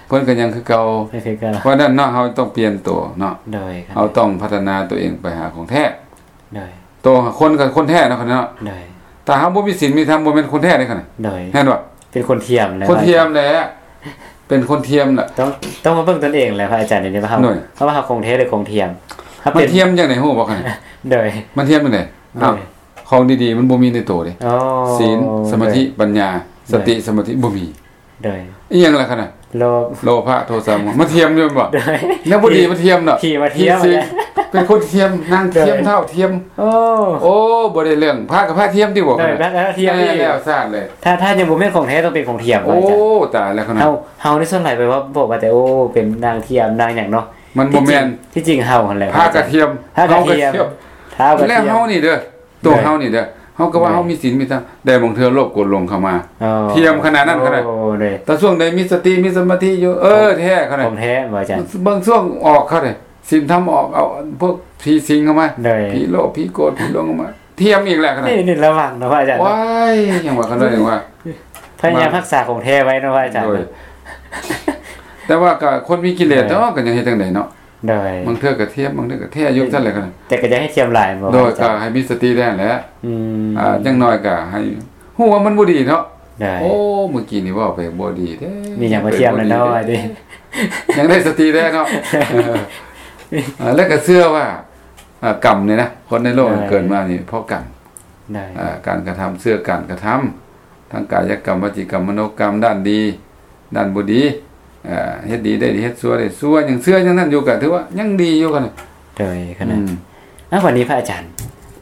ເພິ່ນກໍຍັງຄືເກົ່າ ຍັງຄືເກົ່າ ເພາະນັ້ນເນາະ ເຮົາຕ້ອງປ່ຽນໂຕເນາະ ໂດຍ ເຮົາຕ້ອງພັດທະນາຕົວເອງໄປຫາຂອງແທ້ ໂດຍ ໂຕຄົນກໍຄົນແທ້ເນາະ ໂດຍ ຖ້າເຮົາບໍ່ມີສິນມີທຳ ບໍ່ແມ່ນຄົນແທ້ເດ້ ໂດຍ ເຫັນບໍ່? ເປັນຄົນທຽມແລ້ວ ຄົນທຽມແຫຼະ ເປັນຄົນທຽມລະ ຕ້ອງ ຕ້ອງມາເບິ່ງຕົນເອງແຫຼະ ພະອາຈານ ດຽວນີ້ວ່າເຮົາ ໂດຍ ເຮົາວ່າເຮົາຄົນແທ້ ຫຼືຄົນທຽມ ເຮົາ ມັນທຽມຈັ່ງໃດຮູ້ບໍ່? ໂດຍ ມັນທຽມຈັ່ງໃດ? ໂດຍ ອ້າວ ຂອງດີໆມັນບໍ່ມີໃນໂຕເດ້. ອໍ ສີນ ສະມາທິ ໂດຍ ປັນຍາ ໂດຍ ສະຕິ ສະມາທິ ບໍ່ມີ. ໂດຍ ອີ່ຫຍັງລະຂະນະ? ໂລ ໂລພະ ໂທສະ ໂມຫະ ມັນທຽມຢູ່ແມ່ນບໍ່? ໂດຍ ແນວບໍ່ດີມັນທຽມເນາະ. ທີ່ວ່າທຽມ ທີ່ ເປັນຄົນທຽມ ນາງທຽມ ໂດຍ ທ້າວທຽມ. ໂອ້ ໂອ້ ບໍ່ໄດ້ເລື່ອງ ພະກັບພະທຽມຕິບໍ່? ໂດຍ ພະກັບພະທຽມ ແລ້ວຊາດເລີຍ. ຖ້າ ຖ້າຍັງບໍ່ແມ່ນຂອງແທ້ ຕ້ອງເປັນຂອງທຽມ. ໂອ້ ຕາຍແລ້ວຂະນະ. ເຮົາ ເຮົາໃນສ່ວນຫຼາຍໄປວ່າ ບອກວ່າແຕ່ ໂອ້ ເປັນນາງທຽມ ນາງຫຍັງເນາະ. ມັນບໍ່ແມ່ນ ທີ່ຈິງ ທີ່ຈິງເຮົາຫັ້ນແຫຼະ ພະກະທຽມ ພະກະທຽມ ທ້າວກະທຽມ ແລ້ວເຮົານີ້ເດີ ໂຕເຮົານີ້ເດີ ເຮົາກໍວ່າ ໂດຍ ເຮົາມີສິນມີທຳ ແຕ່ບາງເທື່ອໂລບໂກດຫຼົງເຂົ້າມາ ອໍ ທຽມຂະໜາດນັ້ນຂະໜາດ. ໂອ້ ໂດຍ ແຕ່ຊ່ວງໃດມີສະຕິມີສະມາທິຢູ່ ເອີ ແທ້ຂະໜາດ ຂອງແທ້ບໍ່ອາຈານ? ບາງຊ່ວງອອກເຂົາເດ້ ສິນທຳອອກ ເອົາພວກຜີສິງເຂົ້າມາ ໂດຍ ຜີໂລບຜີໂກດຜີຫຼົງເຂົ້າມາ ທຽມອີກແລ້ວຂະໜາດ. ນີ້ ນີ້ລະວັງເນາະພະອາຈານ ໂອ້ຍ ຍັງວ່າຂະໜາດ ຍັງວ່າ ພະຍາຍາມຮັກສາຂອງແທ້ໄວ້ເນາະພະອາຈານ. ໂດຍ ແຕ່ວ່າກໍຄົນມີກິເລດເນາະ ກໍຍັງເຮັດຈັ່ງໃດເນາະ. ໂດຍ ບາງເທື່ອກໍທຽມ ບາງເທື່ອກໍແທ້ຢູ່ຊັ້ນແຫຼະ. ແຕ່ກໍຢ່າໃຫ້ທຽມຫຼາຍ ໂດຍ ກໍໃຫ້ມີສະຕິແດ່ແຫຼະ. ອືມ ອ່າ ຢ່າງໜ້ອຍກໍໃຫ້ຮູ້ວ່າມັນບໍ່ດີເນາະ. ໂອ້ ມື້ກີ້ນີ້ເວົ້າໄປບໍ່ດີເດ້ ມີຫຍັງມາທຽມແລ້ວເນາະ ຍັງໄດ້ສະຕິແດ່ເນາະ. ແລ້ວກໍເຊື່ອວ່າ ອ່າ ກຳນີ້ນະ ຄົນໃນໂລກ ໂດຍ ເກີດມານີ້ເພາະກຳ. ໂດຍ ອ່າ ການກະທຳ ເຊື່ອການກະທຳ ທັງກາຍະກຳ ວະຈີກຳ ມະໂນກຳ ດ້ານດີ ດ້ານບໍ່ດີ ເຮັດດີໄດ້ດີ ເຮັດຊົ່ວໄດ້ຊົ່ວ ຍັງເຊື່ອຢ່າງນັ້ນຢູ່ ກໍຖືວ່າຍັງດີຢູ່ກັນ. ໂດຍຂະນະ. ອືມ ເອົາ ບັດນີ້ພະອາຈານ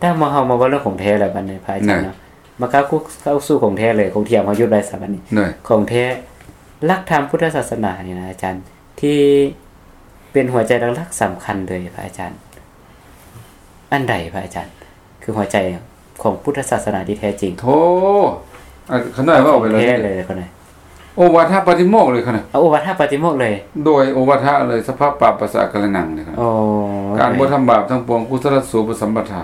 ຖ້າມາ ເຮົາມາເວົ້າເລື່ອງຂອງແທ້ແລ້ວ ບັດນີ້ພະອາຈານເນາະ ມາເຂົ້າສູ່ ເຂົ້າສູ່ຂອງແທ້ເລີຍ ຂອງທຽມເຮົາຢຸດໄວ້ຊະບັດນີ້. ໂດຍ ຂອງແທ້ ຫຼັກທຳພຸດທະສາສະໜານີ້ນະອາຈານ ທີ່ເປັນຫົວໃຈຫຼັກໆສຳຄັນເລີຍ ພະອາຈານ ອັນໃດພະອາຈານ ຄືຫົວໃຈຂອງພຸດທະສາສະໜາທີ່ແທ້ຈິງ? ໂທ ອາ ຂະໜ້ອຍເວົ້າໄປເລີຍ ແທ້ເລີຍຂະໜ້ອຍ. ໂອວາທະປາຕິໂມກເລີຍຂະໜ້ອຍ. ເອົາໂອວາທະປາຕິໂມກເລີຍ. ໂດຍ ໂອວາທະເລີຍ ສະພະປາປະສະອາກາລະນັງເລີຍຂະໜ້ອຍ. ໂອ້ ການບໍ່ທຳບາບທັງປວງ ກຸສະລະສູປະສຳປະທາ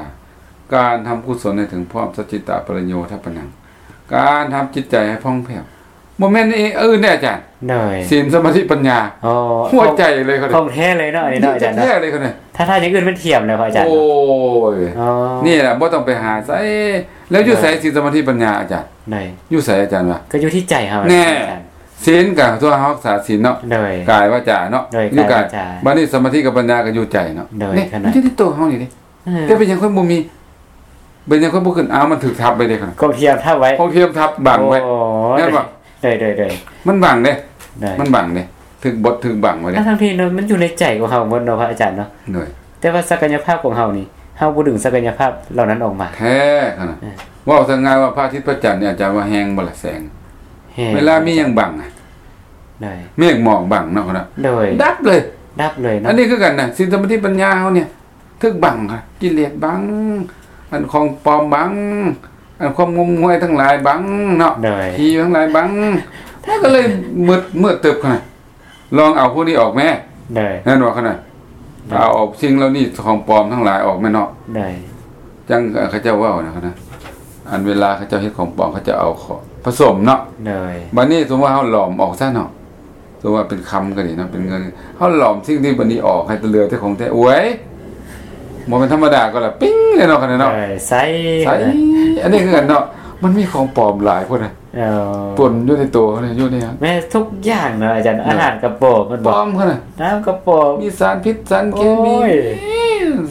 ການທຳກຸສົນໃຫ້ເຖິງພ້ອມ ສັດຈິຕະປະລິໂຍທະປະນັງ ການທຳຈິດໃຈໃຫ້ຜ່ອງແຜ້ວ ບໍ່ແມ່ນອື່ນເດ້ອາຈານ. ໂດຍ ສິນ ສະມາທິ ປັນຍາ. ອໍ ຫົວໃຈເລີຍ ຂອງແທ້ເລີຍເນາະ ອັນນີ້ເນາະອາຈານເນາະ. ແທ້ເລີຍຂະໜ້ອຍ ຖ້າ ຖ້າຢ່າງອື່ນມັນທຽມແລ້ວພະອາຈານ. ໂອ້ຍ ເນາະ ນີ້ແຫຼະ ບໍ່ຕ້ອງໄປຫາໃສ ແລ້ວຢູ່ໃສ ໂດຍ ສິນ ສະມາທິ ປັນຍາອາຈານ? ໂດຍ ຢູ່ໃສອາຈານວ່າ? ກໍຢູ່ທີ່ໃຈເຮົາ. ແນ່ ສິນກໍຕົວເຮົາຮັກສາສິນເນາະ. ໂດຍ ກາຍ ວາຈາເນາະ. ໂດຍ ຢູ່ກາຍ ກາຍ ວາຈາ ບັດນີ້ສະມາທິກັບປັນຍາກໍຢູ່ໃຈເນາະ. ໂດຍ ນີ້ ຂະໜ້ອຍ ມັນຢູ່ໃນໂຕເຮົານີ້ເດ້. ເອີ ແຕ່ເປັນຫຍັງຂ້ອຍບໍ່ມີ ເປັນຫຍັງຂ້ອຍບໍ່ຂຶ້ນ? ອ້າວ ມັນຖືກທັບໄວ້ເດ້ ຂອງທຽມທັບໄວ້ ຂອງທຽມທັບບັງໄວ້. ໂອ້ ແມ່ນບໍ່? ໂດຍໆໆ ມັນບັງເດ້ ໂດຍ ມັນບັງເດ້ ຖືກບົດຖືກບັງໄວ້ເດ້. ທັງໆທີ່ເນາະ ມັນຢູ່ໃນໃຈຂອງເຮົາໝົດເນາະ ພະອາຈານເນາະ. ໂດຍ ແຕ່ວ່າສັກກະຍະພາບຂອງເຮົານີ້ ເຮົາບໍ່ດຶງສັກກະຍະພາບເຫຼົ່ານັ້ນອອກມາ. ແທ້ຂະໜາດ. ເອີ ເວົ້າຊະງ່າຍວ່າ ພະອາທິດພະຈັນນີ້ ອາຈານວ່າແຮງບໍ່ລະແສງ? ແຮງ. ເວລາມີຫຍັງບັງ ໂດຍ ເມກໝອກບັງເນາະ ຂະໜາດ. ໂດຍ ດັບເລີຍ ດັບເລີຍເນາະ. ອັນນີ້ຄືກັນນະ ສິນ ສະມາທິ ປັນຍາເຮົານີ້ ຖືກບັງ ກິເລດບັງ ອັນຂອງປອມບັງ ອັນຄວາມງົມງວາຍທັງຫຼາຍບັງເນາະ. ໂດຍ ຜີທັງຫຼາຍບັງ ມັນກໍເລີຍມືດ ມືດຕຶບຂະໜາດ. ລອງເອົາພວກນີ້ອອກແມ້. ໂດຍ ແມ່ນບໍ່ຂະໜາດ. ໂດຍ ເອົາ ເອົາສິ່ງເຫຼົ່ານີ້ ຂອງປອມທັງຫຼາຍອອກແມ່ນເນາະ. ໂດຍ ຈັ່ງເຂົາເຈົ້າເວົ້ານະ ອັນເວລາເຂົາເຈົ້າເຮັດຂອງປອມ ເຂົາເຈົ້າເອົາຂອງຜະສົມເນາະ. ໂດຍ ບັດນີ້ສົມມຸດວ່າເຮົາຫຼອມອອກຊະເນາະ ສົມມຸດວ່າເປັນຄຳກໍດີເນາະ ເປັນເງິນ ເຮົາຫຼອມສິ່ງທີ່ບັດນີ້ອອກ ໃຫ້ເຫຼືອແຕ່ຂອງແທ້. ໂອ້ຍ ບໍ່ແມ່ນທຳມະດາກໍລະ ປິ້ງເລີຍເນາະ ຂະໜາດເນາະ. ໂດຍ ໃສ ໃສ ອັນນີ້ຄືກັນເນາະ ມັນມີຂອງປອມຫຼາຍພຸ້ນນະ. ເອີ ປົນຢູ່ໃນໂຕເຮົານີ້ ຢູ່ໃນ ແມ່ນທຸກຢ່າງເນາະອາຈານ. ເອີ ອາຫານກະປອມ ມັນບອກ ປອມຂະໜາດ ນ້ຳກະປອມ ມີສານພິດສານເຄມີ ໂອ້ຍ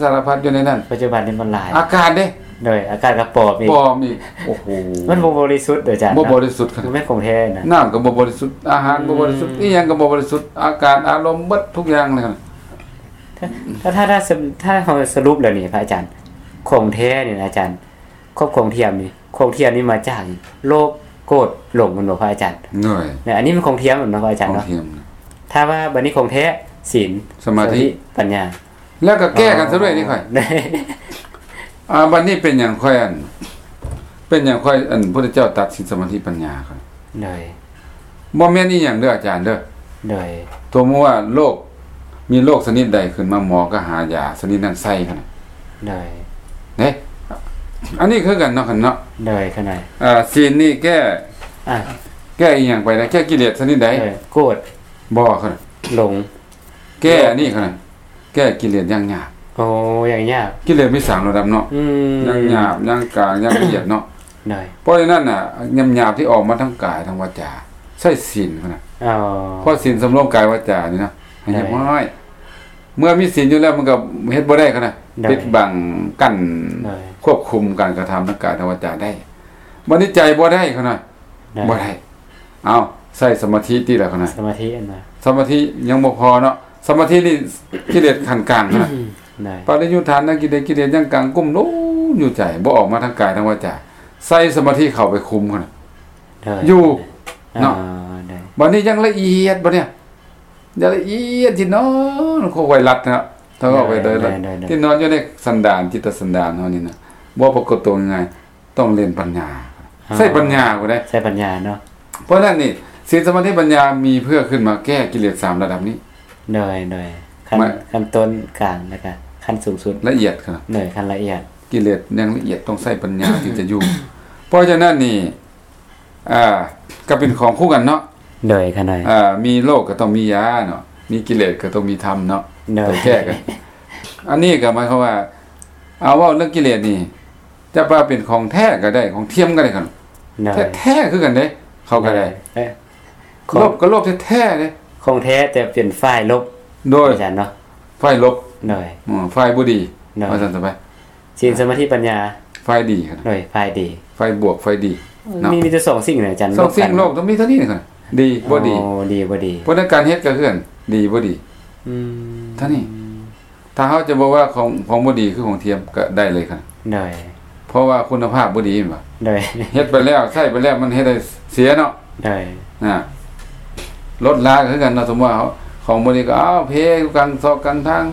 ສາລະພັດຢູ່ໃນນັ້ນ. ປັດຈຸບັນນີ້ມັນຫຼາຍ ອາກາດເດ້. ໂດຍ ອາກາດກໍປອມອີກ ປອມອີກ. ໂອ້ໂຫ ມັນບໍ່ບໍລິສຸດອາຈານ ບໍ່ບໍລິສຸດຂະໜາດ ບໍ່ແມ່ນຂອງແທ້ນະ. ນ້ຳກໍບໍ່ບໍລິສຸດ ອາຫານ ອືມ ບໍ່ບໍລິສຸດ ອີ່ຫຍັງກໍບໍ່ບໍລິສຸດ ອາກາດ ອາລົມ ເບິດທຸກຢ່າງເລີຍ. ຖ້າ ຖ້າ ຖ້າ ຖ້າເຮົາສະຫຼຸບແລ້ວນີ້ພະອາຈານ ຂອງແທ້ນີ້ນະອາຈານ ຂອງທຽມນີ້ ຂອງທຽມນີ້ມາຈາກໂລບໂກດຫຼົງແມ່ນບໍ່ພະອາຈານ? ໂດຍ ແລະ ອັນນີ້ແມ່ນຂອງທຽມແມ່ນບໍ່ພະອາຈານເນາະ? ຂອງທຽມ. ຖ້າວ່າບັດນີ້ຂອງແທ້ ສິນ ສະມາທິ ສະມາທິ ປັນຍາ ແລ້ວກໍແກ້ກັນຊະດ້ວຍນີ້ຂ້ອຍ. ອໍ ອາ ບັດນີ້ເປັນຫຍັງຂ້ອຍ ອັນ ເປັນຫຍັງຂ້ອຍ ອັນ ພຸດທະເຈົ້າຕັດສິນ ສະມາທິ ປັນຍາຂ້ອຍ? ໂດຍ ບໍ່ແມ່ນອີ່ຫຍັງເດີອາຈານເດີ. ໂດຍ ສົມມຸດວ່າໂລກ ມີໂລກຊະນິດໃດຂຶ້ນມາ ໝໍກໍຫາຢາຊະນິດນັ້ນໃສ່ຫັ້ນນະ. ໂດຍ ເດ້ ອັນນີ້ຄືກັນເນາະ ຄັນເນາະ. ໂດຍ ຂະໜາດ ອ່າ ສິນນີ້ແກ້ ອ່າ ແກ້ອີ່ຫຍັງໄປນະ? ແກ້ກິເລດຊະນິດໃດ? ໂດຍ ໂກດ ບໍ່ ຂະໜາດ ຫຼົງ ແກ້ອັນນີ້ຂະໜາດ ແກ້ກິເລດຢ່າງຫຍາບ. ໂອ້ ຢ່າງຫຍາບ ກິເລດມີສາມລະດັບເນາະ. ອືມ ຢ່າງຫຍາບ ຢ່າງກາງ ຢ່າງລະອຽດເນາະ. ໂດຍ ເພາະສະນັ້ນນະ ຫຍາບໆທີ່ອອກມາທາງກາຍທາງວາຈາ ໃຊ້ສິນຂະໜາດ. ອໍ ເພາະສິນສຳລວມກາຍວາຈານີ້ນະ ໃຫ້ຮຽບຮ້ອຍ. ໂດຍ ເມື່ອມີສິນຢູ່ແລ້ວ ມັນກໍເຮັດບໍ່ໄດ້ຂະໜາດ. ໂດຍ ປິດບັງ ກັ້ນ ໂດຍ ຄວບຄຸມການກະທຳທາງກາຍທາງວາຈາໄດ້. ບັດນີ້ໃຈບໍ່ໄດ້ ເຂົານະ ໂດຍ ບໍ່ໄດ້. ເອົາ ໃຊ້ສະມາທິຕິລະ ເຂົານະ ສະມາທິອັນນະ ສະມາທິຍັງບໍ່ພໍເນາະ. ສະມາທິນີ້ກິເລດຂັ້ນກາງນະ ໂດຍ ປະລິຍຸດຖານນະກິເລດ ກິເລດຍັງກາງກຸ້ມລຸມຢູ່ໃຈ ບໍ່ອອກມາທາງກາຍທາງວາຈາ. ໃສ່ສະມາທິເຂົ້າໄປຄຸມຫັ້ນນະ ໂດຍ ຢູ່ເນາະ ອ່າ ໂດຍ ບັດນີ້ຍັງລະອຽດ ບັດນີ້ ຢ່າງລະອຽດ ທີ່ນອນ ຄ່ອຍໆລັດເນາະ ຖ້າເວົ້າໄປໂດຍ ໂດຍ ໂດຍ ໂດຍ ທີ່ນອນຢູ່ໃນສັນດານ ຈິດຕະສັນດານເຮົານີ້ນະ ບໍ່ປາກົດຕົວງ່າຍໆ ຕ້ອງເລ່ນປັນຍາ ອ່າ ໃຊ້ປັນຍາພຸ້ນເດ້ ໃຊ້ປັນຍາເນາະ. ເພາະນັ້ນນີ້ ສິນ ສະມາທິ ປັນຍາ ມີເພື່ອຂຶ້ນມາແກ້ກິເລດສາມລະດັບນີ້ ໂດຍ ໂດຍ ຂັ້ນ ຂັ້ນຕົ້ນ ກາງ ແລ້ວກະຂັ້ນສູງສຸດ ລະອຽດຂະໜາດ ໂດຍ ຂັ້ນລະອຽດ ກິເລດຢ່າງລະອຽດ ຕ້ອງໃຊ້ປັນຍາ ຈຶ່ງຈະຢູ່. ເພາະສະນັ້ນນີ້ ອ່າ ກໍເປັນຂອງຄູ່ກັນເນາະ ໂດຍ ຂະໜາດ ອ່າ ມີໂລກກໍຕ້ອງມີຢາເນາະ ມີກິເລດກໍຕ້ອງມີທຳເນາະ ໂດຍ ຕ້ອງແກ້ກັນ. ອັນນີ້ກໍໝາຍຄວາມວ່າ ເອົາ ເວົ້າເລື່ອງກິເລດນີ້ ຈະວ່າເປັນຂອງແທ້ກໍໄດ້ ຂອງທຽມກໍໄດ້ ໂດຍ ແທ້ໆຄືກັນເດ້ ເຂົາກໍໄດ້ ໂດຍ ເອີ ຂອງ ລົບກໍລົບແທ້ໆເດ້ ຂອງແທ້ແຕ່ເປັນຝ່າຍລົບ ໂດຍ ອາຈານເນາະ ຝ່າຍລົບ ໂດຍ ອືມ ຝ່າຍບໍ່ດີ ໂດຍ ວ່າຊັ້ນຊະໄປ ສິນ ສະມາທິ ປັນຍາ ຝ່າຍດີ ໂດຍ ຝ່າຍດີ ຝ່າຍບວກ ຝ່າຍດີເນາະ ມີ ມີແຕ່ສອງສິ່ງນະອາຈານ ສອງສິ່ງ ລົບກັນ ໂລກຕ້ອງມີເທົ່ານີ້ນະ ດີ ບໍ່ດີ ໂອ້ ດີ ບໍ່ດີ ເພາະໃນການເຮັດກໍຄືກັນ ດີ ບໍ່ດີ ອືມ ເທົ່ານີ້. ຖ້າເຮົາຈະບອກວ່າຂອງ ຂອງບໍ່ດີຄືຂອງທຽມກໍໄດ້ເລີຍຄັນ ໂດຍ ເພາະວ່າຄຸນນະພາບບໍ່ດີແມ່ນບໍ່? ໂດຍ ເຮັດໄປແລ້ວ ໃຊ້ໄປແລ້ວ ມັນເຮັດໃຫ້ເສຍເນາະ ໂດຍ ນະ ລົດລາຄືກັນເນາະ ສົມມຸດວ່າຂອງບໍ່ດີກໍ ເອົາ ເພຢູ່ກາງຊອກກາງທາງ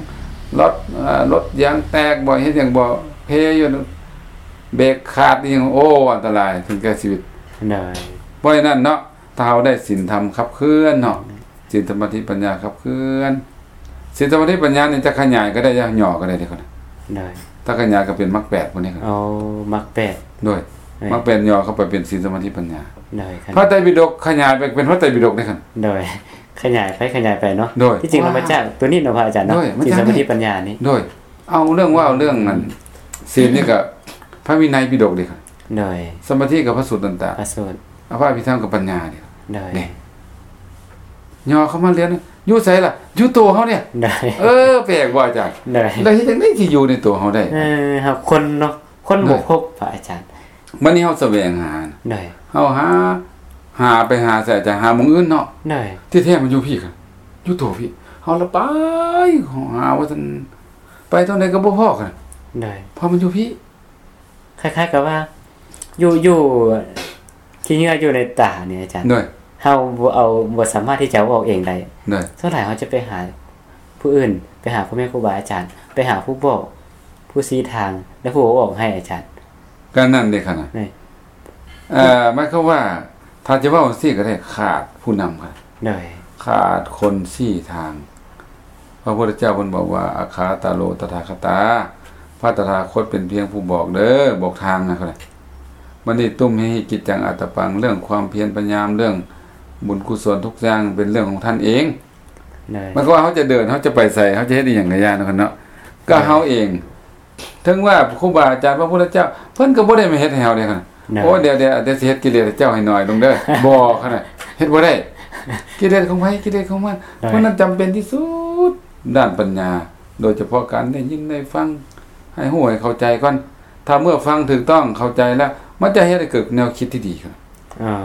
ລົດ ເອີ ລົດຢາງແຕກບໍ່ ເຮັດຫຍັງບໍ່ ເພຢູ່ ເບຣກຂາດອີ່ຫຍັງ ໂອ້ ອັນຕະລາຍ ເຖິງແກ່ຊີວິດ ໂດຍ ເພາະສະນັ້ນເນາະ ຖ້າເຮົາໄດ້ສິນທຳຂັບເຄື່ອນເນາະ ສິນ ສະມາທິ ປັນຍາ ຂັບເຄື່ອນ ສິນ ສະມາທິ ປັນຍາ ນີ້ຈະຂະຫຍາຍກໍໄດ້ ຈະຫຍໍ້ກໍໄດ້ເດ້ ໂດຍ ຖ້າຂະຫຍາຍກໍເປັນມັກແປດ ພວກນີ້ ໂອ້ ມັກແປດ ໂດຍ ໂດຍ ມັກແປດຫຍໍ້ເຂົ້າໄປເປັນສິນ ສະມາທິ ປັນຍາ ໂດຍ ພະໄຕປິດົກຂະຫຍາຍໄປເປັນພະໄຕປິດົກເດ້ ໂດຍ ຂະຫຍາຍໄປຂະຫຍາຍໄປເນາະ ໂດຍ ທີ່ຈິງແລ້ວມາຈາກໂຕນີ້ເນາະ ພະອາຈານເນາະ ໂດຍ ສິນ ສະມາທິ ປັນຍາ ນີ້ ໂດຍ ເອົາເລື່ອງເວົ້າເລື່ອງອັນ ສິນນີ້ກໍພະວິໄນປິດົກເດ້ ໂດຍ ສະມາທິກໍພະສູດຕັນຕະ ພະສູດ ອະພະອະພິທຳກໍປັນຍາເດ້ ໂດຍ ເດ້ ຫຍໍ້ເຂົ້າມາເລື່ອນ ຢູ່ໃສລະ? ຢູ່ໂຕເຮົານີ້ ໂດຍ ເອີ ແປກບໍ່ອາຈານ? ໂດຍ ແລ້ວເຮັດຈັ່ງໃດຊິຢູ່ໃນໂຕເຮົາໄດ້? ເອີ ເຮົາຄົ້ນເນາະ ຄົ້ນບໍ່ພົບ ພະອາຈານ ບັດນີ້ເຮົາສະແຫວງຫາ ໂດຍ ເຮົາຫາ ຫາໄປຫາໃສອາຈານ? ຫາໝ່ອງອື່ນເນາະ ໂດຍ ທີ່ແທ້ມັນຢູ່ພີ້ ຢູ່ໂຕພີ້ ເຮົາລະໄປຫາວ່າຊັ້ນ ໄປທາງໃດກໍບໍ່ພໍ້ກັນ ໂດຍ ເພາະມັນຢູ່ພີ້ ຄ້າຍໆກັບວ່າ ຢູ່ ຢູ່ຂີ້ເຫຍື້ອຢູ່ໃນຕານີ້ອາຈານ ໂດຍ ເຮົາບໍ່ເອົາ ບໍ່ສາມາດທີ່ຈະເອົາອອກເອງໄດ້ ໂດຍ ສ່ວນຫຼາຍເຮົາຈະໄປຫາຜູ້ອື່ນ ໄປຫາພໍ່ແມ່ຄູບາອາຈານ ໄປຫາຜູ້ບອກ ຜູ້ຊີ້ທາງ ແລະ ຜູ້ເອົາອອກໃຫ້ອາຈານ ກໍນັ້ນເດ້ຂະນະ ໂດຍ ເອີ ໝາຍຄວາມວ່າ ຖ້າຈະເວົ້າຈັ່ງຊີ້ກໍໄດ້ ຂາດຜູ້ນຳ ໂດຍ ຂາດຄົນຊີ້ທາງ ພະພຸດທະເຈົ້າເພິ່ນບອກວ່າ ອັກຂາຕາໂລ ຕະຖາຄະຕາ ພະຕະຖາຄົດເປັນພຽງຜູ້ບອກເດີ ບອກທາງນະ ບັດນີ້ ຕຸມເຫຫິ ກິດຈັງ ອັດຕະປັງ ເລື່ອງຄວາມພຽນພະຍາຍາມ ເລື່ອງບຸນກຸສົນທຸກຢ່າງເປັນເລື່ອງຂອງທ່ານເອງ ໂດຍ ໝາຍຄວາມວ່າເຮົາຈະເດີນ ເຮົາຈະໄປໃສ ເຮົາຈະເຮັດອີ່ຫຍັງກະຢ່າເນາະ ກໍເຮົາເອງ ເຖິງວ່າຄູບາອາຈານ ພະພຸດທະເຈົ້າ ເພິ່ນກໍບໍ່ໄດ້ມາເຮັດໃຫ້ເຮົາເດ້ ໂດຍ ໂອ້ ດຽວ ດຽວ ດຽວຊິເຮັດກິເລດເຈົ້າໃຫ້ໜ້ອຍລົງເດີ ບໍ່ ຂະໜາດ ເຮັດບໍ່ໄດ້ ກິເລດຂອງໃຜ ກິເລດຂອງມັນ ໂດຍ ເພາະນັ້ນຈຳເປັນທີ່ສຸດ ດ້ານປັນຍາ ໂດຍສະເພາະການໄດ້ຍິນໄດ້ຟັງ ໃຫ້ຮູ້ໃຫ້ເຂົ້າໃຈກ່ອນ ຖ້າເມື່ອຟັງຖືກຕ້ອງເຂົ້າໃຈແລ້ວ ມັນຈະເຮັດໃຫ້ເກີດແນວຄິດທີ່ດີຂຶ້ນ ອ່າ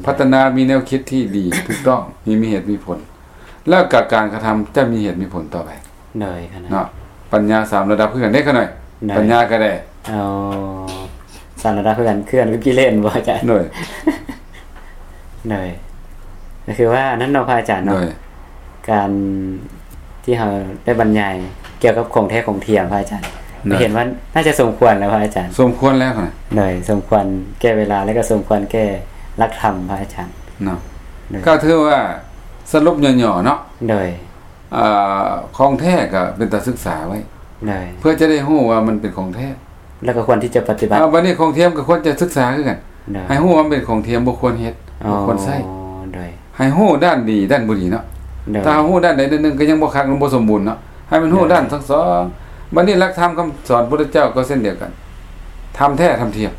ພັດທະນາມີແນວຄິດທີ່ດີ ຖືກຕ້ອງ ມີ ມີເຫດມີຜົນ ແລ້ວກໍການກະທຳຈະມີເຫດມີຜົນຕໍ່ໄປ ໂດຍ ຂະນະ ເນາະ ປັນຍາສາມລະດັບຄືກັນເດ້ ຂະໜ້ອຍ ໂດຍ ປັນຍາກໍໄດ້ ອໍ ສາມລະດັບຄືກັນ ຄືກັນກັບກິເລດບໍ່ອາຈານ? ໂດຍ ໂດຍ ກໍຄືວ່າອັນນັ້ນເນາະ ພະອາຈານເນາະ ໂດຍ ການທີ່ເຮົາໄດ້ບັນຍາຍກ່ຽວກັບຂອງແທ້ຂອງທຽມ ພະອາຈານ ໂດຍ ເຫັນວ່າໜ້າຈະສົມຄວນແລ້ວ ພະອາຈານ ສົມຄວນແລ້ວນະ ໂດຍ ສົມຄວນແກ່ເວລາ ແລະ ກໍສົມຄວນແກ່ຫຼັກທຳ ພະອາຈານ ເນາະ ໂດຍ ກໍຖືວ່າສະຫຼຸບຫຍໍ້ໆເນາະ ໂດຍ ອ່າ ຂອງແທ້ກໍເປັນຕາສຶກສາໄວ້ ໂດຍ ເພື່ອຈະໄດ້ຮູ້ວ່າມັນເປັນຂອງແທ້ ແລ້ວກໍຄວນທີ່ຈະປະຕິບັດ ອ່າ ບັດນີ້ຂອງທຽມກໍຄວນຈະສຶກສາຄືກັນ ໂດຍ ໃຫ້ຮູ້ວ່າມັນເປັນຂອງທຽມ ບໍ່ຄວນເຮັດ ອໍ ບໍ່ຄວນໃຊ້ ໂດຍ ໃຫ້ຮູ້ດ້ານດີດ້ານບໍ່ດີເນາະ ໂດຍ ຖ້າເຮົາຮູ້ດ້ານໃດດ້ານໜຶ່ງກໍຍັງບໍ່ຄັກ ມັນບໍ່ສົມບູນເນາະ ໃຫ້ມັນຮູ້ ໂດຍ ດ້ານທັງສອງ ບັດນີ້ຫຼັກທຳຄຳສອນພຸດທະເຈົ້າກໍເຊັ່ນດຽວກັນ ທຳແທ້ທຳທຽມ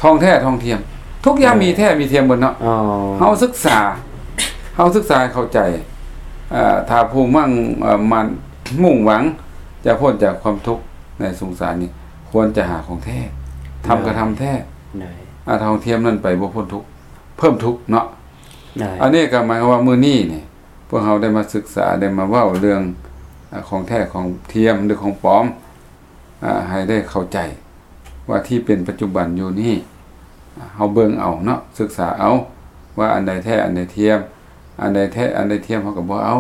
ທອງແທ້ທອງທຽມ ທຸກຢ່າງ ໂດຍ ມີແທ້ມີທຽມເບິດເນາະ ອໍ ເຮົາສຶກສາ ເຮົາສຶກສາໃຫ້ເຂົ້າໃຈ ເອີ ຖ້າຜູ້ໝັ້ງ ເອີ ໝັ້ນ ມຸ່ງຫວັງຈະພົ້ນຈາກຄວາມທຸກ ໃນສົງສານນີ້ ຄວນຈະຫາຂອງແທ້ ທຳກະທຳແທ້ ໂດຍ ອາ ຖ້າຂອງທຽມນັ້ນໄປບໍ່ພົ້ນທຸກ ເພີ່ມທຸກເນາະ ໂດຍ ອັນນີ້ກໍໝາຍຄວາມວ່າມື້ນີ້ນີ້ ພວກເຮົາໄດ້ມາສຶກສາ ໄດ້ມາເວົ້າເລື່ອງ ອາ ຂອງແທ້ຂອງທຽມ ຫຼື ຂອງປອມ ອາ ໃຫ້ໄດ້ເຂົ້າໃຈວ່າທີ່ເປັນປັດຈຸບັນຢູ່ນີ້ ອາ ເຮົາເບິ່ງເອົາເນາະ ສຶກສາເອົາວ່າອັນໃດແທ້ ອັນໃດທຽມ ອັນໃດແທ້ ອັນໃດທຽມເຮົາກໍບໍ່ເອົາ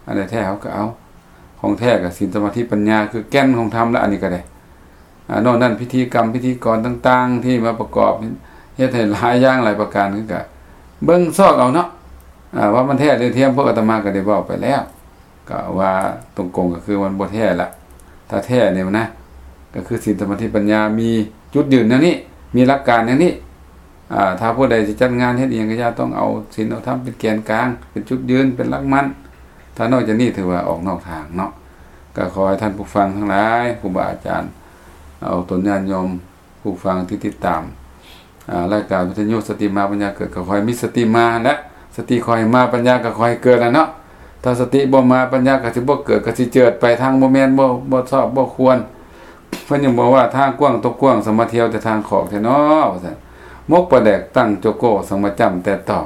ອັນໃດແທ້ເຮົາກໍເອົາ ຂອງແທ້ກໍສິນ ສະມາທິ ປັນຍາ ຄືແກ່ນຂອງທຳລະ ອັນນີ້ກໍໄດ້ ອາ ນອກນັ້ນພິທີກຳ ພິທີກອນຕ່າງໆ ທີ່ມາປະກອບ ເຮັດໃຫ້ຫຼາຍຢ່າງຫຼາຍປະການ ຄືກະເບິ່ງຊອກເອົາເນາະ ອາ ວ່າມັນແທ້ຫຼືທຽມ. ພວກອາຕມາກໍໄດ້ເວົ້າໄປແລ້ວ ກໍວ່າຕົງກົງກໍຄືມັນບໍ່ແທ້ລະ ຖ້າແທ້ນີ້ນະ ກໍຄືສິນ ສະມາທິ ປັນຍາ ມີຈຸດຢືນແນວນີ້ ມີຫຼັກການແນວນີ້ ອາ ຖ້າຜູ້ໃດຊິຈັດງານເຮັດອີ່ຫຍັງກໍຢ່າ ຕ້ອງເອົາສິນເອົາທຳເປັນແກນກາງ ເປັນຈຸດຢືນ ເປັນຫຼັກໝັ້ນ. ຖ້ານອກຈາກນີ້ຖືວ່າອອກນອກທາງເນາະ. ກໍຂໍໃຫ້ທ່ານຜູ້ຟັງທັງຫຼາຍ ຄູບາອາຈານ ເອົາຕົນຍາດໂຍມຜູ້ຟັງທີ່ຕິດຕາມ ອາ ລາຍການວິທະຍຸສະຕິມາປັນຍາເກີດ ກໍຂໍໃຫ້ມີສະຕິມາ ແລະ ສະຕິຂໍໃຫ້ມາ ປັນຍາກໍຂໍໃຫ້ເກີດແຫຼະເນາະ. ຖ້າສະຕິບໍ່ມາ ປັນຍາກໍຊິບໍ່ເກີດ ກໍຊິເຈີດໄປທາງບໍ່ແມ່ນ ບໍ່ ບໍ່ຊອບ ບໍ່ຄວນ. ເພິ່ນຍັງບອກວ່າ ທາງກວ້າງຕົກກວ້າງ ສະມາທ່ຽວແຕ່ທາງຂອກແທ້ນໍ ວ່າຊັ້ນ. ມົກປາແດກຕັ້ງໂຈໂກ້ ສັງມະຈ້ຳແຕ່ຕອງ.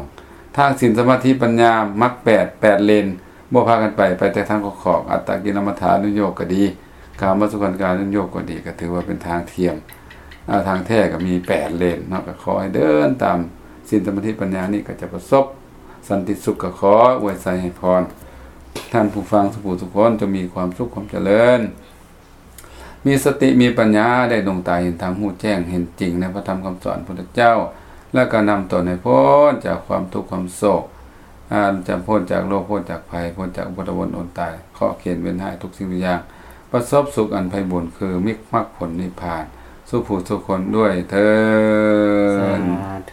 ທາງສິນ ສະມາທິ ປັນຍາ ມັກແປດ ແປດເລນ ບໍ່ພາກັນໄປ ໄປແຕ່ທາງຂອກໆ. ອັດຕະກິລະມັດຖານຸໂຍກກໍດີ ກາມະສຸຂັນການຸໂຍກກໍດີ ກໍຖືວ່າເປັນທາງທຽມ ອາ ທາງແທ້ກໍມີແປດເລນເນາະ. ກໍຂໍໃຫ້ເດີນຕາມສິນ ສະມາທິ ປັນຍານີ້ ກໍຈະປະສົບສັນຕິສຸກ. ກໍຂໍອວຍໄຊໃຫ້ພອນ ທ່ານຜູ້ຟັງທຸກຜູ້ທຸກຄົນ ຈົ່ງມີຄວາມສຸກຄວາມຈະເລີນ ມີສະຕິມີປັນຍາ ໄດ້ດວງຕາເຫັນທຳ ຮູ້ແຈ້ງເຫັນຈິງໃນພະທຳຄຳສອນພຸດທະເຈົ້າ ແລ້ວກໍນຳຕົນໃຫ້ພົ້ນຈາກຄວາມທຸກຄວາມໂສກ ອາ ຈະພົ້ນຈາກໂລກ ພົ້ນຈາກໄພ ພົ້ນຈາກອຸປັດຕະວົນອົນຕາຍ ເຄາະເຂນເວນຮ້າຍທຸກສິ່ງທຸກຢ່າງ ປະສົບສຸກອັນໄພບູນ ຄືມິກມັກຜົນນິບພານ ສູ່ຜູ້ສູ່ຄົນດ້ວຍເທີ້ນ. ສາທຸ.